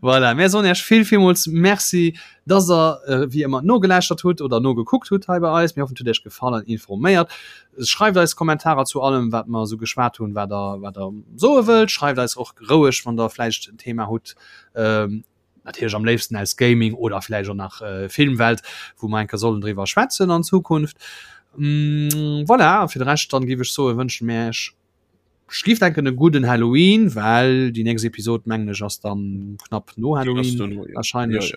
voilà, mir soen Iech vill, villmools Merci, dass der äh, wéi ëmmer nogelauschtert hutt oder nogekuckt hutt hei bei eis. Mir hoffen, et huet Iech gefall an informéiert. Schreift eis Kommentarer zu allem wat mer esou geschwat hunn, wat der wat der soe wëllt. Schreift eis och roueg wann der vläicht en Thema hutt, natierlech am léifsten aus Gaming oder vläicht och nach Filmwelt, wou mer eng Kéier sollen driwwer schwätzen an Zukunft. Voilà, a fir de Rescht dann géif ech soen, wënsche mir iech, ech géif denken e gudden Halloween, well déi nächst Episod mengen ech ass dann knapp no Halloween wahrscheinlech.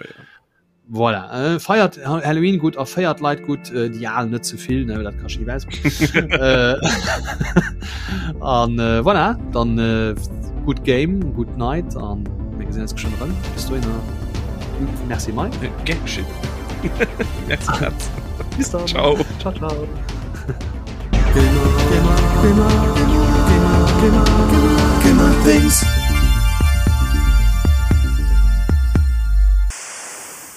Voilà, äh, feiert Halloween gut a feiert Leit gut, äh, déi al net ze vill, ne, dat ka schief aus. äh, an äh, voilà, dann äh, gut Game, gut Night an mir gesinn uns geschwënn erëm. Bis dohinner. Merci Mike. Äh, gern geschehen. Merci, Katz. Bis dann. Ciao. Ciao, ciao. Gamer, Gamer, Gamer, Gamer, Gamer, Gamer, Gamer, Gamer Things.